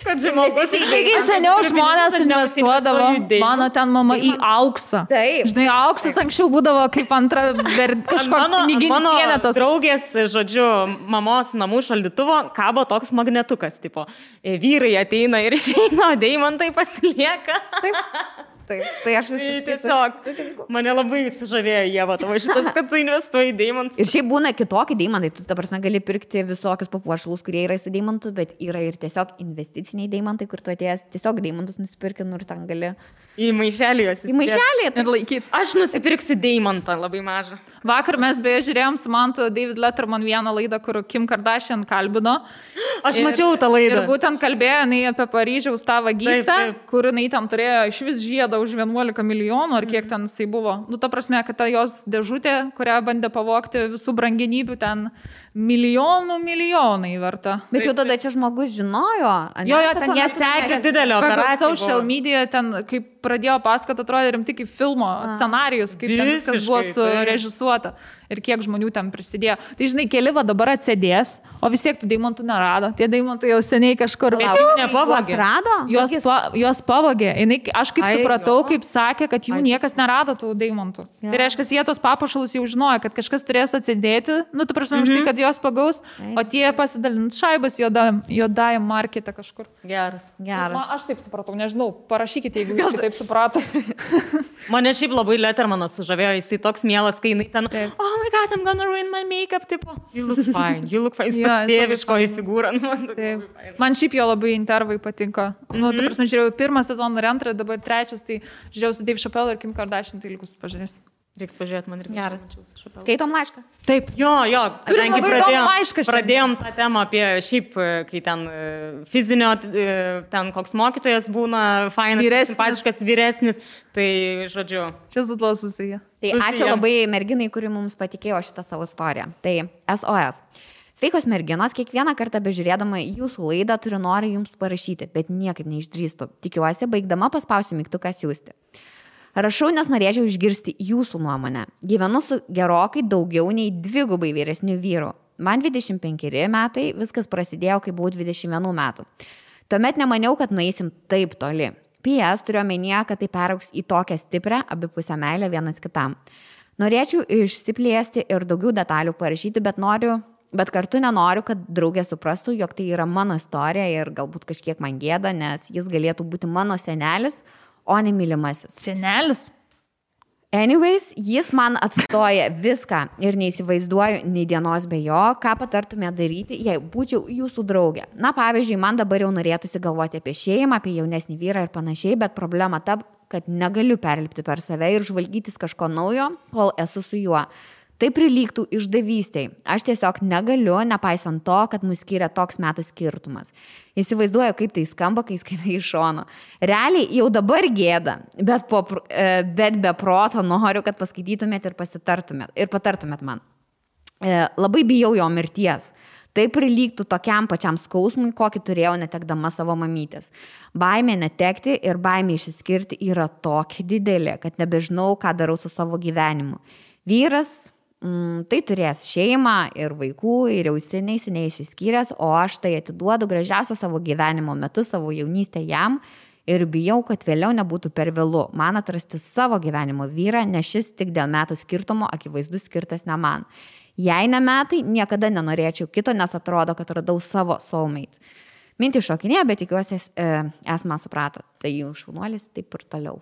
Kad žmogus Taigi seniau žmonės investuodavo, mano ten mama į auksą. Taip. Žinai, auksas anksčiau būdavo kaip antra kažkoks piniginis vienetas. Mano draugės, žodžiu, mamos namų šaldytuvo kabo toks magnetukas, tipo, vyrai ateina ir išeina, o deimantai pasilieka. Taip. Taip, tai aš vis tiesiog mane labai sužavėjo Ieva, tavo šitas, kad tu investuoji į deimantus. Ir šiaip būna kitokie deimantai, tu ta prasme gali pirkti visokius papuošalus, kurie yra su deimantu, bet yra ir tiesiog investiciniai deimantai, kur tu atėjęs tiesiog deimantus nusipirki, ir ten gali... Į maišelį juos įsidėti. Į maišelį ir laikyti. Aš nusipirksiu deimantą labai mažą. Vakar mes beje žiūrėjom su Mantu David Letterman vieną laidą, kur Kim Kardashian kalbino. Aš mačiau tą laidą. Ir būtent kalbėjo jinai apie Paryžiaus tą vagystę, kur jinai ten turėjo iš vis žiedą už 11 milijonų, ar kiek ten jisai buvo. Nu, ta prasme, kad ta jos dėžutė, kurią bandė pavogti visų brangenybių, ten milijonai verta. Bet jau tada čia žmogus žinojo. Jo, ten jie sekė didelę operaciją. Social media ten, kaip pradėjo pasakoti, atrodė rimtai kaip filmo scenarijus, kaip ten viskas buvo surežisuota ir kiek žmonių ten prisidėjo. Tai žinai, keli va dabar atsėdės, o vis tiek tų deimantų nerado. Tie deimantai jau seniai kažkur juos pavogė. Aš kaip supratau, kaip sakė, kad jų niekas nerado tų deimantų. Tai reiškia, jie tos papuošalus jau žinojo, kad kažkas turės atsidėti, nu, tu prašau, už tai, kad jos pagaus, o tie pasidalint šaibas juodajam markete kažkur. Geras. Aš taip supratau, nežinau, parašykite, jeigu jūs taip supratot. Mane šiaip labai Lettermanas sužavėjo, jisai toks mielas, kai jinai ten, oh my god, I'm gonna ruin my makeup, tipo, you look fine. Jis toks tėviškoji figūra. Man šiaip jo labai intervai patinka. Nu, ta prasme, žiūrėjau pirmą sezoną ir antrą, dabar trečias, tai žiūrėjau su Dave Chappelle ir Kim Kardashian, tai likus pažiūrės. Reiks pažiūrėti, man reikia. Geras. Skaitom laišką. Taip. Jo, kadangi pradėjom tą temą apie šiaip, kai ten fizinio, ten koks mokytojas būna fainas, simpatiškas, vyresnis, tai žodžiu. Čia su to susiję. Tai ačiū labai merginai, kuri mums patikėjo šitą savo istoriją. Tai SOS. Sveikos merginos, kiekvieną kartą bežiūrėdama jūsų laidą turiu norį jums parašyti, bet niekaip neišdrįstu. Tikiuosi, baigdama paspausiu mygtuką siųsti. Rašau, nes norėčiau išgirsti jūsų nuomonę. Gyvenu su gerokai daugiau nei 2 vyresnių vyrų. Man 25 metai, viskas prasidėjo, kai buvau 21 metų. Tuomet nemaniau, kad nueisim taip toli. PS turiu omenyje, kad tai peraugs į tokią stiprią abipusę meilę vienas kitam. Norėčiau išsiplėsti ir daugiau detalių parašyti, bet kartu nenoriu, kad draugė suprastų, jog tai yra mano istorija ir galbūt kažkiek man gėda, nes jis galėtų būti mano senelis, o ne mylimasis. Senelis? Anyways, jis man atstoja viską ir neįsivaizduoju nei dienos be jo, ką patartume daryti, jei būčiau jūsų draugė. Na, pavyzdžiui, man dabar jau norėtųsi galvoti apie šeimą, apie jaunesnį vyrą ir panašiai, bet problema ta, kad negaliu perlipti per save ir žvalgytis kažko naujo, kol esu su juo. Tai prilygtų išdavystei. Aš tiesiog negaliu, nepaisant to, kad mus skiria toks metų skirtumas. Įsivaizduoju, kaip tai skamba, kai skaitai iš šono. Realiai jau dabar gėda, bet be proto noriu, kad paskaitytumėt ir patartumėt man. Labai bijau jo mirties. Tai prilygtų tokiam pačiam skausmui, kokį turėjau netekdama savo mamytės. Baimė netekti ir baimė išsiskirti yra tokia didelė, kad nebežinau, ką darau su savo gyvenimu. Vyras tai turės šeimą ir vaikų ir jau seniai išsiskyręs, o aš tai atiduodu gražiausią savo gyvenimo metu, savo jaunystę jam ir bijau, kad vėliau nebūtų per vėlu man atrasti savo gyvenimo vyrą, nes šis tik dėl metų skirtumo akivaizdus skirtas ne man. Jei ne metai, niekada nenorėčiau kito, nes atrodo, kad radau savo soulmate. Mintį šokinė, bet tikiuosi esmą suprato. Tai jų šaunuolis taip ir toliau.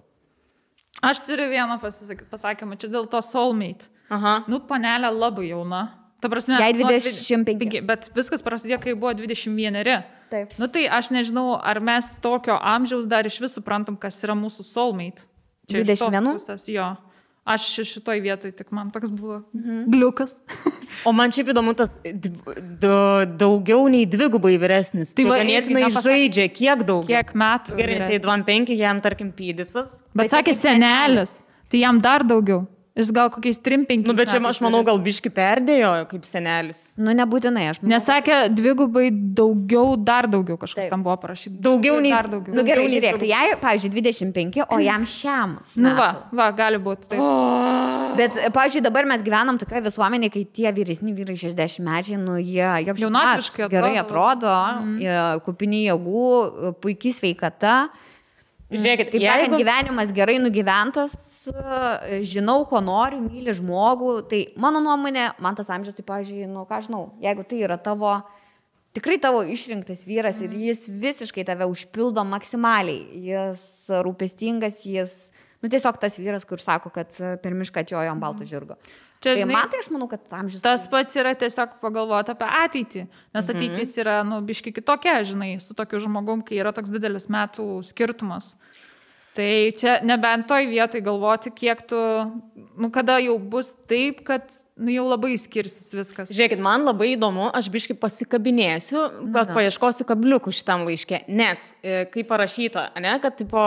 Aš turiu vieną pasakymą, čia dėl to soulmate. Aha. Nu, panelė labai jauna. Ta prasme, jai 25. Bet viskas prasidėjo, kai buvo 21. Taip. Nu, tai aš nežinau, ar mes tokio amžiaus dar iš vis suprantam, kas yra mūsų soulmate. Čia 21? Jo. Aš šitoj vietoj, tik man toks buvo gliukas. O man šiaip įdomu tas daugiau nei 2 vyresnis. Tai ganėtinai žaidžia, kiek daug? Kiek metų? Gerai, jisai 25, jam tarkim pydisas. Bet sakė senelis, tai jam dar daugiau. Jis gal kokiais 3-5. Nu, bet čia aš manau, gal biški perdėjo kaip senelis. Nu, nebūtinai, aš manau. Nesakė, dvigubai daugiau, dar daugiau kažkas tam buvo parašyti. Daugiau nei dar daugiau. Nu, gerai, žiūrėk, tai jai, pavyzdžiui, 25, o jam šiam. Nu, va, gali būti. Tai. Bet, pavyzdžiui, dabar mes gyvenam tokioje visuomenėje, kai tie vyresni vyrai 60 mečiai, nu, jie jaunatviškai gerai atrodo, kupini jėgų, puikiai sveikata. Žiūrėkit, kaip sakant, gyvenimas gerai nugyventas, žinau, ko noriu, myli žmogų, tai mano nuomonė, man tas amžius, tai, pavyzdžiui, nu, ką žinau, jeigu tai yra tikrai tavo išrinktas vyras ir jis visiškai tave užpildo maksimaliai, jis rūpestingas, nu, tiesiog tas vyras, kur sako, kad per mišką atjojo ant balto žirgo. Čia, žinai, man tai aš manau, kad amžius. Tas pats yra tiesiog pagalvoti apie ateitį, nes ateitis yra, nu, biški kitokia, žinai, su tokiu žmogum, kai yra toks didelis metų skirtumas. Tai čia nebent toj vietoj galvoti, kiek tu, nu, kada jau bus taip, kad, nu, jau labai skirsis viskas. Žiūrėkit, man labai įdomu, aš biški pasikabinėsiu, bet paieškosiu kabliukų šitam laiške, nes, kaip parašyta, ne, kad, tipo,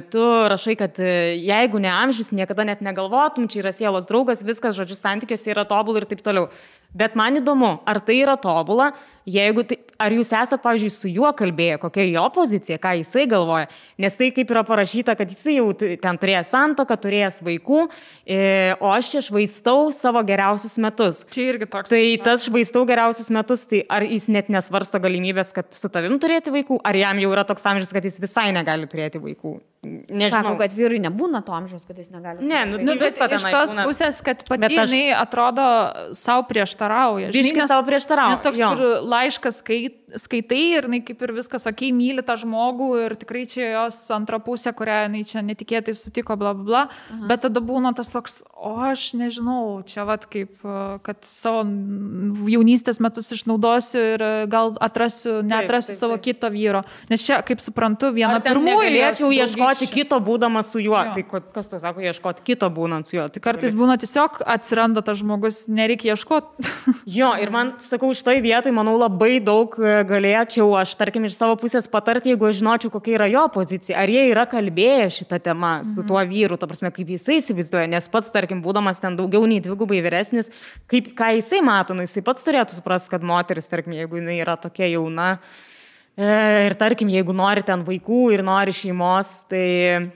tu rašai, kad jeigu ne amžius, niekada net negalvotum, čia yra sielos draugas, viskas, žodžiu, santykiuose yra tobula ir taip toliau. Bet man įdomu, ar tai yra tobula, jeigu tai, ar jūs esat, pavyzdžiui, su juo kalbėję, kokia jo pozicija, ką jisai galvoja, nes tai kaip yra parašyta, kad jisai jau ten turėjęs santuoką, turėjęs vaikų, o aš čia švaistau savo geriausius metus. Čia irgi toks. Tai tas švaistau geriausius metus, tai ar jis net nesvarsto galimybės, kad su tavim turėti vaikų, ar jam jau yra toks amžius, kad jis visai negali turėti vaikų? Nežinau. Sakau, kad vyrui nebūna to amžiaus, kad jis negali. Ne, nu, bet iš tos pusės, kad pati jinai atrodo savo prieštarauja. Biškai savo prieštarauja. Nes toks laiškas skaitai ir jinai kaip ir viskas, okei, myli tą žmogų ir tikrai čia jos antra pusė, kurią jinai čia netikėtai sutiko, bla, bla, bla. Bet tada būna tas toks, o aš nežinau, čia vat kaip, kad savo jaunystės metus išnaudosiu ir gal neatrasiu savo kito vyro. Nes čia, kaip suprantu, viena pirmųjų galėčiau ieškoti kito būdamas su juo. Jo. Tai kas tu sako, ieškoti kito būnant su juo? Tai kartais būna tiesiog atsiranda tas žmogus, nereikia ieškoti. Jo, ir man, sakau, šitoj vietoj, manau, labai daug galėčiau aš, tarkim, iš savo pusės patarti, jeigu aš žinočiau, kokia yra jo pozicija. Ar jie yra kalbėję šitą temą su tuo vyru, ta prasme, kaip jisai įsivaizduoja, nes pats, tarkim, būdamas ten daugiau nei dvigubai vyresnis, ką jisai mato, nu, jisai pats turėtų suprasti, kad moteris, tarkim, jeigu jinai yra tokia jauna, ir tarkim, jeigu nori ten vaikų ir nori šeimos, tai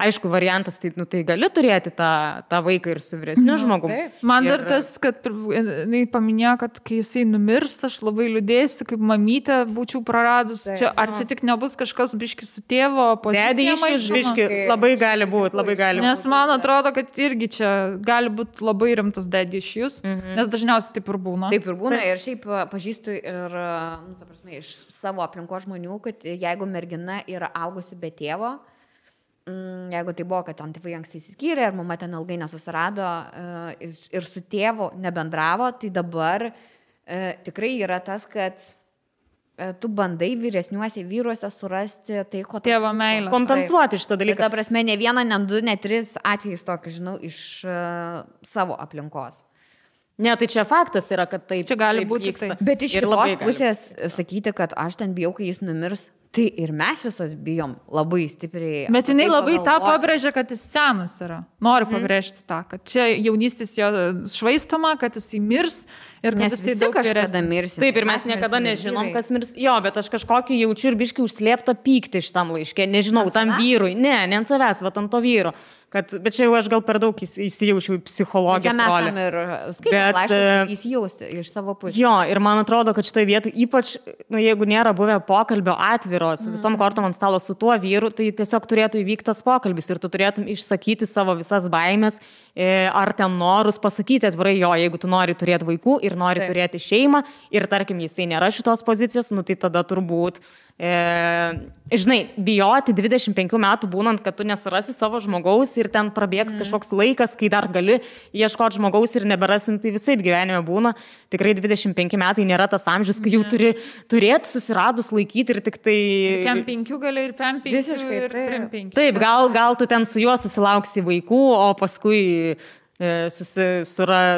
aišku, variantas, tai, nu, tai gali turėti tą vaiką ir su vyresniu žmogumi. Man dar tas, kad jinai paminėjo, kad kai jisai numirs, aš labai liūdėsiu, kaip mamytę būčiau praradus. Čia, ar čia tik nebus kažkas biški su tėvo pozicija? Dedė biški, labai gali būti. Nes man atrodo, kad irgi čia gali būti labai rimtas dedė iš jūs, nes dažniausiai taip ir būna. Taip ir būna ir šiaip pažįstu ir, nu, ta prasme, iš savo aplinkos žmonių, kad jeigu mergina yra augusi be tėvo, jeigu tai buvo, kad ten tėvai anksti įsiskyrė ir mama ten ilgai nesusirado ir su tėvu nebendravo, tai dabar tikrai yra tas, kad tu bandai vyresniuose vyruose surasti tai, ko tėvo meilę. Kompensuoti šitą dalyką. Ta prasme, ne vieną, ne du, ne tris atvejais tokį, žinau, iš savo aplinkos. Ne, tai čia faktas yra, kad tai čia gali būti tai. Bet iš kitos pusės sakyti, kad aš ten bijau, kai jis numirs, tai ir mes visos bijom labai stipriai. Bet jinai labai tą pabrėžia, kad jis senas yra. Noriu pabrėžti tą, kad čia jaunystės jo švaistama, kad jis mirs ir kad jis daug kažkada mirs. Taip, ir mes niekada nežinom, kas mirs. Jo, bet aš kažkokį jaučiu ir biškai užslėptą pyktį šitam laiške. Nežinau, tam vyrui. Ne ant savęs, va ant to vyro. Bet čia jau aš gal per daug įsijaučiau į psichologijos rolę. Čia mes tam ir skaitom laiškus, įsijausti iš savo pusės. Jo, ir man atrodo, kad šitoje vietoje, ypač, nu, jeigu nėra buvę pokalbio atviro su visom kortom ant stalo su tuo vyru, tai tiesiog turėtų įvykti tas pokalbis ir tu turėtum išsakyti savo visas baimės ar ten norus, pasakyti atvirai, jo, jeigu tu nori turėti vaikų ir nori turėti šeimą ir tarkim, jisai nėra šitos pozicijos, nu tai tada turbūt žinai, bijoti 25 metų būnant, kad tu nesurasi savo žmogaus ir ten prabėgs kažkoks laikas, kai dar gali ieškoti žmogaus ir neberasim, tai visai gyvenime būna. Tikrai 25 metai nėra tas amžius, kai jau turi turėti susiradus laikyti ir tik tai... Kem 5 gali ir 5 visiškai, ir 3-5. Taip, gal tu ten su juo susilauksi vaikų, o paskui...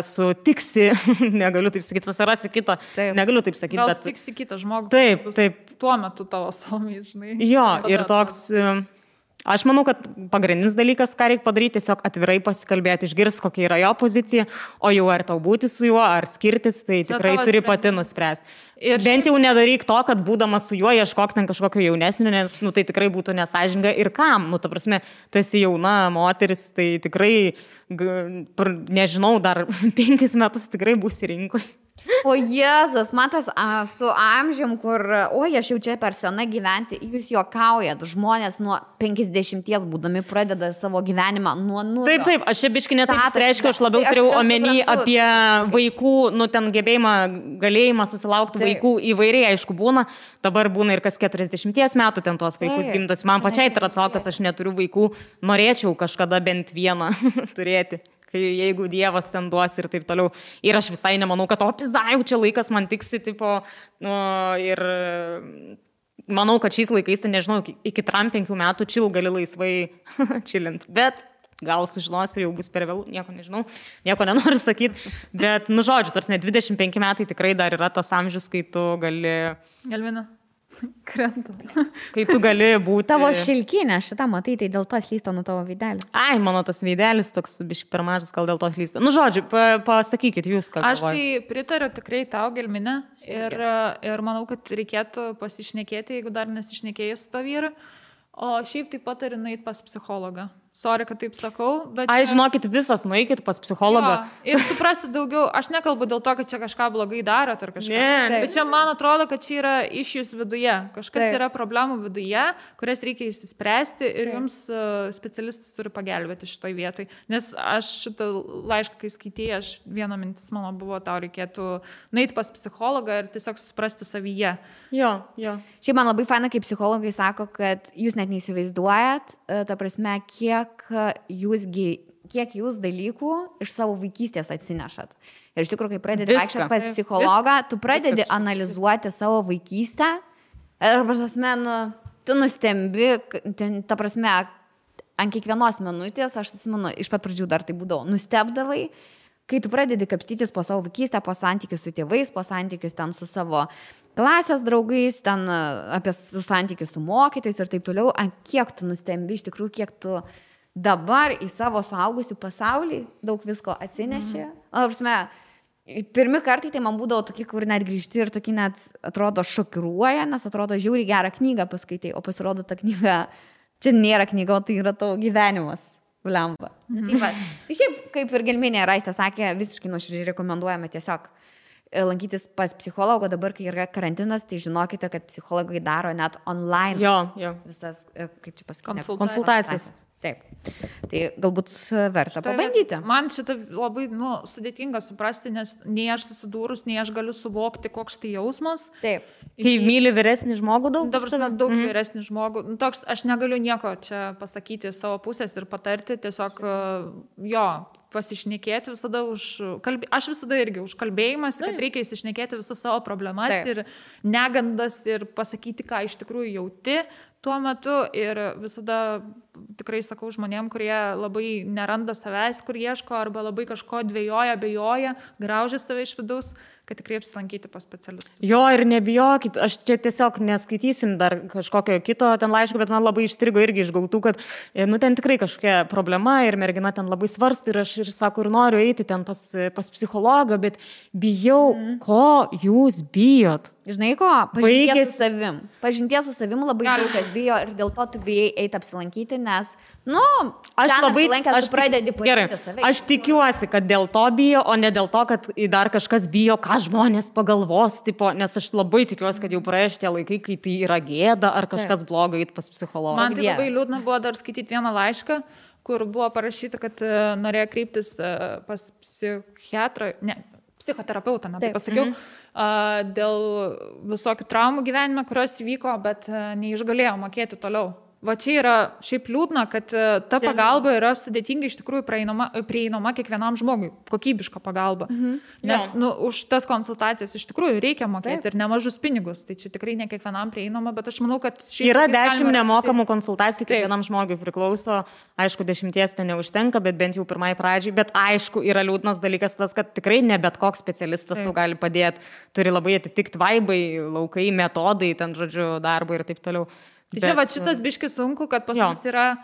sutiksi, negaliu taip sakyti, susirasi kitą, negaliu taip sakyti. Gal sutiksi kitą žmogų. Taip. Tuo metu tavo salmiai, žinai. Jo, ir toks, Aš manau, kad pagrindinis dalykas, ką reikia padaryti, tiesiog atvirai pasikalbėti, išgirsti, kokia yra jo pozicija, o jau ar tau būti su juo, ar skirtis, tai tikrai turi pati nuspręsti. Ir bent jau nedaryk to, kad būdamas su juo ieškok ten kažkokio jaunesnio, nes tai tikrai būtų nesąžininga ir kam. Ta prasme, tu esi jauna moteris, tai tikrai, nežinau, dar 5 metus tikrai būsi rinkoje. O Jėzus, matas, su amžium, kur, aš jau čia per sena gyventi, jūs juokaujat, žmonės nuo 50 būdami pradeda savo gyvenimą nuo nulio. Taip, aš čia biškai netaip reiškia, aš labiau turėjau omeny apie vaikų, ten gebėjimą, galėjimą susilaukti vaikų įvairiai, aišku, būna, dabar būna ir kas 40 metų ten tuos vaikus gimdos. Man pačiai tai atsakas, aš neturiu vaikų, norėčiau kažkada bent vieną turėti. Jeigu Dievas ten duos ir taip toliau. Ir aš visai nemanau, kad pizda, čia laikas man tiksi, tipo, ir manau, kad šiais laikais, tai nežinau, iki 5 metų gali laisvai čilint. Bet gal sužinosiu, jau bus per vėlų, nieko nežinau, nieko nenoriu sakyti. Bet, žodžiu, tarsi 25 metai tikrai dar yra tas amžius, kai tu gali... Galvina. Krenta. Kai tu gali būti... Tavo šilkinė, šitą matai, tai dėl to slysta nuo tavo veidelio. Ai, mano tas veidelis toks biškai per mažas, gal dėl to slysta. Žodžiu, pasakykit jūs, ką galvojate. Aš tai pritariu tikrai tau, Gelminė, ir manau, kad reikėtų pasišnekėti, jeigu dar nesišnekėjai su to vyru. O šiaip taip pat turiu nueiti pas psichologą. Sorry, kad taip sakau, bet... Ai, žinokit, visos nueikit pas psichologą. Jo, ir suprasti daugiau, aš nekalbu dėl to, kad čia kažką blogai darot ar kažką. Ne. Bet čia man atrodo, kad čia yra išjus viduje. Kažkas yra problemų viduje, kurias reikia įsispręsti ir jums specialistas turi pagelbėti šitoj vietoj. Nes aš šitą laišką, kai skaitėjau, viena mintis mano buvo, tau reikėtų nueiti pas psichologą ir tiesiog suprasti savyje. Jo. Šiaip man labai faina, kai psichologai sako, kad jūs net neįsivaizduojat, ta prasme, kiek jūs dalykų iš savo vaikystės atsinešat. Ir iš tikrųjų, kai pradedi vaikščioti pas psichologą, tu pradedi analizuoti savo vaikystę ir, prasme, tu nustembi, ta prasme, ant kiekvienos minutės, aš atsimenu, iš pat pradžių dar tai būdavo, nustebdavai, kai tu pradedi kapstytis po savo vaikystę, po santykius su tėvais, po santykius ten su savo klasės draugais, ten apie santykius su mokytais ir taip toliau, ant kiek tu nustembi, iš tikrųjų, kiek tu dabar į savo suaugusių pasaulį daug visko atsineši. Prasme, pirmi kartai tai man būdavo tokie, kur net grįžti ir tokie net atrodo šokiruoja, nes atrodo žiauriai gerą knygą paskaitai, o pasirodo ta knyga, čia nėra knyga, o tai yra tavo gyvenimas. Blemba. Tai šiaip, kaip ir Gelminė Raistė sakė, visiškai nuoširdžiai rekomenduojame tiesiog lankytis pas psichologo. Dabar, kai yra karantinas, tai žinokite, kad psichologai daro net online visas, kaip čia pasakyti, konsultacijas. Taip. Tai galbūt verta pabandyti. Man šitą labai sudėtinga suprasti, nes nei aš susidūrus, nei aš galiu suvokti, koks tai jausmas. Taip. Kai myli vyresnį žmogų daug? Daug vyresnį žmogų. Toks, aš negaliu nieko čia pasakyti savo pusės ir patarti, tiesiog pasišnekėti visada aš visada irgi už kalbėjimas, kad reikia įsišnekėti visas savo problemas ir negandas ir pasakyti, ką iš tikrųjų jauti tuo metu ir visada tikrai sakau žmonėm, kurie labai neranda savęs, kur ieško arba labai kažko dvejoja, abejoja, graužia save iš vidaus, kad tikrai apsilankyti pas specialistus. Jo, ir nebijokit, aš čia tiesiog neskaitysim dar kažkokio kito ten laiško, bet man labai išstrigo irgi išgautų, kad ten tikrai kažkokia problema ir mergina ten labai svarsto ir aš ir sako, ir noriu eiti ten pas psichologą, bet bijau, ko jūs bijot? Žinai ko? Pažinties su savim. Pažinties su savim labai daug kas bijo ir dėl to tu bijai eiti apsilankyti, nes, aš tikiuosi, kad dėl to bijo, o ne dėl to, kad dar kažkas bijo, ką žmonės pagalvos, nes aš labai tikiuosi, kad jau praėjo šitie laikai, kai tai yra gėda ar kažkas blogai eiti pas psichologą. Man tai labai liūdna buvo dar skaityti vieną laišką, kur buvo parašyta, kad norėjo kreiptis pas psichoterapeutą, tai pasakiau, dėl visokių traumų gyvenime, kurios įvyko, bet neišgalėjo mokėti toliau. Va čia yra šiaip liūdna, kad ta pagalba yra sudėtingai iš tikrųjų prieinama kiekvienam žmogui, kokybiška pagalba. Nes už tas konsultacijas iš tikrųjų reikia mokėti ir nemažus pinigus, tai čia tikrai ne kiekvienam prieinama, bet aš manau, kad šiaip yra 10 nemokamų konsultacijų kiekvienam žmogui priklauso, aišku, 10 ten neužtenka, bet bent jau pirmai pradžiai, bet aišku, yra liūdnas dalykas tas, kad tikrai ne bet koks specialistas tau gali padėti, turi labai atitikti vaibai, laukai, metodai, ten žodžiu, darbo ir taip toliau. Tai čia va šitas biškis sunku, kad pas mus yra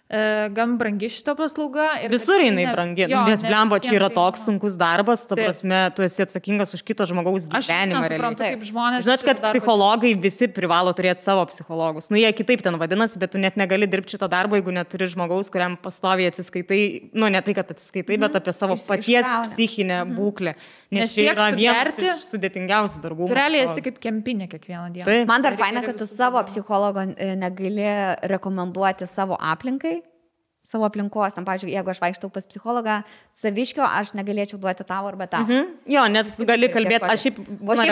gan brangi šito paslauga. Visur jinai brangi, nes blembo čia yra toks sunkus darbas, ta prasme, tu esi atsakingas už kito žmogaus gyvenimą. Aš suprantu, kaip žmonės. Žinot, kad psichologai visi privalo turėti savo psichologus. Nu, jie kitaip ten vadinasi, bet tu net negali dirbti šito darbo, jeigu neturi žmogaus, kuriam pastoviai atsiskaitai, nu, ne tai, kad atsiskaitai, bet apie savo paties psichinę būklę. Nes čia yra vienas iš sudėtingiausių darbų. Tu realiai esi kaip kempinė kiekvieną dieną. Man dar faina, kad tu savo psichologo negali rekomenduoti savo aplinkai. Savo aplinkos, tam, pavyzdžiui, jeigu aš vaikštau pas psichologą Saviškio, aš negalėčiau duoti tau arba tau. Jo, nes gali kalbėti, aš šiaip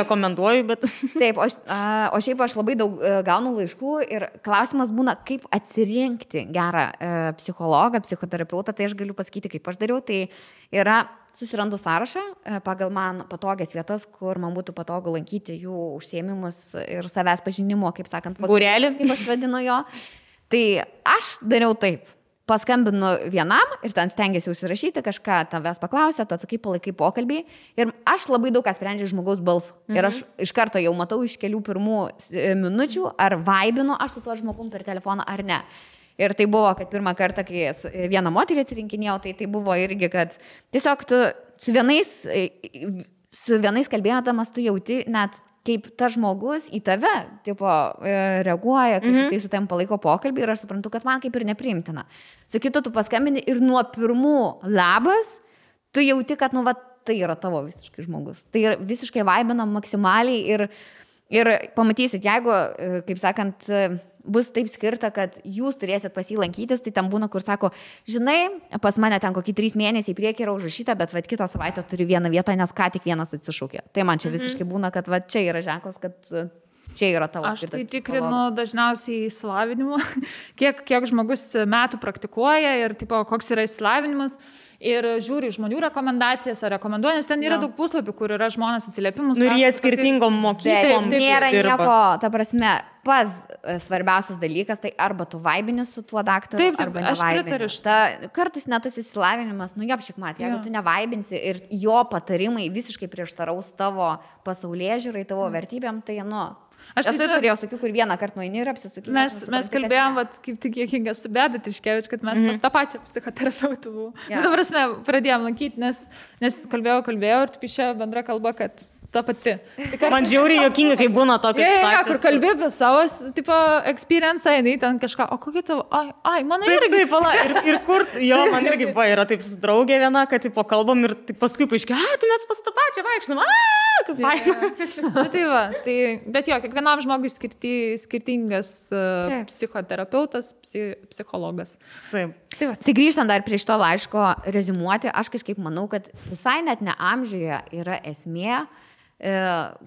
rekomenduoju, bet... Taip, o šiaip aš labai daug gaunu laiškų ir klausimas būna, kaip atsirinkti gerą psichologą, psichoterapeutą, tai aš galiu pasakyti, kaip aš dariau, tai yra susirandu sąrašą pagal man patogias vietas, kur man būtų patogu lankyti jų užsiėmimus ir savęs pažinimo, kaip sakant, būrelis, kaip aš vadinu jo. Tai aš dariau taip. Paskambinu vienam ir ten stengiasi užsirašyti, kažką tavęs paklausė, tu atsakai, palaikai pokalbį ir aš labai daug ką sprendžiu žmogaus balsų. Ir aš iš karto jau matau iš kelių pirmų minučių, ar vaibinu aš su tuo žmogum per telefoną ar ne. Ir tai buvo, kad pirmą kartą, kai vieną moterį atsirinkinėjau, tai buvo irgi, kad tiesiog tu su vienais kalbėdamas tu jauti net kaip tas žmogus į tave tipo, reaguoja, kaip jisai su tavim palaiko pokalbį ir aš suprantu, kad man kaip ir nepriimtina. Su kitu tu paskambini ir nuo pirmų labas tu jauti, kad nu, va, tai yra tavo visiškai žmogus. Tai yra visiškai vaibina maksimaliai ir pamatysit, jeigu, kaip sakant, bus taip skirta, kad jūs turėsit pas jį lankytis, tai ten būna, kur sako, žinai, pas mane ten kokį 3 mėnesiai priekį yra užrašyta, bet vat kitą savaitę turi vieną vietą, nes ką tik vienas atsišūkė. Tai man čia visiškai būna, kad va čia yra ženklas, kad čia yra tavo skirtas. Aš tai tikrinu dažniausiai įsilavinimą, kiek žmogus metų praktikuoja ir tipo, koks yra įsilavinimas. Ir žiūri žmonių rekomendacijas ar rekomenduoja, nes ten yra daug puslapių, kur yra žmonės atsiliepimus. Nu ir jie skirtingom mokyklom. Nėra nieko, ta prasme, svarbiausias dalykas, tai arba tu vaibini su tuo daktaru, arba nevaibini. Kartais net tas įsilavinimas, nu jop šikmat, jeigu tu nevaibinsi ir jo patarimai visiškai prieštaraus tavo pasaulėžiūrai, tavo vertybėm, tai nu... Aš tai turėjau, sakiau, kur vieną kartą nueini ir apsisakyti. Mes kalbėjom, kaip tik Jėkinga su Beda Tiškevič, kad mes pas tą pačią psichoterapeutą buvau. Nu, dabar mes pradėjom lankyti, nes kalbėjau ir taip išėjo bendra kalba, kad ta pati. Man žiauriai juokinga, kai būna tokia situacija. Kur kalbė apie savo, tipo, experience, jinai ten kažką, o kokia tavo, mano irgi. Ir kur, jo, man irgi buvo, yra taip draugė viena, kad, tipo, kalbam ir paskui paaiškėjo, tai mes pas tą pačią vaikštam, kaip faina. Tai va, bet jo, kiekvienam žmogui skirtingas psichoterapeutas, psichologas. Taip. Tai grįžtant dar prie šito laiško reziumuoti, aš kažkaip manau, kad visai net ne amžiuje yra esmė,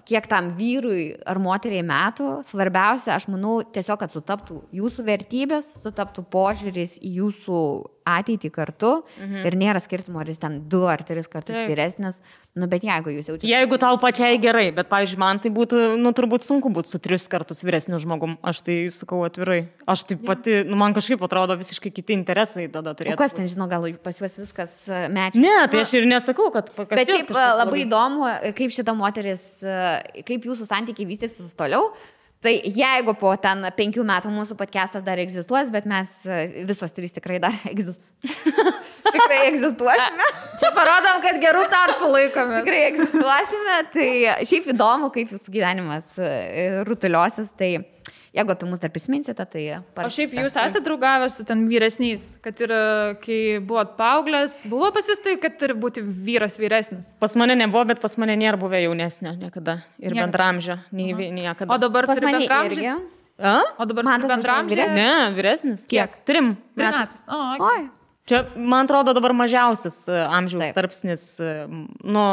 kiek tam vyrui ar moteriai metų, svarbiausia, aš manau, tiesiog, kad sutaptų jūsų vertybės, sutaptų požiūris į jūsų ateitį kartu ir nėra skirtumo, ar jis ten 2 ar 3 kartus vyresnis, nu, bet jeigu jūs jaučiate... Jeigu tau pačiai gerai, bet, pavyzdžiui, man tai būtų, nu, turbūt sunku būti su 3 kartus vyresniu žmogum, aš tai sakau atvirai. Aš taip pati, nu, man kažkaip atrodo visiškai kiti interesai tada turėtų. O kas ten, žinau, gal pas juos viskas mečia? Ne, tai aš ir nesakau, kad... Bet šiaip labai įdomu, kaip šita moteris, kaip jūsų santykiai vystysis toliau. Tai jeigu po ten 5 metų mūsų podcastas dar egzistuos, bet mes visos 3 tikrai dar tikrai egzistuosime. Čia parodom, kad gerų tarpų laikome. Tikrai egzistuosime, tai šiaip įdomu, kaip jūsų gyvenimas rutuliosis, tai jeigu apie mus dar prisiminsite, tai... O šiaip jūs esate draugavęs su ten vyresniais, kad ir kai buvot paauglės, buvo pas jūs tai, kad turi būti vyras vyresnis? Pas mane nebuvo, bet pas mane nėra buvę jaunesnio niekada ir bendramžio, niekada. O dabar turi bendramžį? O dabar turi bendramžį? Ne, vyresnis. Kiek? 3 metais. Oi. Čia, man atrodo, dabar mažiausias amžiaus tarpsnis, nu,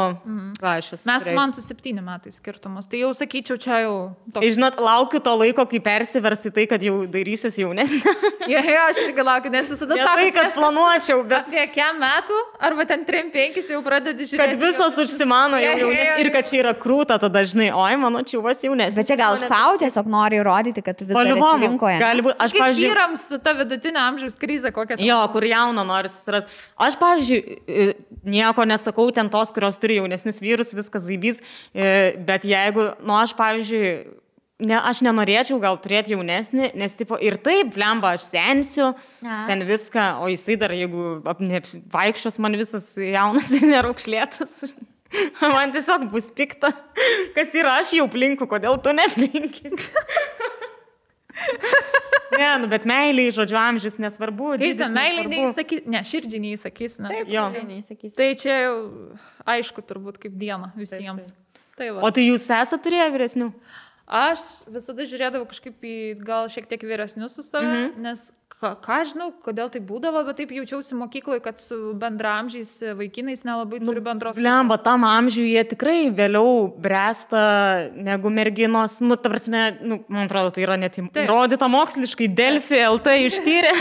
ką aš esu. Mes man su 7 metais skirtumas, tai jau sakyčiau, čia jau toks. Žinot, laukiu to laiko, kai persiversi tai, kad jau dairysies jaunesnė. Jo, aš irgi laukiu, nes visada sakau, tai, kad planuočiau, bet... Apie kiek metų, arba ten 3-5 jau pradedi žiūrėti. Kad visos užsimano jau jaunesnė ir kad čia yra krūta, tada dažnai, oi, mano čiuvas jaunesnė. Bet čia gal savo tiesiog nori įrodyti, kad tu vis dar esi rinkoje. Gali būti, aš, pavyzdžiui... Vyrams su ta vidutinė amžiaus krizė kokia. Jo, kur jauna nori susiras. Aš, pavyzdžiui, nieko nesakau ten tos, kurios turi jaunesnius vyrus, viskas zaibys, bet jeigu, nu, aš, pavyzdžiui, aš nenorėčiau gal turėti jaunesnį, nes tipo, ir taip, blemba, aš sensiu, ten viską, o jisai dar, jeigu vaikščios man visas jaunas ir neraukšlėtas, man tiesiog bus pikta, kas yra aš jau plinku, kodėl tu neplinkit. Ne, nu, bet meiliai, žodžiu, amžius nesvarbu. Meiliai neįsakys, ne, širdžiai neįsakys, ne. Taip, širdžiai neįsakys. Tai čia jau aišku turbūt kaip diena visiems. Tai o tai jūs esate turėję vyresnių? Aš visada žiūrėdavau kažkaip į gal šiek tiek vyresnius su save, nes ką žinau, kodėl tai būdavo, bet taip jaučiausi mokykloje, kad su bendramžiais vaikinais nelabai turi bendros. Lemba, tam amžiui jie tikrai vėliau bręsta negu merginos. Nu, ta prasme, man atrodo, tai yra net įrodyta moksliškai, Delfi LT ištyrė.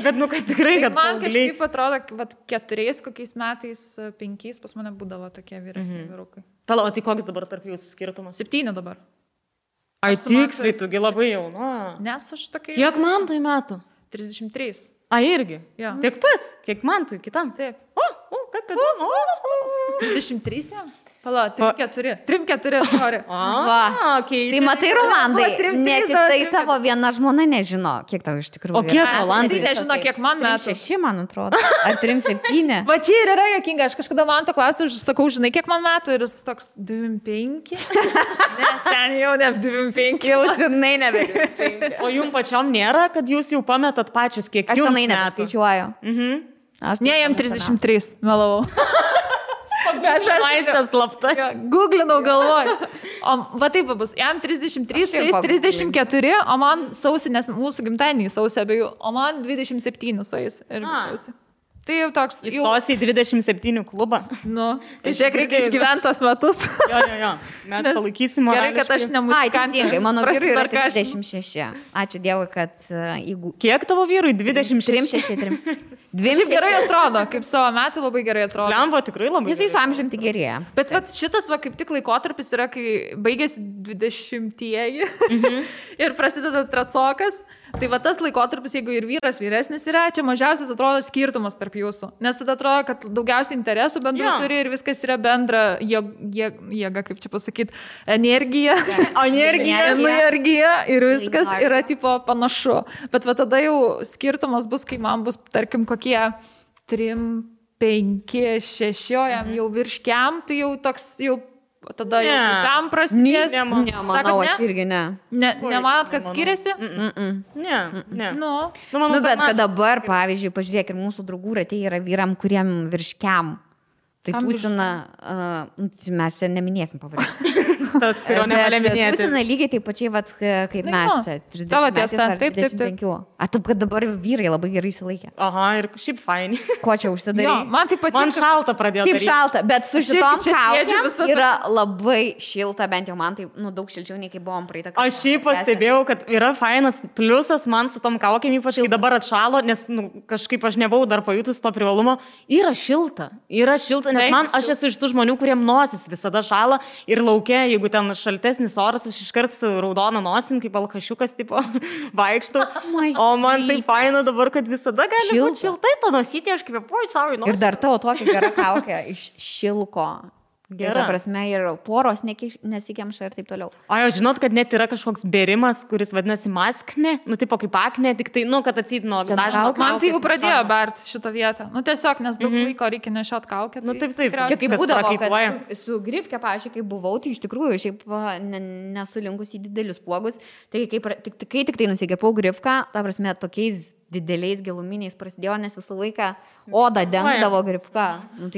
Bet, kad tikrai, kad man kažkaip atrodo, kad 4 kokiais metais, 5 pas mane būdavo tokie vyresni vyrukai. Pala, o tai koks dabar tarp jūsų skirtumas? 7 dabar. Ai, tiksliai, tugi labai jauna. Nes aš tokia... Kiek man tai metų? 33. A, irgi? Ja. Tiek pats? Kiek man tai kitam? Taip. Kaip įdomu. 33 jam? Pala, 3-4, sorry. Tai matai, Rolandai, ne tik tai tavo viena žmona nežino, kiek tau iš tikrųjų. O kiek Rolandai? Tai nežino, kiek man metų. 6, man atrodo. Ar 3-7? Va čia ir yra jokinga, aš kažkada man to klausiu, aš sakau, žinai, kiek man metų ir jis toks 25. Ne, sen jau ne 25. Jau senai nebe 25. O jums pačiom nėra, kad jūs jau pametat pačius, kiek jums metų? Aš senai nepaskaičiuoju. Ne, jam 33, melavau. Maistas slapta. Googlinau galvoj. O va taip bus, jam 33, 34, o man sausį, nes mūsų gimtadienį sausį abiejų, o man 27 sueis ir sausį. Tai jau toks... Įstosi į 27 klubą. Nu, tai žiūrėk, reikia išgyventi tos metus. Jo. Mes palaikysim. Gerai, kad aš nemuzikantė. Mano vyrui yra 36. Ačiū Dievui, kad jeigu... Kiek tavo vyrui? 26? 3. Šiaip gerai atrodo, kaip savo metų labai gerai atrodo. Lembo tikrai labai. Jisai su amžiumi gerėja. Bet vat, šitas va, kaip tik laikotarpis yra, kai baigėsi 20-ieji ir prasideda tracokas. Tai va tas laikotarpis, jeigu ir vyras vyresnis yra, čia mažiausias atrodo skirtumas tarp jūsų. Nes tada atrodo, kad daugiausiai interesų bendrų turi ir viskas yra bendra jėga, kaip čia pasakyti, energija. Energija ir viskas yra tipo panašu. Bet va tada jau skirtumas bus, kai man bus, tarkim, kokie 3, 5, 6, jam jau virškiam, tai jau toks jau... Tada jau tam prasidės. Nemanau, aš irgi ne. Nemanot, kad skiriasi? Ne. Nu, bet kad dabar, pavyzdžiui, pažiūrėk, ir mūsų draugų ratė yra vyram, kuriem virškiam. Tai tūsina, mes čia neminėsim pavadinti. Tas, kurio nevalia minėti. Tūsina lygiai taip pačiai, vat, kaip mes čia. 30 tavo tiesa, taip. A, taip, kad dabar vyrai labai gerai įsilaikė. Aha, ir šiaip faini. Ko čia užsidarė? Man taip patinka. Man šalta pradėjo. Šiaip šalta, bet su šitom kaukėm yra labai šilta, bent jau man tai, daug šilčiau nei kai buvom praeitą kartą. Aš šiaip pastebėjau, kad yra fainas pliusas man su tom kaukėm, ypač kai dabar atšalo, nes kažkaip aš nebuvau dar pajutus to privalumo. Yra šilta, nes man, aš esu iš tų žmonių, kuriem nosis visada šala ir laukia, jeigu ten šaltesnis oras, aš iškart su raudona nosim, kaip alkašiukas, tipo, vaikštų. O man tai faina dabar, kad visada gali būti šiltai, to nosyti, aš kaip poj, savo ir dar tavo tokia gera kaukė iš šilko. Gera prasme ir poros nesikemša ir taip toliau. O jau žinot, kad net yra kažkoks bėrimas, kuris vadinasi maskne, tipo kaip akne, tik tai, kad atsit nuo dažno. Man tai jau pradėjo bert šitą vietą. Tiesiog, nes daug laiko reikia nešiot kaukę. Taip. Čia kaip būdavo, kad su grifke, pavyzdžiui, kai buvau, tai iš tikrųjų šiaip nesulinkus į didelius puogus, tai kai tik tai nusigirpau grifką, ta prasme, tokiais dideliais giluminiais prasidėjo, nes visą laiką odą dengdavo grifka.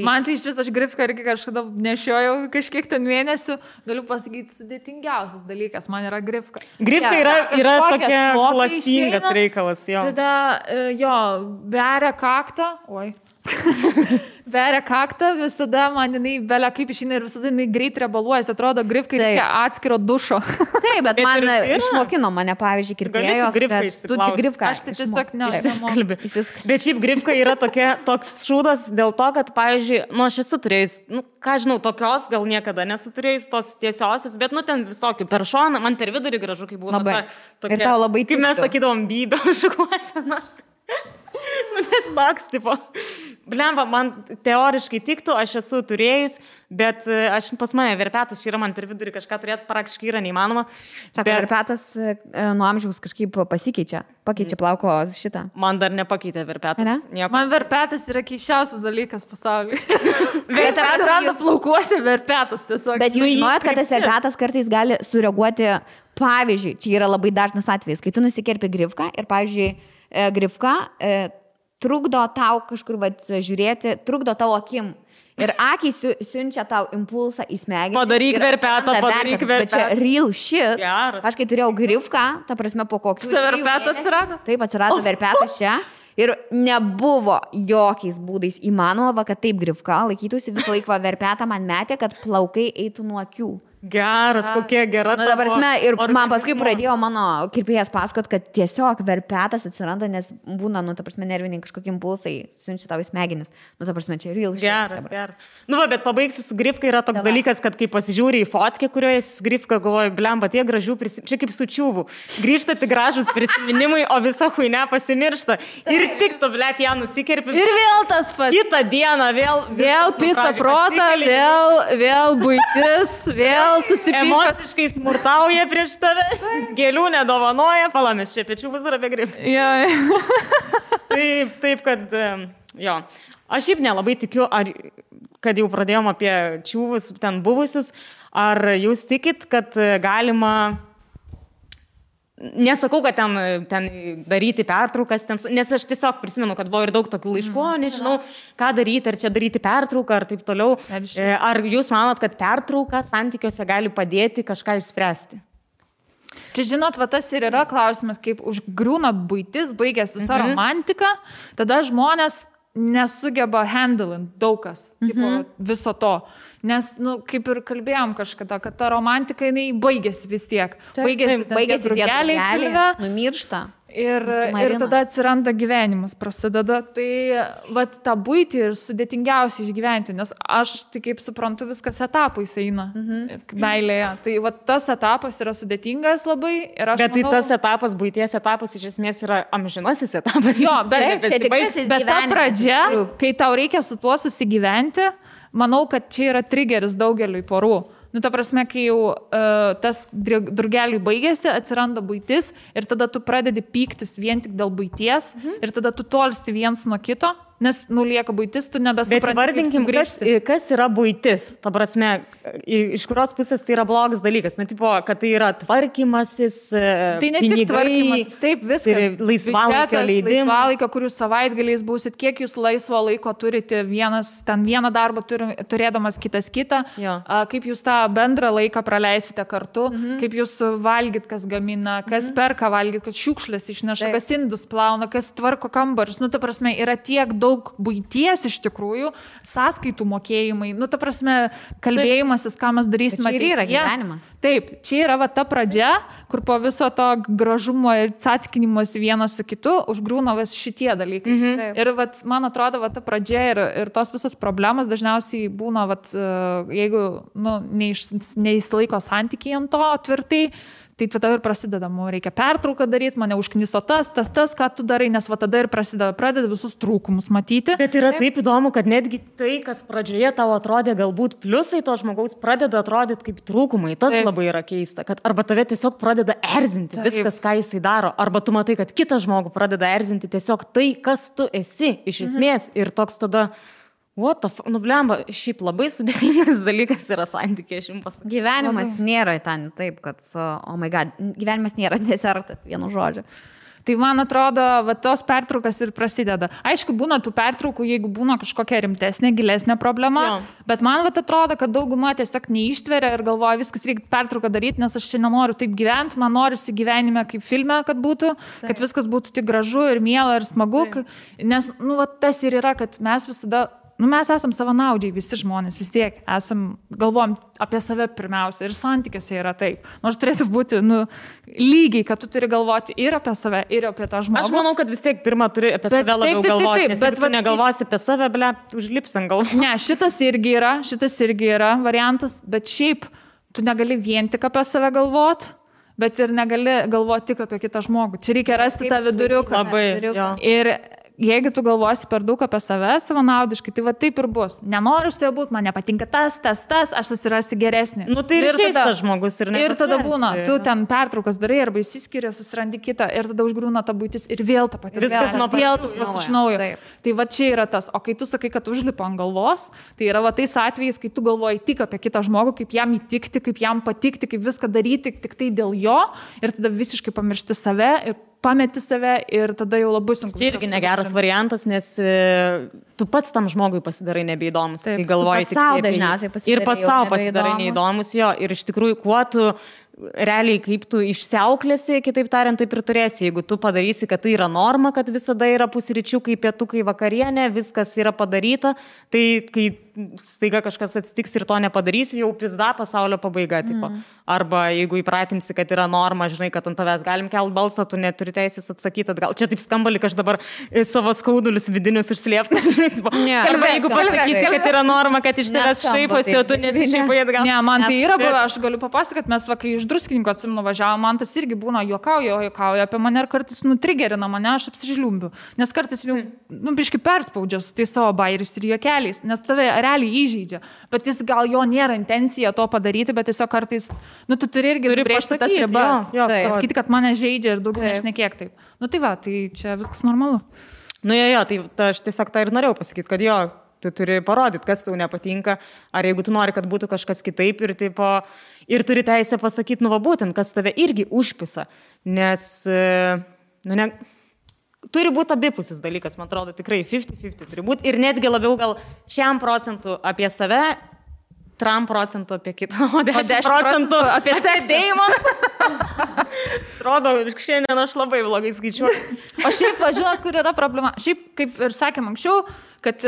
Man tai iš vis aš grifką irgi kažkada nešiojau kažkiek ten mėnesių, galiu pasakyti, sudėtingiausias dalykas, man yra grifka. Grifka yra tokia klastingas reikalas, jo. Tada, beria kaktą, beria kaktą, visada man jinai belia kaip išeina ir visada jinai greit rebaluojas, atrodo, grifkai reikia atskiro dušo. Taip, bet man išmokino mane, pavyzdžiui, kirpėjos, kad tu tik grifką. Aš tai tiesiog nežinau. Bet šiaip grifka yra toks šūdas dėl to, kad, pavyzdžiui, aš esu turėjus, ką žinau, tokios gal niekada nesu turėjus, tos tiesiosios, bet, ten visokių per šoną, man per vidurį gražu, kaip būna. Ir tau labai tiktų. Kaip mes sakydavom, bybė šukuosena. Nes toks, tipo, Blemba, man teoriškai tiktų, aš esu turėjus, bet aš pas mane verpetas, čia yra man per vidurį kažką turėti, praktiškai yra neįmanoma. Sako, verpetas nuo amžiaus kažkaip pakeičia plauko šitą. Man dar nepakeitė verpetas. Man verpetas yra keiščiausias dalykas pasaulyje. Verpetas randa plaukuose verpetas tiesiog. Bet jūs žinojot, kad tas verpetas kartais gali sureaguoti, pavyzdžiui, čia yra labai dažnas atvejis, kai tu nusikerpi grifką ir, pavyzdžiui, grifka trukdo tau kažkur žiūrėti, trukdo tavo akim. Ir akys siunčia tau impulsą į smegenį. Padaryk verpetą. Bet čia real shit. Geras. Aš kai turėjau grifką, ta prasme po kokių... Verpetą atsirado? Taip, atsirado verpetas čia. Ir nebuvo jokiais būdais įmanoma, kad taip grifka laikytųsi visą laiką verpetą man metė, kad plaukai eitų nuo akių. Geras, kokia gera. Nu, dabar ir man paskui pradėjo mano kirpėjas pasakot, kad tiesiog verpetas atsiranda, nes būna, nu, ta prasme, nerviniai kažkokie impulsai siunčia tau į smegenis. Nu, ta prasme, čia real. Geras. Nu, bet pabaigsiu su grifka, yra toks dalykas, kad kai pasižiūri į fotkę, kurioje esi su grifka, galvoju, blemba, tie gražių prisiminimai, čia kaip su čiūvu. Grįžta tik gražus prisiminimai, o visa huinė pasimiršta. Ir tik tu, blėt, ją nusikerpi. Ir vėl tas pats. Kitą dieną vėl pisa protą, vėl buitis, vėl susipyka. Emociškai smurtauja prieš tave, gėlių nedovanoja, palamis čia pečių bus apie grifą. Taip, kad, jo. Aš šiaip nelabai tikiu, kad jau pradėjom apie čiūvus ten buvusius, ar jūs tikit, kad galima... Nesakau, kad ten daryti pertraukas, nes aš tiesiog prisimenu, kad buvo ir daug tokių laiškų, nežinau, ką daryti, ar čia daryti pertrauką, ar taip toliau. Ar jūs manot, kad pertrauka santykiuose gali padėti kažką išspręsti? Čia žinot, va tas ir yra klausimas, kaip užgriūna buitis, baigęs visą romantiką, tada žmonės nesugeba handling daugkas viso to. Nes, nu, kaip ir kalbėjom kažkada, kad ta romantika, jinai baigėsi vis tiek. Baigėsi tie drugeliai, numiršta. Ir tada atsiranda gyvenimas, prasideda. Tai vat tą buitį ir sudėtingiausia išgyventi, nes aš, tai kaip suprantu, viskas etapais eina meilėje. Tai vat tas etapas yra sudėtingas labai. Bet tai tas etapas, buities etapas, iš esmės yra amžinasis etapas. Jo, bet ta pradžia, kai tau reikia su tuo susigyventi, manau, kad čia yra trigeris daugeliui porų. Nu, ta prasme, kai jau tas drugeliui baigėsi, atsiranda buitis ir tada tu pradedi pyktis vien tik dėl buities ir tada tu tolsti viens nuo kito, nes nulieka buitis, tu nebesupranti, kaip sugrįžti. Kas yra buitis? Ta prasme, iš kurios pusės tai yra blogas dalykas? Nu, tipo, kad tai yra tvarkymasis, tai ne tik tvarkymasis, taip, viskas. Tai laisvalaikio leidimas. Laisvalaikio, kur jūs savaitgaliais būsit, kiek jūs laisvo laiko turite, vieną darbą turėdamas kitą, kaip jūs tą bendrą laiką praleisite kartu, kaip jūs valgyt, kas gamina, kas perka valgyt, kas šiukšlės išneša, kas indus plauna, kas tvarko kambarius. Nu, ta prasme, yra tiek daug buities iš tikrųjų, sąskaitų mokėjimai, nu, ta prasme, kalbėjimasis, ką mes darysime. Čia yra gyvenimas. Taip, čia yra va ta pradžia, kur po viso to gražumo ir cackinimos vienas su kitu užgrūna vis šitie dalykai. Ir va, man atrodo, va ta pradžia ir tos visos problemos dažniausiai būna, va, jeigu nu, neįsilaiko santykiai ant to tvirtai, tai tada ir prasideda, reikia pertrauką daryti, mane užkniso tas, ką tu darai, nes va tada ir pradeda visus trūkumus matyti. Bet yra taip įdomu, kad netgi tai, kas pradžioje tau atrodė galbūt pliusai, to žmogaus pradeda atrodyti kaip trūkumai. Tas labai yra keista, kad arba tave tiesiog pradeda erzinti viskas, ką jisai daro, arba tu matai, kad kitą žmogų pradeda erzinti tiesiog tai, kas tu esi iš esmės ir toks tada... What the fuck? Nu, blemba, šiaip labai sudėtingas dalykas yra santykiai, aš jums pasakysiu. Gyvenimas nėra ten taip, kad, oh my god, gyvenimas nėra desertas, vienu žodžiu. Tai man atrodo, va, tos pertraukas ir prasideda. Aišku, būna tų pertraukų, jeigu būna kažkokia rimtesnė, gilesnė problema, bet man va, atrodo, kad dauguma tiesiog neištveria ir galvoja, viskas reikia pertrauką daryti, nes aš čia nenoriu taip gyventi, man norisi gyvenime kaip filme, kad būtų, kad viskas būtų tik gražu ir miela ir smagu, nes nu, va, tas ir yra, kad mes visada... Nu, mes esam savanaudžiai, visi žmonės, vis tiek galvojam apie save pirmiausia ir santykiuose yra taip. Nors turėtų būti lygiai, kad tu turi galvoti ir apie save, ir apie tą žmogų. Aš manau, kad vis tiek pirmą turi apie save labiau galvoti, nes jeigu tu negalvosi apie save, užlips ant galvos. Ne, šitas irgi yra variantas, bet šiaip tu negali vien tik apie save galvoti, bet ir negali galvoti tik apie kitą žmogų. Čia reikia rasti tą viduriuką. Labai, ir jeigu tu galvosi per daug apie save savanaudiškai, tai va taip ir bus. Nenoriu su juo būti, man nepatinka tas, aš susirasiu geresnį. Nu tai ir tas žmogus ir ne. Ir tada būna, tu ten pertraukas darai arba įsiskiria, susirandi kitą ir tada užgrūna ta būtis ir vėl ta pati. Viskas nuo vėl tas pats iš naujo. Tai va čia yra tas. O kai tu sakai, kad užlipa ant galvos, tai yra va tais atvejais, kai tu galvoji tik apie kitą žmogų, kaip jam įtikti, kaip jam patikti, kaip viską daryti tik tai dėl jo ir tada visiškai pamiršti save ir pameti save ir tada jau labai sunku. Tai irgi negeras variantas, nes tu pats tam žmogui pasidarai nebeįdomus. Taip, kai galvoji tik savo dažniausiai pasidarai. Ir pats savo pasidarai neįdomus, jo. Ir iš tikrųjų, kuo tu realiai, kaip tu išsiauklėsi, kitaip tariant, taip ir turėsi. Jeigu tu padarysi, kad tai yra norma, kad visada yra pusryčiukai, pietukai, vakarienė, viskas yra padaryta, tai kai staiga kažkas atsitiks ir to nepadarysi, jau pizda pasaulio pabaiga. Tipo. Arba jeigu įpratinsi, kad yra norma, žinai, kad ant tavęs galim kelt balsą, tu neturi teisės atsakyti atgal. Čia taip skamba, lyg aš dabar savo skaudulius vidinius užslėptas. Arba jeigu pasakysi, kad yra norma, kad iš tavęs šaiposi, o tu nesišaipai atgal. Ne, man tai yra buvę, aš galiu papasakoti, kad mes kai iš Druskininkų atsimenu važiavom, man tas irgi būna juokauja apie mane ir kartais nutrigerina mane, aš apsižliumbiu. Nes kartais jau, biškai perspaudžia su tai savo bairis ir juokeliais, nes tave realiai įžeidžia. Bet jis gal jo nėra intencija to padaryti, bet tiesiog kartais, tu turi irgi brėžti tas ribas. Pasakyti, kad mane žaidžia ir daugiau nešnekėk taip. Tai va, tai čia viskas normalu. Tai aš tiesiog tą ir norėjau pasakyti, kad jo, tu turi parodyti, kas tau nepatinka, ar jeigu tu nori, kad būtų kažkas kitaip ir turi teisę pasakyti, būtent, kas tave irgi užpisa, nes, turi būti abipusis dalykas, man atrodo, tikrai 50-50 turi būti ir netgi labiau gal 100% apie save, 3% apie kitą, o 10% apie seksėjimą. Atrodo, šiandien aš labai blogai skaičiuoju. O šiaip, žinot, kur yra problema? Šiaip, kaip ir sakėm anksčiau, kad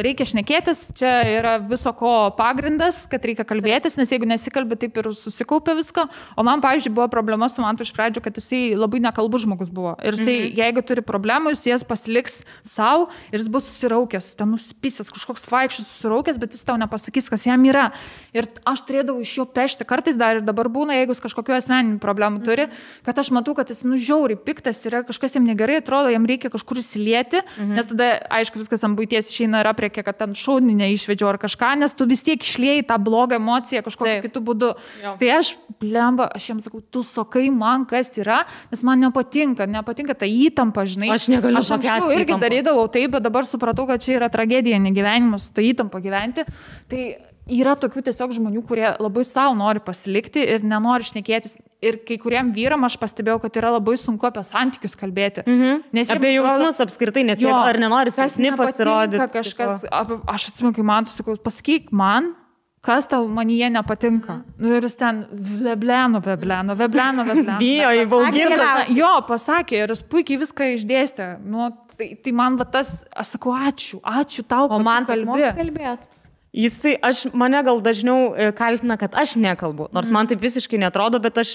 reikia šnekėtis, čia yra viso ko pagrindas, kad reikia kalbėtis, nes jeigu nesikalbė, taip ir susikaupia visko. O man, pavyzdžiui, buvo problema su Mantu iš pradžių, kad jisai labai nekalbus žmogus buvo. Ir jisai, jeigu turi problemų, jis jas pasiliks savo ir jis bus susiraukęs, ten nusipisęs, kažkoks vaikščius susiraukęs, bet jis tau nepasakys, kas jam yra. Ir aš turėdavau iš jo pešti, kartais dar ir dabar būna, jeigu jis kažkokiu asmeniniu problemu turi, kad aš matau, kad jis žiauriai piktas yra, kažkas jam negerai, atrodo, jam reikia kažkur įsilieti, nes tada, aišku, viskas ant buities išeina ir apriekia, kad ten šaudinį neišvedžiau ar kažką, nes tu vis tiek išliejai tą blogą emociją kažkokiu kitu būdu. Jo. Tai aš jiems sakau, tu sakai man, kas yra, nes man nepatinka ta įtampa, žinai. Aš negaliu pakęsti. Aš irgi darydavau taip, bet dabar supratau, kad čia yra tragedija, negyvenimas, ta įtampa gyventi. Tai yra tokių tiesiog žmonių, kurie labai savo nori pasilikti ir nenori šnekėtis. Ir kai kuriem vyram aš pastebėjau, kad yra labai sunku apie santykius kalbėti. Nes apie jausmus apskritai, nes jie ar nenori silpni pasirodyti. Kažkas, aš atsimenu, kai man sakau, pasakyk man, kas tau manyje nepatinka. Ir jis ten vebleno. Bijo įbauginta. Jo, pasakė ir jis puikiai viską išdėstė. Tai man tas, aš sakau, ačiū tau, kad man kalbėt. Mane gal dažniau kaltina, kad aš nekalbu, nors man taip visiškai netrodo, bet aš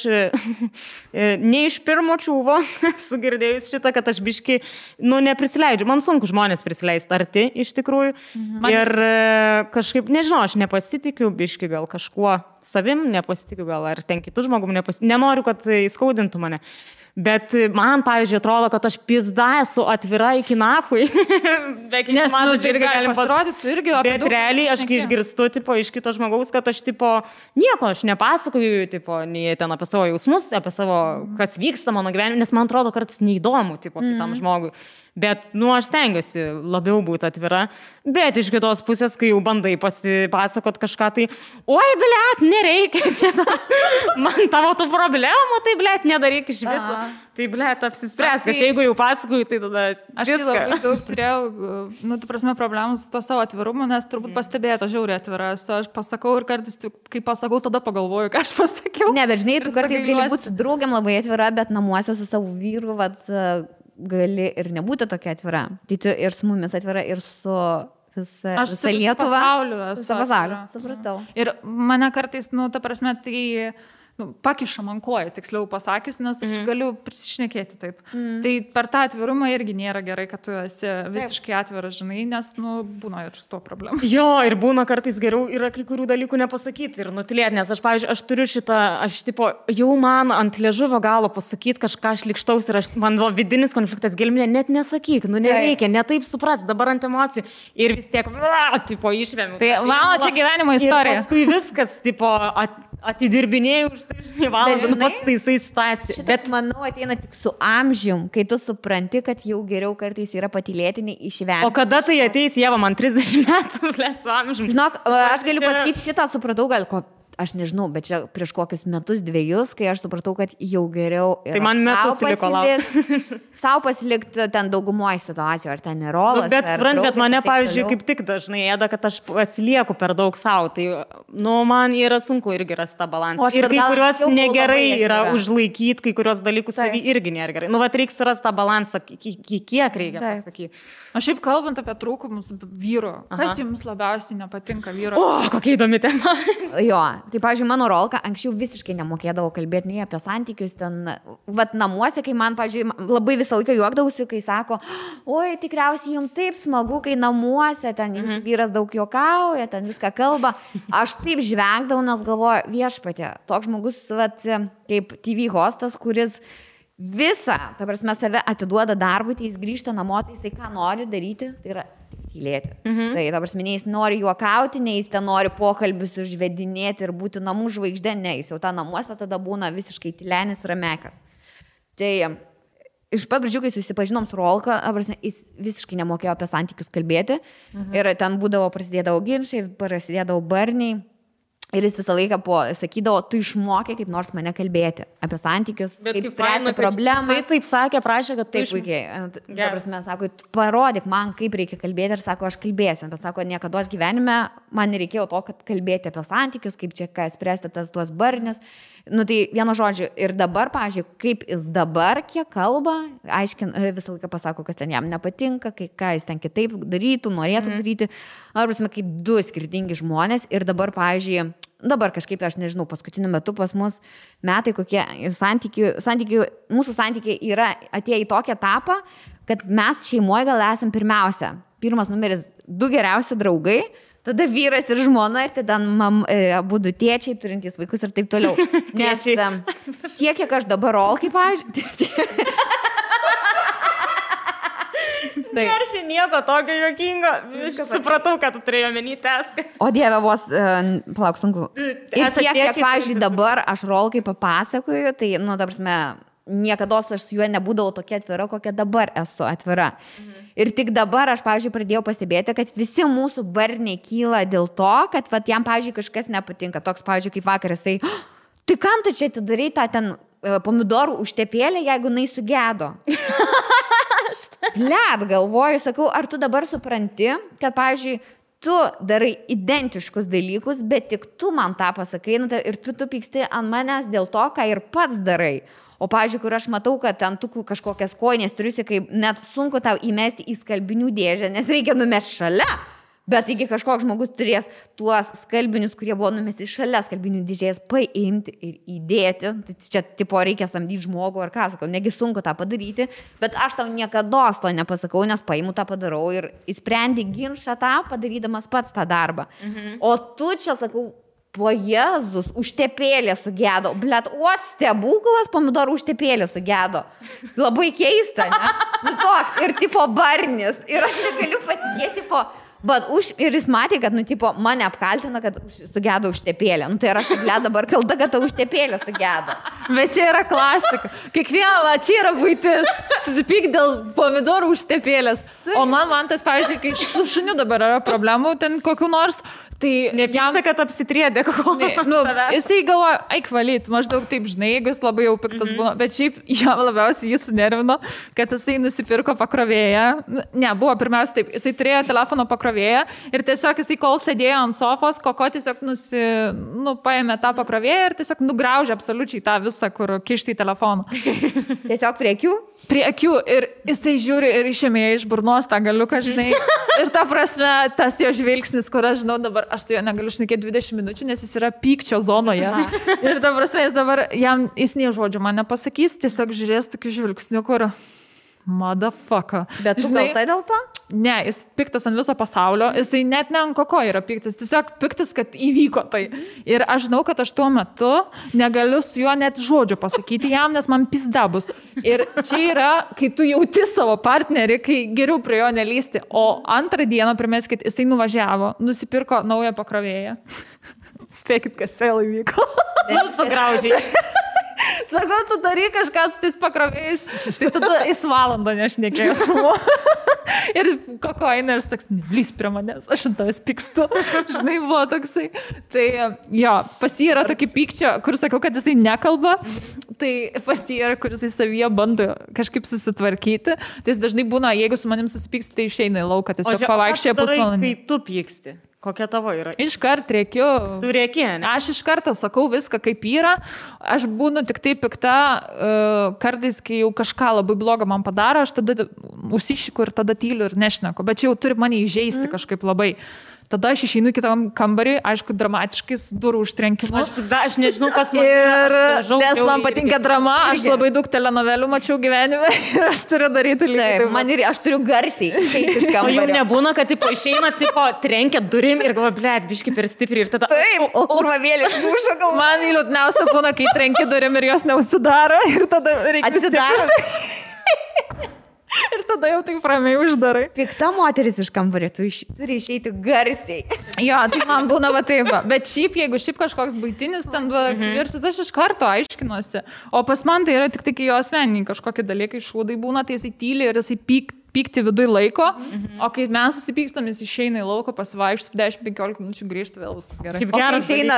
ne iš pirmo čiūvo sugirdėjus šitą, kad aš biškai, neprisileidžiu. Man sunku žmonės prisileisti arti iš tikrųjų. Ir kažkaip, nežinau, aš nepasitikiu biškai gal kažkuo savim, nepasitikiu gal ar ten kitų žmogum, nenoriu, kad įskaudintų mane. Bet man, pavyzdžiui, atrodo, kad aš pizda esu atvira iki nahui. Nes, irgi galim pasirodyti, irgi apie bet realiai aš kai išgirstu, iš kito žmogaus, kad aš, nieko, aš nepasakoju, nei ten apie savo jausmus, apie savo, kas vyksta mano gyvenime, nes man atrodo, kartais neįdomu, kitam žmogui. Bet, aš stengiuosi labiau būti atvira, bet iš kitos pusės, kai jau bandai pasipasakot kažką, tai, oi, blet, nereikia čia, man tavo tų problemų, tai, blet, nedaryk iš viso. Tai, blet, apsispręsk, aš jeigu jau pasakoju, tai tada aš viską. Aš labai daug turėjau, problemų su to savo atvirumu, nes turbūt pastebėta žiauriai atvira. Aš pasakau ir kartais, kai pasakau, tada pagalvoju, ką aš pasakiau. Ne, bet žinai, tu kartais gali būti su draugiam labai atvira, bet namuose su savo vyru, gali ir nebūti tokia atvira. Tai tu ir su mumis atvira, ir su visa Lietuva. Su pasauliu. Supratau. Ir mane kartais, tai pakiša man koją, tiksliau pasakius, nes aš galiu prisišnekėti taip. Tai per tą atvirumą irgi nėra gerai, kad tu esi visiškai atviras, žinai, nes, būna ir su to problema. Jo, ir būna kartais geriau yra kai kurių dalykų nepasakyti ir nutilėti, nes aš, pavyzdžiui, aš turiu šitą, jau man ant liežuvio galo pasakyti kažką šlikštaus ir man vidinis konfliktas gelminė, net nesakyk, nereikia, netaip supras, dabar ant emocijų ir vis tiek, išvėmiau. Tai mano čia gyvenimo istorija. Ir paskui viskas, atidirbinėjau už tai, žinai, valandą, pats taisai situaciją. Bet manau, ateina tik su amžium, kai tu supranti, kad jau geriau kartais yra patylėti, nei išvengti. O kada tai ateis, Ieva, man 30 metų, su amžium. Žinok, aš galiu pasakyti šitą, supratau, aš nežinau, bet čia prieš kokius metus, 2, kai aš supratau, kad jau geriau yra. Tai man metus liko laukti. Sau pasilikti ten daugumoje situacijų, ar ten nerolas. Bet mane, pavyzdžiui, kaip tik dažnai ėda, kad aš pasilieku per daug savo. Tai, man yra sunku irgi rasti tą balansą. Ir kai kuriuos negerai yra užlaikyti, kai kuriuos dalykus savį irgi nėra gerai. Reikia surasti tą balansą, kiek reikia pasakyti. O šiaip kalbant apie trūkumus vyro, kas jums labiausiai nepatinka vyro? O, kokia įdomi tema. Jo, tai, pavyzdžiui, mano Rolka anksčiau visiškai nemokėdavo kalbėti nei apie santykius ten, namuose, kai man, pavyzdžiui, labai visą laiką juokdausi, kai sako, oi, tikriausiai jums taip smagu, kai namuose ten jūsų vyras daug juokauja, ten viską kalba. Aš taip žvengdavau, nes galvoju, viešpatė, toks žmogus, kaip TV hostas, kuris visą, ta prasme, save atiduoda darbui, tai jis grįžta namo, tai jisai ką nori daryti, tai yra tylėti. Tai, ta prasme, nei jis nori juokauti, nei jis ten nori pokalbius užvedinėti ir būti namų žvaigždė, ne, jis jau tą namuose tada būna visiškai tylenis ramekas. Tai iš pat pradžių, kai susipažinom su Rolka, jis visiškai nemokėjo apie santykius kalbėti ir ten prasidėdavo ginčai, prasidėdavo barniai. Ir jis visą laiką sakydavo, tu išmokė kaip nors mane kalbėti apie santykius, kaip spręsti problemą. Jis taip sakė, prašė, kad taip puikiai. Ta prasme, sako, parodyk man, kaip reikia kalbėti ir sako, aš kalbėsiu. Bet sako, niekada gyvenime man nereikėjo to, kad kalbėti apie santykius, kaip čia spręsti tuos barnius. Tai vieno žodžio. Ir dabar, pavyzdžiui, kaip jis dabar kiek kalba, visą laiką pasako, kas ten jam nepatinka, ką jis ten kitaip darytų, norėtų daryti. Prasme, kaip 2 skirtingi žmonės. Ir dabar, pavyzdžiui, kažkaip, aš nežinau, paskutiniu metu pas mus metai, kokie mūsų santykiai yra atėję į tokią etapą, kad mes šeimoje gal esam pirmiausia. Pirmas numeris 2 geriausi draugai, tada vyras ir žmona ir tada abudu tėčiai turintys vaikus ir taip toliau. Nes tiek, kiek aš dabar Rolkai, pavyzdžiui. Ar čia nieko tokio juokingo? Supratau, kad tu turėjai omeny teskas. O Dieve, vos, palauk, sunku. Ir tiek, kiek, pavyzdžiui, dabar aš Rolkai papasakoju, tai, ta prasme, niekados aš su juo nebūdavau tokia atvira, kokia dabar esu atvira. Ir tik dabar aš, pavyzdžiui, pradėjau pastebėti, kad visi mūsų barniai kyla dėl to, kad jam, pavyzdžiui, kažkas nepatinka. Toks, pavyzdžiui, kaip vakar jisai, tai kam tu čia atidarai tą ten pomidorų užtepėlę, jeigu jinai sugedo? Blet, galvoju, sakau, ar tu dabar supranti, kad, pavyzdžiui, tu darai identiškus dalykus, bet tik tu man tą pasakai ir tu pyksti ant manęs dėl to, ką ir pats darai. O, pavyzdžiui, kur aš matau, kad ten tu kažkokias kojinės turiusi, kaip net sunku tau įmesti į skalbinių dėžę, nes reikia numesti šalia. Bet taigi kažkoks žmogus turės tuos skalbinius, kurie buvo numesti šalia skalbinių dėžės, paimti ir įdėti. Tai čia tipo reikia samdyti žmogų ar ką, sakau, negi sunku tą padaryti, bet aš tau niekada to nepasakau, nes paimu tą padarau ir įsprendi ginčą tą, padarydamas pats tą darbą. O tu čia, sakau, po Jėzus, užtepėlė sugedo. Blet, stebuklas, pomidorų užtepėlė sugedo. Labai keista, ne? Toks, ir tipo barnis. Ir aš negaliu patikėti, ir jis matė, kad, mane apkaltina, kad sugedo užtepėlę. Tai ir aš, dabar kalta, kad ta užtepėlė sugedo. Bet čia yra klasika. Kiekviena, čia yra buitis. Susipyk dėl pomidorų užtepėlės. O man tas, pavyzdžiui, kai su šuniu dabar yra problemų, ten kokių nors, tai nepyksta, kad apsitriedė jisai galvoja, eik valyt, maždaug taip, žinai, jeigu jis labai jau piktas būna, bet šiaip jam labiausiai jis sunervino, kad jisai nusipirko pakrovėją. Ne, buvo pirmiausia taip, jisai turėjo telefono pakrovėją ir tiesiog jisai, kol sėdėjo ant sofos, Koko tiesiog paėmė tą pakrovėją ir tiesiog nugraužė absoliučiai tą visą, kur kišti į telefoną. Tiesiog prie akių? Prie akių ir jisai žiūri ir išėmė iš burnos tą galiuką, žinai. Ir ta prasme, tas jo žvilgsnis, kur aš žinau dabar, dabar aš su juo negaliu šnekėti 20 minučių, nes jis yra pykčio zonoje. Ir dabar jis nei žodžio man nepasakys, tiesiog žiūrės tokiu žvilgsniu, kur motherfucker. Bet tu gal tai dėl to? Ne, jis piktas ant viso pasaulio, jisai net ne ant koko yra piktas, tiesiog piktas, kad įvyko tai. Ir aš žinau, kad aš tuo metu negaliu su juo net žodžio pasakyti jam, nes man pizda bus. Ir čia yra, kai tu jauti savo partnerį, kai geriau prie jo nelysti. O antrą dieną, primeskit, jisai nuvažiavo, nusipirko naują pakrovėją. Spėkit, kas vėl įvyko. Sugraužiai. Sakau, tu darai kažką su tais pakrovėjais, tai tada jis valandą nešnekėjo su mu. Ir kokaina, ir toks, nelys prie manęs, aš ant tavęs pykstu. Žinai, buvo toksai. Tai jo, pas jį yra tokie pykčio, kur sakau, kad jisai nekalba, tai pas jį yra, kur jisai savyje bando kažkaip susitvarkyti. Tai jis dažnai būna, jeigu su manim susipyksti, tai išeina į lauką, tiesiog pavaikščia pusvalandį. Kai tu pyksti? Kokia tavo yra? Iškart rėkiu. Tu rėki, ne? Aš iš karto sakau viską, kaip yra. Aš būnu tik tai pikta, kartais, kai jau kažką labai blogo man padaro, aš tada užsišiku ir tada tyliu ir nešneku. Bet čia jau turi mane įžeisti kažkaip labai. Tada aš išeinu į kitą kambarį, aišku, dramatiškai, su durų užtrenkimu. Aš nežinau, kas man. Nes man patinka drama, aš labai daug telenovelių mačiau gyvenime ir aš turiu daryti lygiai. Taip, man ir aš turiu garsiai išeiti iš kambario. O jau nebūna, kad tipo, išeina, tipo, trenkia durim ir galvoja, blėt, biški per stipriai ir tada... Taip, o kurvavėlė išmušo galvą. Man liūdniausia būna, kai trenki durim ir jos neužsidaro ir tada reikia... Atsidaro. Ir tada jau tik ramiai uždarai. Pikta moteris iš kambario, tu turi išeiti garsiai. Jo, tai man būna va taip. Bet šiaip, jeigu kažkoks baitinis ten kivirsis, aš iš karto aiškinuosi. O pas man tai yra tik tai, kai jo asmeniniai kažkokie dalykai šūdai būna, tai jisai tyli ir jisai pykti viduje laiko, o kai mes susipykstam, jis išeina į lauką, pasivaikštų 10-15 minučių, grįžta, vėl viskas gerai. Kaip geras išeina,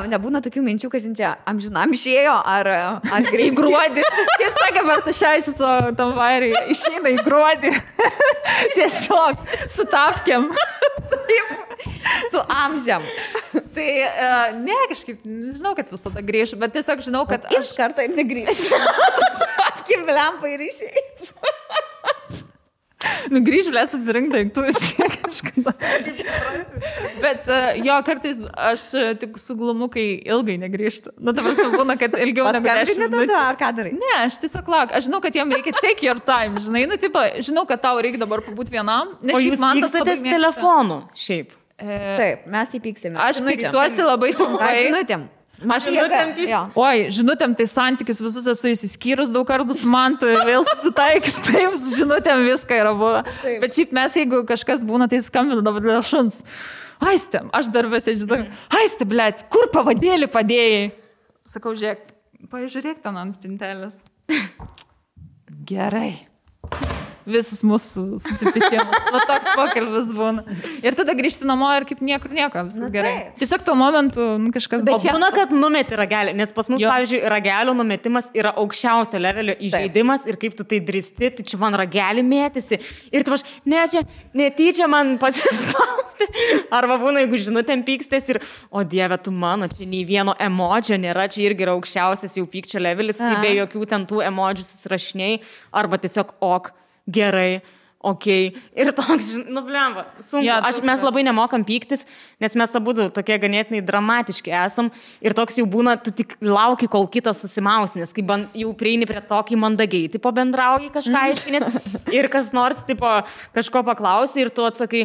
nebūna tokių minčių, kad čia amžinam išėjo, ar greitai. Į gruodį. Kaip sakė Bartuševičius tam vairiai, išeina į gruodį. Tiesiog sutapkiam. Su amžiam. Tai ne, kažkaip, žinau, kad visada grįžu, bet tiesiog žinau, kad aš kartą ir negrįžu. Apkim lempą ir išeis. Grįž, blė, susirink daiktus tiek kažkada. Bet jo, kartais aš tik suglumu, kai ilgai negrįžtu. Nu, ta prasme būna, kad ilgiau negu 10 minučių. Ar ką darai? Ne, aš tiesiog lauk. Aš žinau, kad jam reikia take your time, žinai. Nu, tipo, žinau, kad tau reikia dabar pabūti vienam. O jūs pykstatės telefonu, šiaip? Taip, mes tai pyksime. Aš pykstuosi labai trumpai. Žinutėm. Aš žinutėm, tai santykius visus esu įsiskyrus daug kartų su mantu ir vėl susitaikys, taip, žinutėm viską yra buvę. Bet šiaip mes, jeigu kažkas būna, tai skambinu dabar dėl šuns. Aiste, aš darbėse žinau, aiste, blėt, kur pavadėlį padėjai? Sakau, žiūrėk, pažiūrėk ten ant spintelės. Gerai. Visas mūsų susipykimas. Va toks pokalbis būna. Ir tada grįžti namo ir kaip niekur nieko, viskas gerai. Tiesiog tuo momentu kažkas... Bet čia būna, kad numeti ragelį, nes pas mus, pavyzdžiui, ragelio numetimas yra aukščiausio levelio įžeidimas ir kaip tu tai dristi, tai čia man ragelį mėtėsi. Ir tu aš, ne, čia netyčia man pasispauti. Arba būna, jeigu žinutėm pykstės ir, o dieve, tu mano, čia nei vieno emodžio nėra, čia irgi yra aukščiausias jau pykčio levelis, kai be jokių ten tų emodžių susirašiniai, arba tiesiog ok. Gerai, okei. Ir toks, nu blemba, sunku. Ja, mes labai nemokam pyktis, nes mes abudu tokie ganėtinai dramatiški esam. Ir toks jau būna, tu tik lauki, kol kitas susimaus, nes kai jau prieini prie tokį mandagiai, tipo bendrauji kažką aiškinės. Ir kas nors, tipo, kažko paklausi ir tu atsakai,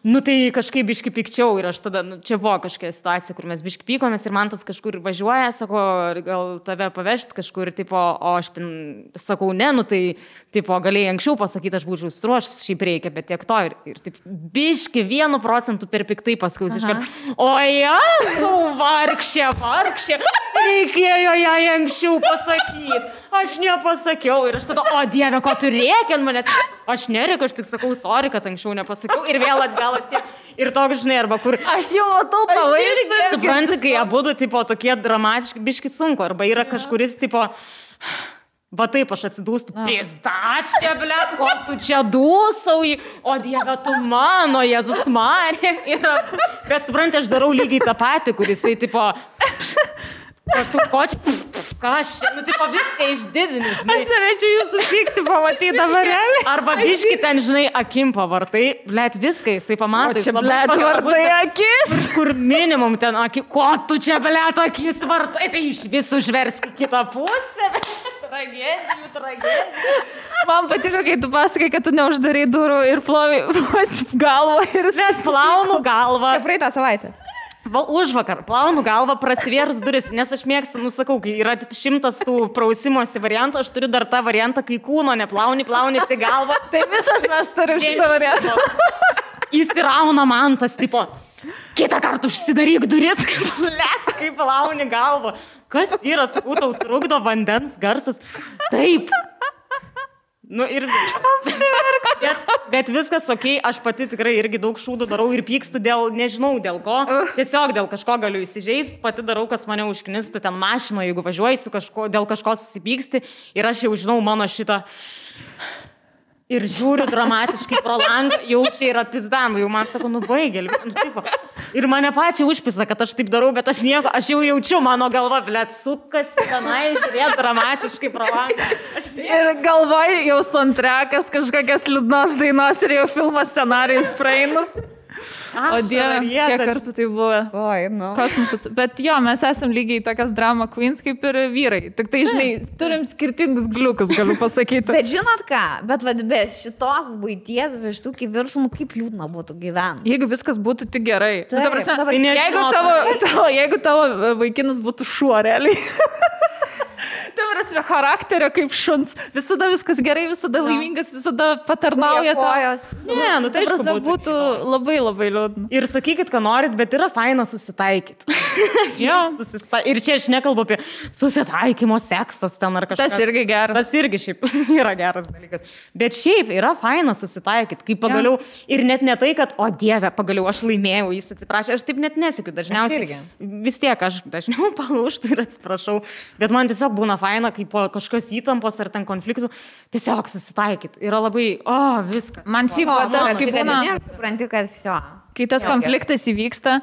nu tai kažkaip biški pikčiau. Ir aš tada, nu, čia buvo kažkokia situacija, kur mes biški pykomės ir man tas kažkur važiuoja, sako, gal tave pavežti kažkur, tipo, o aš ten sakau, ne, nu tai, tipo, galėjai anksčiau pasakyti, aš būčiau suruošęs, šiaip reikia, bet tiek to ir taip biški 1% per piktai paskaus iškart. O Jezu, vargšė, reikėjo jai anksčiau pasakyti. Aš nepasakiau ir aš tada, o dieve, ko tu rėki ant manęs? Aš nerėkiu, aš tik sakau, sorry, kad anksčiau nepasakiau ir vėl atgal atsė. Ir toks, žinai, arba kur... Aš jau matau pavaizdą. Supranti, kai abudu, tipo, tokie dramatiški, biški sunku, arba yra kažkuris, tipo... Va taip aš atsidūstu, pizdačia, blėt, ko tu čia dūsauji, o dieve, tu mano, Jėzus Marija. Bet supranti, aš darau lygiai tą patį, kuris, tipo, aš su kočiu, Kažkas, nu tai viską išdidini, žinai. Aš norėčiau jūsų pykti pamatyti dabar realiai. Arba biški ten, žinai, akim pavartai, blėt, viską jisai pamato. Čia, blėt, vartai akis. Kur minimum ten akis, ko tu čia, blėt, akis vartai, tai iš visų užversk kitą pusę. Tragedijų. Man patiko, kai tu pasakai, kad tu neuždarai durų ir plovi galvą ir Mes plaunu galvą. Čia praeitą savaitę. Užvakar plaunu galvą, prasivėrus duris, nes aš mėgstu, nusakau, kai yra 100 tų prausimosi variantų, aš turiu dar tą variantą, kai kūno neplauni, tai galvą. Tai visas mes turim šitą variantą. Įsirauna man tas, tipo, kitą kartą užsidaryk duris, kaip plauni galvą. Kas yra, sakau, tau trukdo vandens garsas? Taip. Nu ir... Bet viskas okei, aš pati tikrai irgi daug šūdų darau ir pykstu dėl, nežinau dėl ko, tiesiog dėl kažko galiu įsižeisti, pati darau, kas mane užknistų ten mašino, jeigu važiuoji su kažko, dėl kažko susipyksti ir aš jau žinau mano šitą... Ir žiūriu dramatiškai pro langą, jau čia yra pizdanų, jau man sako, nu baigėlį. Ir mane pačiai užpisa, kad aš taip darau, bet aš nieko, aš jau jaučiu, mano galva, blėt, sukasi tenai, žiūrėt dramatiškai pro langą. Ir galvoju, jau soundtrackas, kažkokias liūdnos dainos ir jau filmo scenarijus praeinu. O Dieve, kiek kartų tai buvo. Oi, nu. Kosmosas. Bet jo, mes esam lygiai tokios drama queens kaip ir vyrai. Tik tai, žinai, turim skirtingus gliukus, galiu pasakyti. Bet žinot ką, bet be šitos buities vištukį viršų, kaip liūdna būtų gyventi. Jeigu viskas būtų tik gerai. Taip, Ta prasme, dabar jeigu tavo vaikinas būtų šuo realiai. Tai prasme, charakterio kaip šuns. Visada viskas gerai, visada laimingas, visada patarnauja. Ne, nu tai prasme, būtų labai labai liūdna. Ir sakykit, ką norit, bet yra faina susitaikyti. Ir čia aš nekalbu apie susitaikymo seksas ten ar kažkas. Tas irgi geras. Tas irgi šiaip yra geras dalykas. Bet šiaip yra faina susitaikyti, kai pagaliau ir net ne tai, kad, o Dieve, pagaliau aš laimėjau, jis atsiprašė, aš taip net nesiekiu dažniausiai. Vis tiek aš dažniau palūžtu ir atsiprašau. Bet man tiesiog būna faina, kai po kažkokios įtampos ar ten konfliktų, tiesiog susitaikyti. Yra labai, viskas. Man šiaip tas, kai būna, supranti, kad viso. Kai tas konfliktas įvyksta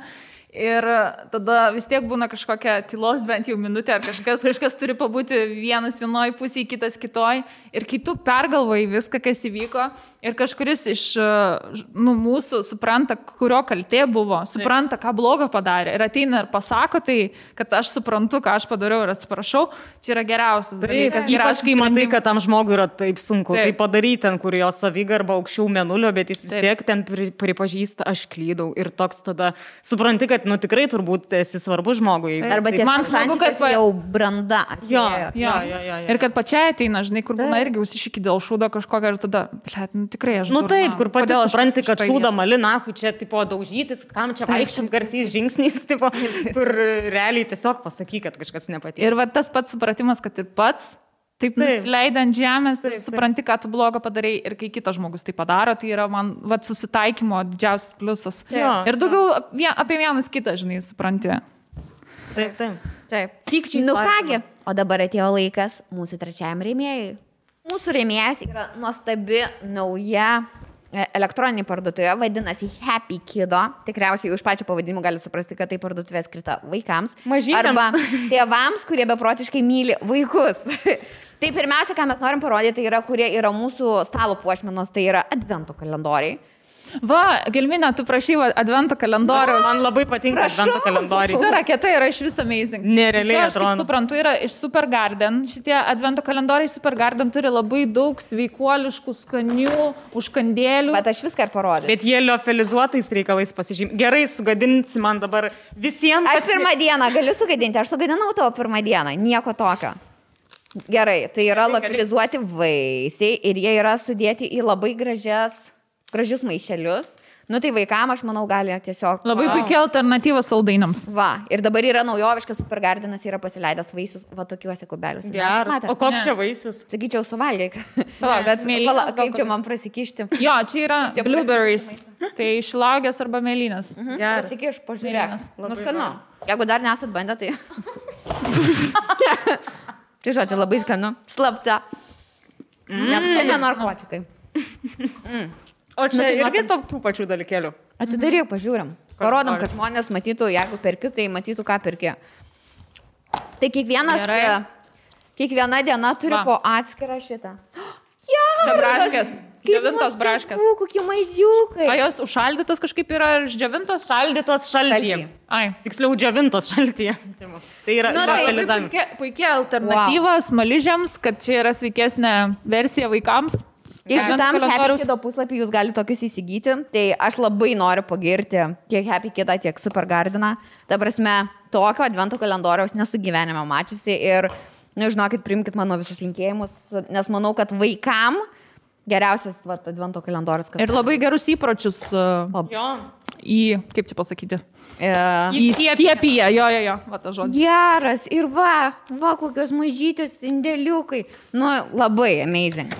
ir tada vis tiek būna kažkokia tylos bent jau minutė ar kažkas turi pabūti vienas vienoj pusėje, kitas kitoj. Ir kai tu pergalvoji viską, kas įvyko ir kažkuris iš mūsų supranta, kurio kaltė buvo, supranta, ką blogo padarė ir ateina ir pasako tai, kad aš suprantu, ką aš padariau ir atsiprašau, čia yra geriausias dalykas. Ypač kai matai, kad tam žmogui yra taip sunku tai padaryti, ten, kur jo savigarba aukščiau mėnulio, bet jis vis tiek ten pripažįsta, aš klydau. Ir toks tada supranti, kad tikrai turbūt esi svarbus žmogui. Arba man smagu, kad jau branda. Jo. Ir kad pačiai ateina, žinai, kur būna irgi užsišiki dėl šūdo kažkokio ir tada, tikrai aš. Nu taip, kur pati supranti, kad šūdą mali, nahui, čia tipo daužytis, kam čia vaikščiant garsiais žingsniais, tipo, kur realiai tiesiog pasaky, kad kažkas nepatiko. Ir va tas pats supratimas, kad ir pats taip nusileidai ant žemės ir supranti, ką tu blogo padarai ir kai kitas žmogus tai padaro, tai yra man susitaikymo didžiausias pliusas. Ir daugiau apie vienas kitą, žinai, supranti. Taip. Pykčiai. Nu kągi, o dabar atėjo laikas mūsų trečiajam rėmėjui. Mūsų rėmėjas yra nuostabi nauja elektroninė parduotuvė, vadinasi Happy Kido. Tikriausiai už pačią pavadinimą gali suprasti, kad tai parduotuvė skirta vaikams. Mažytėms. Arba tėvams, kurie beprotiškai myli vaikus. Tai pirmiausia, ką mes norim parodyti, tai yra, kurie yra mūsų stalo puošmenos, tai yra advento kalendoriai. Va, Gelminė, tu prašai advento kalendoriaus. Man labai patinka advento kalendoriai. Šita raketa yra iš vis amazing. Nerealiai atrodo. Aš kaip suprantu, yra iš Supergarden. Šitie advento kalendoriai Supergarden turi labai daug sveikuoliškų, skanių užkandėlių. Bet aš viską ir parodžiu. Bet jie liofilizuotais reikalais pasižymė. Gerai, sugadinsi man dabar visiems. Aš pirmą dieną galiu sugadinti, aš sugadinau tavo pirmą dieną, nieko tokio. Gerai, tai yra liofilizuoti vaisiai ir jie yra sudėti į labai gražius maišelius. Nu tai vaikam, aš manau, gali tiesiog... Labai puikia alternatyva saldainiams. Va, ir dabar yra naujoviškas Supergardenas, yra pasileidęs vaisius, va tokiuose kubeliuose. Geras. O koks čia vaisius? Sakyčiau, suvalgyk. Bet kaip čia man prasikišti? Jo, čia yra blueberries. Tai šilauogės arba mėlynės. Prasikiš, pažiūrėk. Nu skanu. Jeigu dar nesat bandę, tai... Tai žodžiu, labai skanu. Slapta. Čia ne narkotikai. O čia irgi tokių pačių dalykėlių. Atidaryk, pažiūrim. Parodom, kad žmonės matytų, jeigu perki, tai matytų, ką perki. Tai kiekvienas Kiekviena diena turi po atskirą šitą. Čia braškės. Džiovintos braškės. Kokie maiziukai. A jos užšaldytos kažkaip yra išdžiovintos? Šaldytos šaltyje. Ai. Tiksliau, džiovintos šaltyje. Tai yra puikia alternatyva smaližiams, kad čia yra sveikesnė versija vaikams. Ir šitam Happy Kido puslapį jūs galite tokius įsigyti. Tai aš labai noriu pagirti tiek Happy Kidą, tiek Super Gardeną. Ta prasme, tokio advento kalendoriaus nesu gyvenime mačiusi. Ir, žinokit, priimkit mano visus linkėjimus, nes manau, kad vaikam geriausias advento kalendorius. Ir labai gerus įpročius kaip čia pasakyti? Įskiepyje, jo, va ta žodis. Geras, ir va kokios mažytės indėliukai. Labai amazing.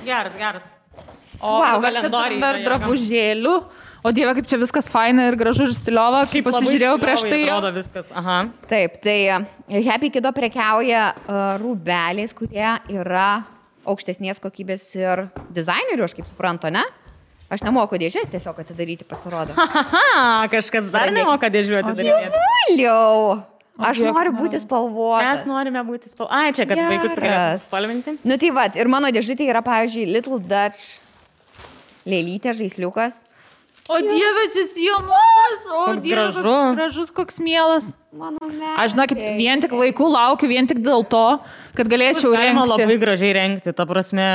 Geras. O kalendoriai dar drabužėlių. O Dieve, kaip čia viskas faina ir gražu ir stiliova. Kaip pasižiūrėjau prieš tai. Atrodo viskas, aha. Taip, tai Happy Kido prekiauja rūbeliais, kurie yra aukštesnės kokybės ir dizainerių, aš kaip suprantu, ne? Aš nemoku dėžės tiesiog atidaryti, pasirodo. Kažkas dar nemoka dėžių atidaryti. Dievuliau! Aš noriu būti spalvotas. Mes norime būti spalvotas. Ai, čia, kad vaikus galėtų spalvinti. Tai va, ir mano dėžutė yra, pavyzdžiui, Little Dutch lėlytė, žaisliukas. O Dieve, čia sijonukas, o Dieve, koks gražus, koks mielas. Aš, žinokit, vien tik vaikų laukiu, vien tik dėl to, kad galėčiau rengti. Galima labai gražiai rengti, ta prasme.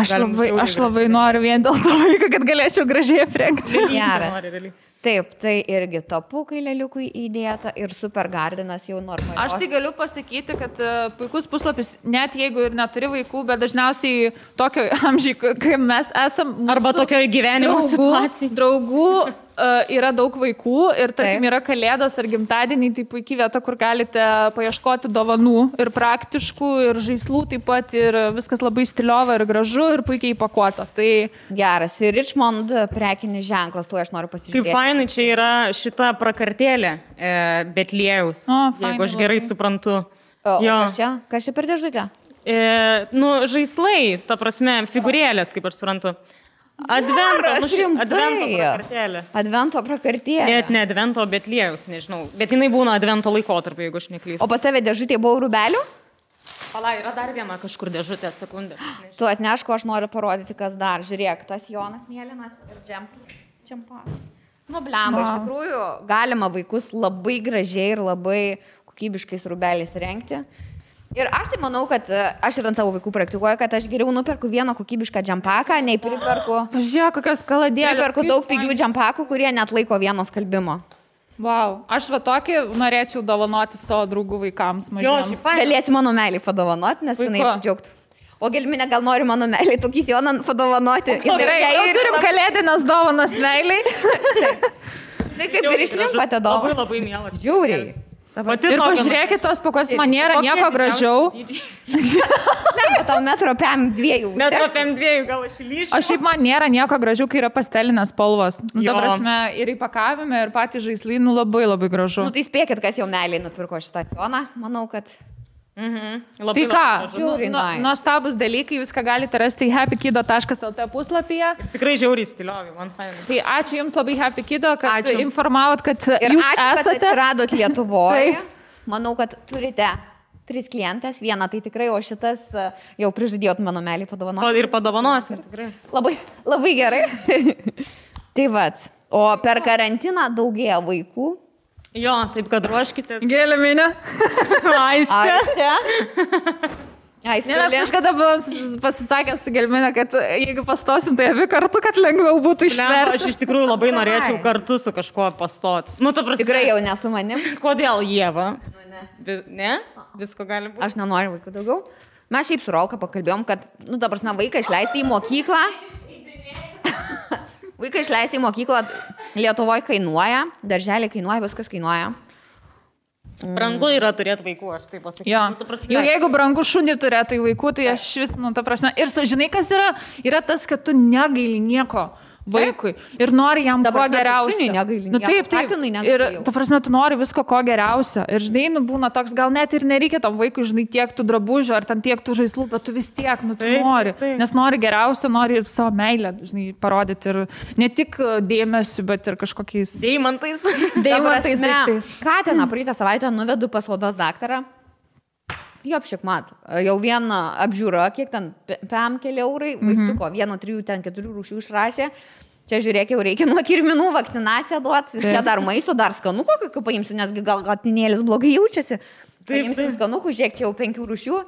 Aš labai noriu vien dėl to vaiką, kad galėčiau gražiai aprengti. Geras. Taip, tai irgi tapukai lėliukui įdėta ir Super Gardenas jau normaliai. Aš tai galiu pasakyti, kad puikus puslapis, net jeigu ir neturi vaikų, bet dažniausiai tokio amžiai, kai mes esam. Arba tokio gyvenimo situacijai. Draugų yra daug vaikų ir, tarkim, yra kalėdos ar gimtadieniai, tai puikiai vieta, kur galite paieškoti dovanų ir praktiškų, ir žaislų taip pat, ir viskas labai stiliova ir gražu ir puikiai įpakuota. Tai geras. Ir Richmond prekinis ženklas, tu aš noriu pasižiūrėti. Kaip fainai, čia yra šita prakartėlė Betliejaus, jeigu aš gerai suprantu. Kas čia per dėžutę? Žaislai, ta prasme, figūrėlės, kaip aš suprantu. Advento prakartėlė. Net ne Advento, Betliejaus, nežinau. Bet jinai būna Advento laikotarpiu, jeigu aš neklystu. O pas tave dėžutė buvo rūbelių? Pala, yra dar viena kažkur dėžutė, sekundė. Tu atneško, aš noriu parodyti, kas dar. Žiūrėk, tas Jonas mėlynas ir džempa. Blemba, iš tikrųjų, galima vaikus labai gražiai ir labai kokybiškais rūbeliais rengti. Ir aš tai manau, kad aš ir ant savo vaikų praktikuoju, kad aš geriau nuperku vieną kokybišką džempaką, nei priperku. Žiūrėk, kokios kaladėlės. Priperku daug pigių džempakų, kurie net laiko vieno skalbimo. Wow, aš va tokį norėčiau dovanoti savo draugų vaikams mažiems. Galėsi mano meilį padovanoti, nes jinai apsidžiaugtų. O Gelminė gal nori mano meilį tokį Joną padovanoti. Gerai, jau turim kalėdinės dovanas meiliai. Tai kaip ir išrinkote dovaną. Labai mielas. Žiauriai. Ir pažiūrėkit, tos pakos man nėra nieko gražiau. Ne, tau metro PM 2. Metro PM 2 gal aš įlyšiu. O šiaip man nėra nieko gražiau, kai yra pastelinės spalvos. Ta prasme, ir įpakavime, ir patys žaislai, labai labai gražu. Tai spėkit, kas jau meiliai nupirko šitą Joną. Manau, kad... Tai ką, nuostabus dalykai, viską galite rasti happykido.lt puslapyje. Tikrai žiauriai stiliovai, man fainai. Tai ačiū Jums labai Happy Kido, kad informavot, kad Jūs esate. Kad radot Lietuvoje. Manau, kad turite 3 klientės, vieną tai tikrai, o šitas jau prižadėjot mano meilį padovanoti. Ir padovanos, ir tikrai. Labai gerai. Tai vat, o per karantiną daugėja vaikų. Jo, taip kad ruoškitės. Gelminė. Aistė. Nes kažkada buvo pasisakęs su Gelminė, kad jeigu pastosim, tai abi kartu, kad lengviau būtų ištverti. Aš iš tikrųjų labai norėčiau kartu su kažkuo pastoti. Tikrai jau nesu manim. Kodėl Ieva? Ne? Visko gali būti. Aš nenoriu vaikų daugiau. Mes šiaip su Rolka pakalbėjom, kad, ta prasme, vaiką išleisti į mokyklą. Vaiką išleisti į mokyklą Lietuvoje kainuoja, darželį kainuoja, viskas kainuoja. Brangu yra turėti vaikų, aš taip pasakysiu. Jau jeigu brangu šunį turėti vaikų, tai aš vis, ta prasme. Ir žinai, kas yra? Yra tas, kad tu negaili nieko vaikui ir nori jam kuo geriausia. Taip. Ir ta prasme, tu nori visko ko geriausia. Ir žinai, būna toks, gal net ir nereikia tam vaikui, žinai, tiek tų drabužių ar tam tiek tų žaislų, bet tu vis tiek, tu nori. Nes nori geriausia, nori ir savo meilę, žinai, parodyti ir ne tik dėmesiu, bet ir kažkokiais deimantais daiktais. Katiną praeitą savaitę nuvedu pas odos daktarą. Jo, apšikmat. Jau viena apžiūra, kiek ten, 5 keli eurai, vaistuko, 1-3, ten 4 rūšių išrašė. Čia žiūrėk, jau reikia nuo kirminų vakcinaciją duoti. Čia dar maisto, dar skanuko, kokio paimsiu, nesgi gal tinėlis blogai jaučiasi. Paimsim skanukų, žiūrėk, čia jau 5 rūšių.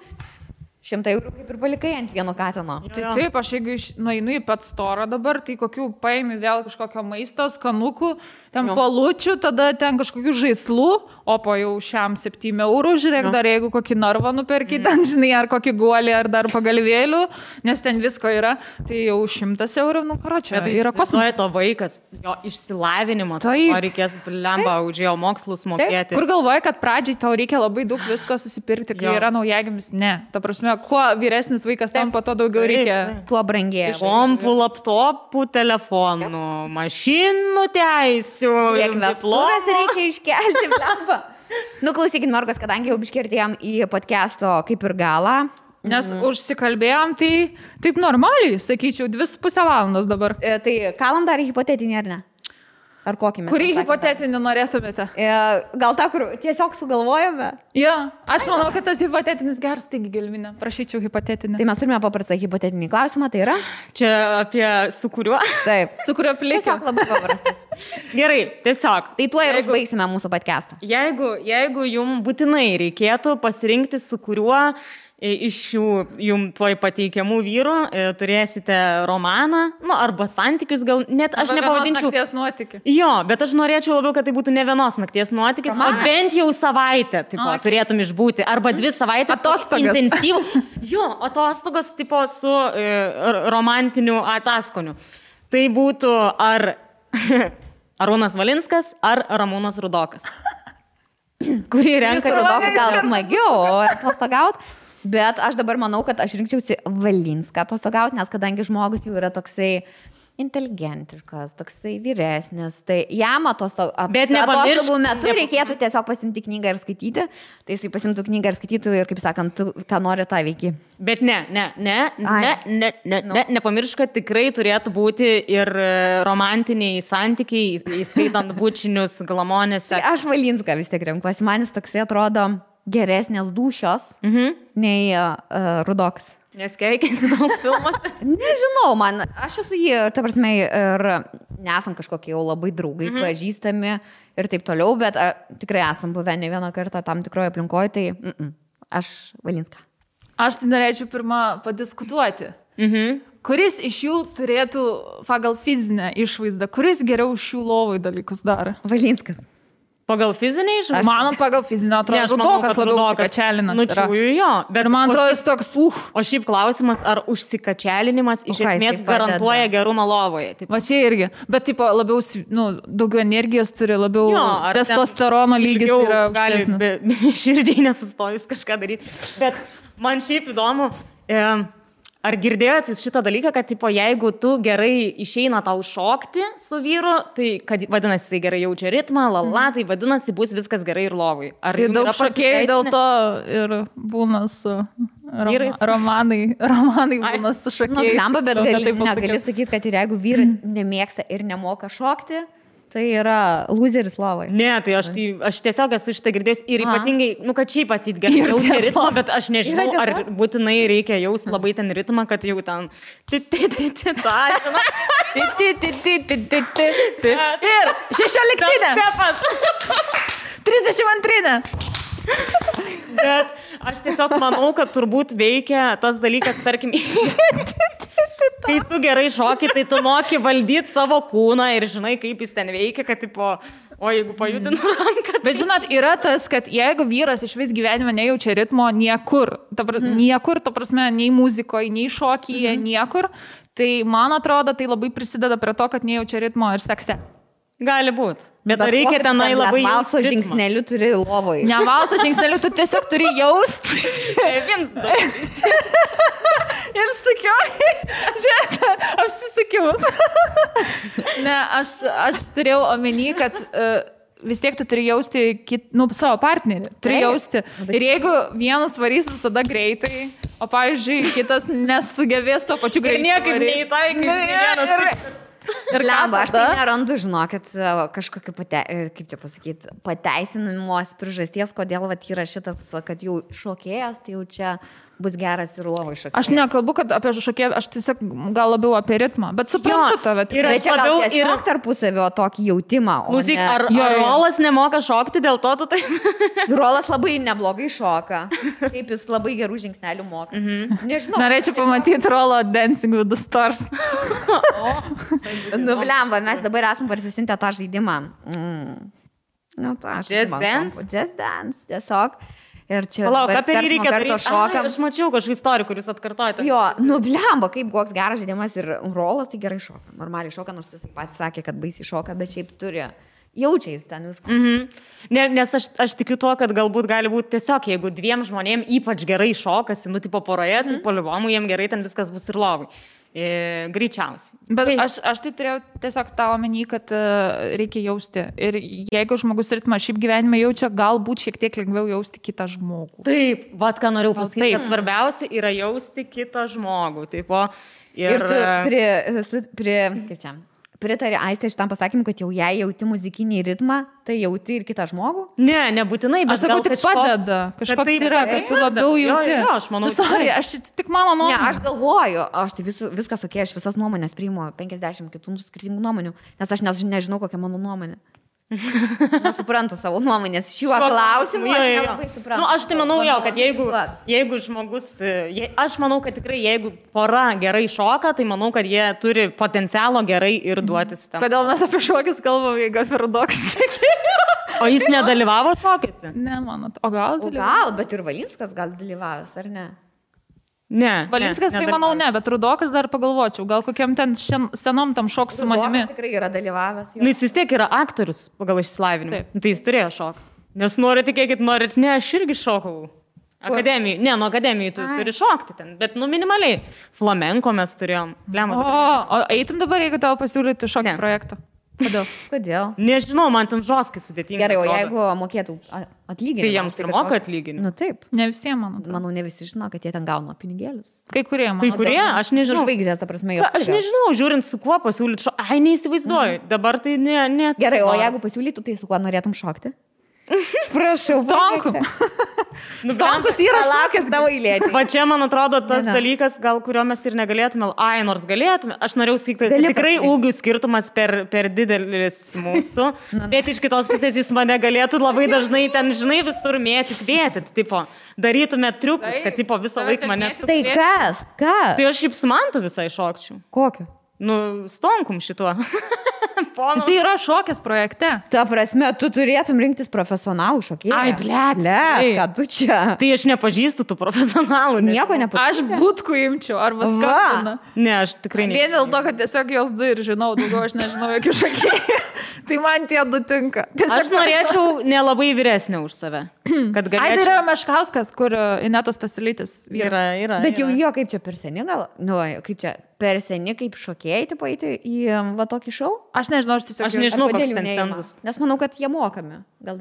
100 eurų kaip ir palikai ant vieno katino. Tai taip, aš jeigu nueinu į pet storą dabar, tai kokių paimi vėl kažkokio maisto, skanukų, ten palučių, tada ten kažkokių žaislų, o po jau šiam 7 eurų, žiūrėk, dar jeigu kokį narvą nuperki, ten, žinai, ar kokį guolį, ar dar pagalvėlių, nes ten visko yra, tai jau 100 eurų, nu, karočią, tai yra kosmosas. To vaikas, jo išsilavinimas, o reikės blemba už jo mokslus mokėti. Taip. Kur galvoja, kad pradžiai tau reikia labai daug visko susipirkti, kai yra naujagimis? Ne, ta prasme, kuo vyresnis vaikas tampa, to daugiau reikia. Tuo brangėja. Kompų, laptopų, telefonų, mašinų teisių. Kiek vestuvės reikia iškelti, blemba. Nu, klausykit, Morgos, kadangi jau biškirtėjom į podcast'o kaip ir galą. Nes užsikalbėjom, tai taip normaliai, sakyčiau, 2,5 valandos dabar. Tai kalam dar hipotetinį, ar ne? Ar kokį mes? Kurį hipotetinį norėtumėte? Gal tą, kur tiesiog sugalvojame? Jo, aš manau, kad tas hipotetinis geras, taigi Gelminė, prašyčiau hipotetinį. Tai mes turime paprastą hipotetinį klausimą, tai yra? Čia apie su kuriuo? Taip. Su kuriuo plėsiu? Tiesiog labai paprastas. Gerai, tiesiog. Tai tuo ir užbaigsime mūsų podcastą. Jeigu jums būtinai reikėtų pasirinkti, su kuriuo iš šių jums tuoj pateikiamų vyrų turėsite romaną, nu, arba santykius, gal net aš nepavadinčiau. Nakties nuotykį. Jo, bet aš norėčiau labiau, kad tai būtų ne vienos nakties nuotykis, o bent jau savaitę, tipo, turėtum išbūti, arba 2 savaitės. Atostogas. Intensyvų. Jo, atostogos, tipo, su romantiniu ataskoniu. Tai būtų ar Arūnas Valinskas, ar Ramūnas Rudokas. Kurį renka Rudokas gal smagiau atostogauti. Bet aš dabar manau, kad aš rinkčiausi Valinską atostogauti, nes kadangi žmogus jau yra toksai inteligentiškas, toksai vyresnis, tai jam atostogų metu reikėtų tiesiog pasimti knygą ir skaityti, tai jisai pasimtų knygą ir skaitytų ir, kaip sakant, tu, ką nori, tą veiki. Bet nepamiršk, kad tikrai turėtų būti ir romantiniai santykiai, įskaitant bučinius, glamonėse. Tai aš Valinską vis tiek renkuosi, man jis toksai atrodo geresnės dūšios nei Rudokas. Nes keikiasi daug filmuose? Nežinau, aš esu jį, ta prasme, ir nesam kažkokie jau labai draugai, pažįstami ir taip toliau, bet tikrai esam buvę ne vieną kartą tam tikroje aplinkoje, tai aš Valinską. Aš tai norėčiau pirmą padiskutuoti. Kuris iš jų turėtų pagal fizinę išvaizdą, kuris geriau šių lovai dalykus daro? Valinskas. Pagal fizinį išvaizdą? Man pagal fizinę atrodo, Rudokas labiau užsikačialinas. Nučiųjų jo. Bet man atrodo, jis toks, O šiaip klausimas, ar užsikačialinimas iš esmės garantuoja gerumą lovoje? Va čia irgi. Bet tipo, labiau, daugiau energijos turi, labiau testosterono lygis yra aukštesnis. Gali širdžiai nesustojus kažką daryti. Bet man šiaip įdomu, ar girdėjot jūs šitą dalyką, kad tipo, jeigu tu gerai išeina tau šokti su vyru, tai kad vadinasi, jisai gerai jaučia ritmą, tai vadinasi, bus viskas gerai ir lovui. Ar tai daug šokėjai dėl to ir būna su romanai būna su šokėjais. Bet negali sakyti, kad ir jeigu vyras nemėgsta ir nemoka šokti, tai yra loseris lovai. Ne, tai aš tiesiog esu šitą girdėjęs ir ypatingai, kad šiaip atsit gerai jaučia ritmą, bet aš nežinau, ar būtinai reikia jaus labai ten ritmą, kad jau ten ir 16-inė. 32-inė. Bet aš tiesiog manau, kad turbūt veikia tas dalykas, tarkim, kai tu gerai šoki, tai tu moki valdyti savo kūną ir žinai, kaip jis ten veikia, kad tipo, o jeigu pajudinu ranką. Bet žinot, yra tas, kad jeigu vyras iš vis gyvenime nejaučia ritmo niekur, niekur, ta prasme, nei muzikoje, nei šokyje, niekur, tai man atrodo, tai labai prisideda prie to, kad nejaučia ritmo ir sekse. Gali būti. Bet reikia tenai labai valso žingsnelių turi lovoj. Ne valso žingsnelių, tu tiesiog turi jausti. Ir sukiuoji. Žiūrėk, apsisukimus. Ne, aš turėjau omeny, kad vis tiek tu turi jausti savo partnerį. Turi jausti. Ir jeigu vienas varys visada greitai, o pavyzdžiui, kitas nesugebės to pačiu greičiu. Ir niekaip neįtaikys. Ir Lemba, aš tai nerandu, žinokit, kažkokį, kaip čia pasakyti, pateisinimos priežasties, kodėl vat yra šitas, kad jau šokėjas, tai jau čia bus geras ir lovai šokėjas. Aš nekalbu, kad apie šokėją, aš tiesiog gal labiau apie ritmą, bet suprantu tave. Bet čia labiau ir tarpusavio tokį jautimą. Klausyk, ar Rolas nemoka šokti dėl to, tu tai... Rolas labai neblogai šoka. Kaip jis labai gerų žingsnelių moka. Nežinau. Norėčiau pamatyti Rolo Dancing with the Stars. Nu, blemba, mes dabar esam parsisintę tą žaidimą. Nu, tą Just Dance? Just Dance, tiesiog. Ir čia Palauk, apie jį reikia daryti. Šokam. Aš mačiau kažkokį istoriją, kuris atkartoja. Jo, nu blemba, kaip koks geras žaidimas ir Rolas tai gerai šoka. Normaliai šoka, nors jis pats sakė, kad baisiai šoka, bet šiaip turi. Jaučiais ten viską. Nes aš tikiu tuo, kad galbūt gali būti tiesiog, jeigu dviem žmonėm ypač gerai šokasi, nu tipo poroje, tai poliuomų jiem gerai ten viskas bus ir lovai. Greičiausiai. Bet aš tai turėjau tiesiog tą omeny, kad reikia jausti. Ir jeigu žmogus ritmą šiaip gyvenime jaučia, galbūt šiek tiek lengviau jausti kitą žmogų. Taip, vat ką norėjau pasakyti, kad svarbiausia yra jausti kitą žmogų. Taip, ir tu kaip čia? Pritari Aistė šitam pasakymui, kad jau jei jauti muzikinį ritmą, tai jauti ir kitą žmogų? Ne, nebūtinai, bet aš sakau, tik padeda. Kažkoks yra, kad tu labiau jauti. Jo, aš manau. Sorry, aš tik mano nuomonė. Ne, aš galvoju, aš tai viskas okei, aš visas nuomonės priimu, 50 kitų skirtingų nuomonių, nes aš nežinau, kokia mano nuomonė. Nesuprantu savo nuomonės šiuo klausimu, aš nelabai suprantu. Nu, aš tai manau jau, kad jeigu žmogus, aš manau, kad tikrai jeigu pora gerai šoka, tai manau, kad jie turi potencialo gerai ir duotis tam. Kodėl mes apie šokius kalbam, jeigu apie Rudokas? O jis nedalyvavo šokiuose? Ne, manot. O gal? Gal, bet ir Valinskas gal dalyvavęs, ar ne? Ne. Valinskas tai manau ne, bet Rudokas dar pagalvočiau, gal kokiam ten senom tam šok su manimi. Rudokas tikrai yra dalyvavęs. Nu, jis vis tiek yra aktorius pagal išsilavinimą. Tai jis turėjo šokti. Nes nori, tikėkit, norit, ne, aš irgi šokau. Akademijai. Ne, nuo akademijai tu turi šokti ten, bet nu minimaliai. Flamenko mes turėjom. O eitum dabar, jeigu tau pasiūlyti šokį projektą? Kodėl? Nežinau, man ten žoskai sudėtinga. Gerai, o jeigu mokėtų atlyginimą? Tai jiems ir moka atlyginimą. Nu taip. Ne visiems, manau. Manau, ne visi žino, kad jie ten gauna pinigėlius. Kai kurie, manau. Kai kurie, aš nežinau. Žvaigždės, ta prasme, jo. Aš nežinau, žiūrint su kuo pasiūlyti šokti. Ai, neįsivaizduoju. Dabar tai ne. Gerai, o jeigu pasiūlytų, tai su kuo norėtum šokti? Prašau. Stonkum. Stonkus yra šokęs tavo eilėti. Va čia, man atrodo, tas dalykas, gal kurio mes ir negalėtume. Ai, nors galėtume. Aš norėjau sakyti, kad tikrai ūgių skirtumas per didelis mūsų. Bet iš kitos pusės jis mane galėtų labai dažnai ten, žinai, visur mėtyt. Tipo, darytume triukus, kad tipo visą laiką mane su... Tai kas? Tai aš šiaip su Mantu visai šokčiau. Kokiu? Nu, Stonkum šituo. Jis yra šokęs projekte. Ta prasme, tu turėtum rinktis profesionalų šokėją. Ai, blėt, ką tu čia? Tai aš nepažįstu tų profesionalų. Nieko nepažįstu. Aš būtkų imčiau, arba skambina. Ne, aš tikrai ne. Vien dėl to, kad tiesiog jos du ir žinau, daugiau aš nežinau jokių šokėjų. Tai man tie du tinka. Aš norėčiau nelabai vyresnė už save. Kad galėčiau... Ai, tai yra Meškauskas, kur Inetas Stasiulytis. Yra. Bet jau jo, kaip čia per seni gal? Nu, kaip čia per seni, kaip šokėjai, tipo, eiti į va tokį šou? Aš nežinau, aš nežinau, koks ten cenzas. Nes manau, kad jie mokami.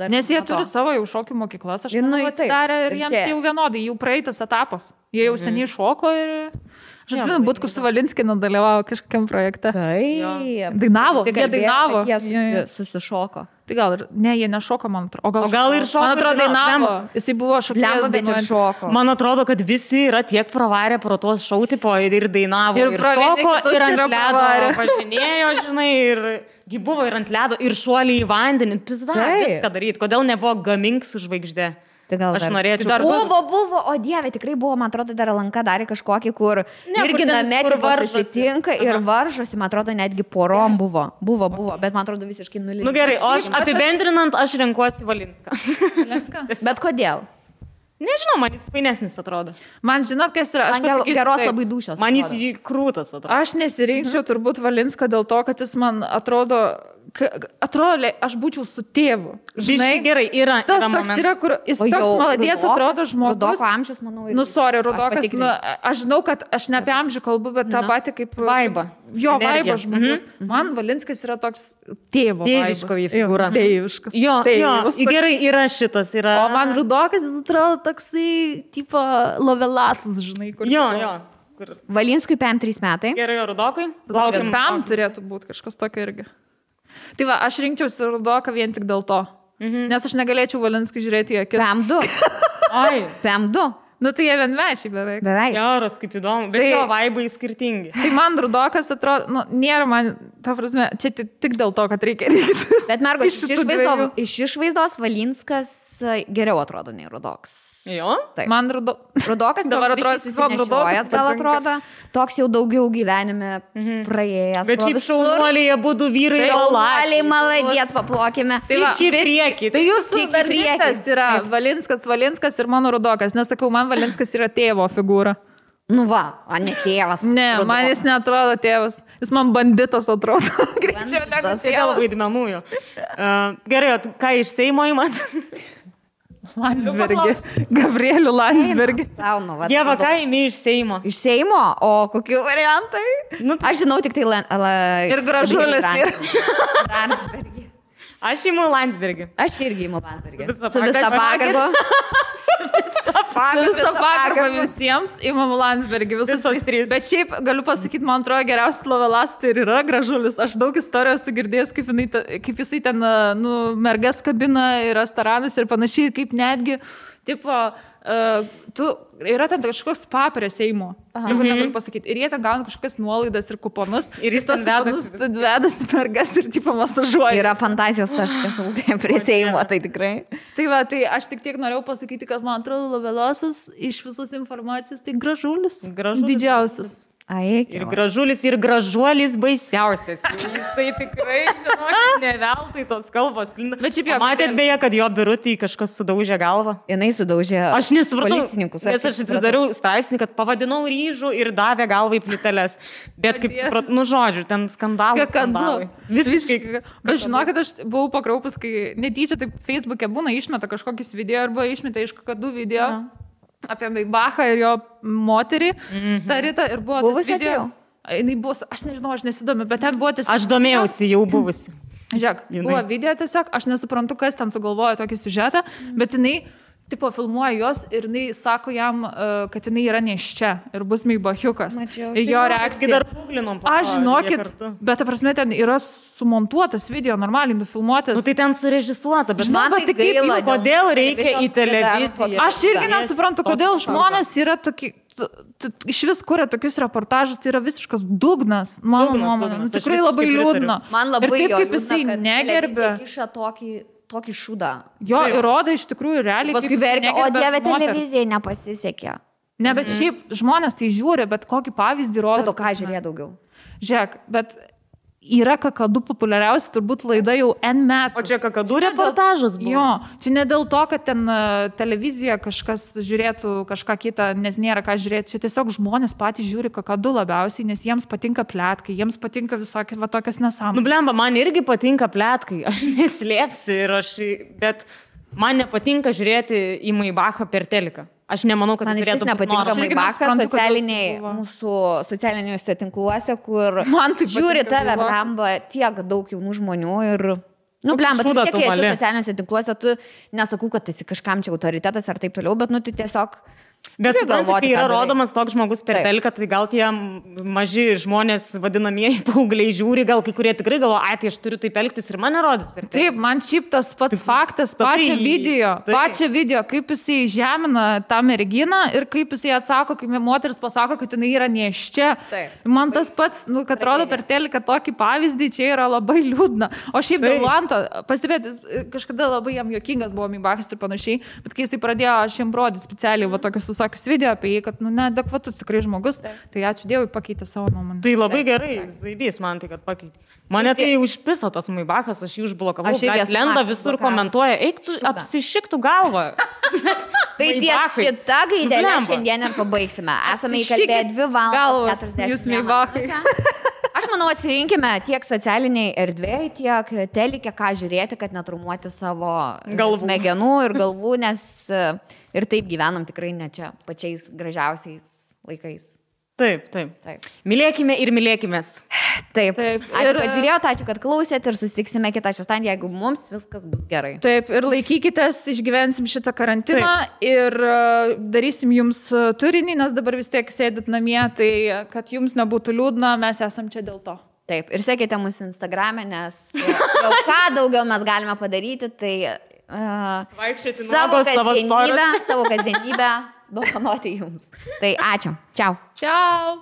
Nes jie turi savo jau šokių mokyklas, aš manau, atsidarė ir jiems jau vienodai, jų praeitas etapas. Jie jau seniai šoko ir... Aš atsimenu, Butkus su Valinskinu dalyvavo kažkokiam projekte. Taip. Dainavo, jie dainavo. Jie susišoko. Tai gal ir, ne, jie nešoko, man atrodo. O gal ir šoko. Man atrodo, dainavo. Jisai buvo šokėjas, bet ir šoko. Man atrodo, kad visi yra tiek pravarę pro tuos šou tipo ir dainavo, ir šoko, ir ant ledo važinėjo, žinai, ir buvo ir ant ledo, ir šuoliai į vandenį. Pizda, viską daryti. Kodėl nebuvo Gamink su žvaigždė? Aš norėčiau. Buvo, o dieve, tikrai buvo, man atrodo, dar Lanka darė kažkokį, kur irgi name susitinka ir varžosi, man atrodo, netgi porom buvo, bet man atrodo visiškai nulinė. Nu gerai, o aš apibendrinant, aš renkuosi Valinską. Bet kodėl? Nežinau, man jis fainesnis atrodo. Man žinot, kas yra, aš pasakysiu, geros labai dušios. Man jis krūtas atrodo. Aš nesirinkčiau turbūt Valinską dėl to, kad jis man atrodo, aš būčiau su tėvu. Žinai, gerai, yra. Tas toks yra, kur jis toks maladėts atrodo žmogus. Rudoko amžius, manau. Nu, sorry, Rudokas, aš žinau, kad aš ne apie amžių kalbu, bet tą patį kaip... Vaibą. Jo, vaibą žmogus. Man Valinskas yra toks tėvo vaibas. Tėviško figūra. Tėviškas. Jo, gerai, yra šitas. O man Rudokas, jis atrodo toksai, tipo, lovelasus, žinai, kur... Jo. Kur? Valinskui PM3 metai. Gerai, o Rudokui? Laukiam. PM turėtų būti kažkas tokio irgi. Tai va, aš rinkčiausi Rudoką vien tik dėl to. Nes aš negalėčiau Valinskui žiūrėti į akis. PM2. Ai. PM2. Nu tai jie vienmečiai beveik. Beveik. Geras, kaip įdomu, bet jo vaibai skirtingi. Tai man Rudokas atrodo, nu, nėra man, ta prasme, čia tik dėl to, kad reikia rinktis. Bet mergo, iš išvaizdos Valinskas geriau atrodo nei Rudokas. Jo? Taip. Man Rudokas dabar atrodo, susinešiojas, gal atrodo, toks jau daugiau gyvenime praėjęs. Bet šiaip šaunuoliai būtų vyrai ir šaunuoliai, maladės, paplokime. Tai va, čia prieki. Tai jūsų berniukas yra Valinskas ir mano Rudokas, nes sakau, man Valinskas yra tėvo figūra. Nu va, o ne tėvas. Ne, man jis neatrodo tėvas. Jis man banditas atrodo. Greičiau negu tėvas. Vaidmenų jo. Gerai, ką iš Seimo įmat? Landsbergį. Gabrielių Landsbergį. Dieva, ką įmi iš Seimo? Iš Seimo? O kokie variantai? Nu, aš žinau tik tai ir Gražulis. Landsbergį. Aš įimu Landsbergį. Aš irgi įimu Landsbergį. Su visą pagarbą. Su visą pagarbą visiems įimu Landsbergį. Visos trys. Bet šiaip galiu pasakyti, man atrodo, geriausias lovelas tai ir yra Gražulis. Aš daug istorijos sugirdėjęs, kaip jisai ten mergas kabina ir restoranas ir panašiai, kaip netgi, tipo, yra ten kažkoks spa prie Seimo. Negaliu pasakyti. Ir jie ten gauna kažkokias nuolaidas ir kuponus. Ir jis tos kuponus vedasi mergas ir tipo masažuoja. Yra fantazijos taškas prie Seimo, tai tikrai. Tai va, tai aš tik norėjau pasakyti, kad man atrodo lovelosas iš visos informacijos tai Gražulis. Didžiausias. Ir Gražulis, ir Gražuolis baisiausias. Jisai tikrai, žinokit, ne veltui tos kalbos. Bet šiaip jo. Matėt beje, kad jo birutį kažkas sudaužė galvą? Jinai sudaužė aš nesupratau, policininkus. Nes aš atsidariau straipsnį, kad pavadinau ryžų ir davė galvą į plyteles. Bet kaip supratau, nu žodžiu, ten skandalai. Visiškai. Bet žinokit, aš buvau pakraupus, kai netyčia taip Facebook'e būna išmeta kažkokius video arba išmeta iš kakadų video. Apie Maibachą ir jo moterį, tą rytą, ir buvo tas video. Jinai buvo, aš nežinau, aš nesidomiu, bet ten buvo tiesiog... Aš domėjausi, jau buvusi. Žiūrėk, buvo video tiesiog, aš nesuprantu, kas ten sugalvojo tokį siužetą, bet jinai, tipo, filmuoja jos ir jinai sako jam, kad jinai yra neščia ir bus Maibachiukas. Ir jo reakcija. Aš žinokit, bet ta prasme ten yra sumontuotas video, normaliai nufilmuotas. Nu tai ten surežisuota, bet man tai gaila. Kodėl reikia į televiziją? Aš irgi nesuprantu, kodėl žmonės yra tokie, iš vis kuria tokius reportažus, tai yra visiškas dugnas, mano nuomonė. Tikrai labai liūdna. Man labai ir taip, kaip jisai negerbė. Tokį šūdą. Jo, įrodo iš tikrųjų realiai. Paskui verkia, o Dieve, televizijai nepasisekė. Ne, bet šiaip žmonės tai žiūri, bet kokį pavyzdį rodo. Bet o ką žiūrėjo daugiau? Žiūrėk, bet yra kakadų populiariausia turbūt laida jau N metų. O čia kakadų reportažas buvo? Jo, čia ne dėl to, kad ten televizija kažkas žiūrėtų kažką kitą, nes nėra ką žiūrėti. Čia tiesiog žmonės patys žiūri kakadų labiausiai, nes jiems patinka pletkai, jiems patinka visokie va tokias nesąmonės. Nu blemba, man irgi patinka pletkai, aš neslėpsiu, bet man nepatinka žiūrėti į Maibachą per teliką. Aš nemanau, kad man iš vis nepatinka Maibachas mūsų socialiniuose tinkluose, kur žiūri tave, blemba, tiek daug jaunų žmonių ir... Nu, blemba, tu tiek esi socialiniuose tinkluose, tu nesakau, kad esi kažkam čia autoritetas ar taip toliau, bet nu, tu tiesiog... Bet suprantate, kai yra rodomas toks žmogus per teliką, tai gal tie maži žmonės, vadinamieji paaugliai žiūri, gal kai kurie tikrai galvo, tai aš turiu taip elgtis ir mane rodys per teliką. Taip, man šiaip tas pats faktas, pačią video, kaip jisai žemina tą merginą ir kaip jisai atsako, kai moteris pasako, kad jinai yra neščia. Man tas pats, nu, kad rodo per teliką tokį pavyzdį, čia yra labai liūdna. O šiaip dėl Lanto, pastebėti, kažkada labai jam juokingas buvo Maibachas ir panašiai, bet kai jisai pradėjo šiam rodyti specialiai tokius visokius video apie jį, kad, nu, neadekvatus tikrai žmogus, tai ačiū Dievui pakeitė savo nuomonę. Tai labai gerai, zaibys man tai, kad pakeitė. Mane tai užpiso tas Maibachas, aš jį užblokavau, lenda visur komentuoja, eik tu apsišiktų galvą. Tai ties šitą gaidelę šiandien ir pabaigsime. Esame įkalbėję 2 valandas 40 minučių. Aš manau, atsirinkime tiek socialiniai erdvėjai, tiek telikė, ką žiūrėti, kad netraumuoti savo smegenų ir galvų, nes ir taip gyvenam tikrai ne čia pačiais gražiausiais laikais. Taip. Mylėkime ir mylėkimės. Taip. Ačiū, kad žiūrėjote, ačiū, kad klausėt ir susitiksime kitą šeštadienį, jeigu mums viskas bus gerai. Taip, ir laikykitės, išgyvensim šitą karantiną ir darysim jums turinį, nes dabar vis tiek sėdit namie, tai kad jums nebūtų liūdna, mes esam čia dėl to. Taip, ir sekite mūsų Instagram'e, nes jau ką daugiau mes galime padaryti, tai vaikščioti savo kasdienybę dovanoti jums. Tai ačiū. Čiau. Čiau.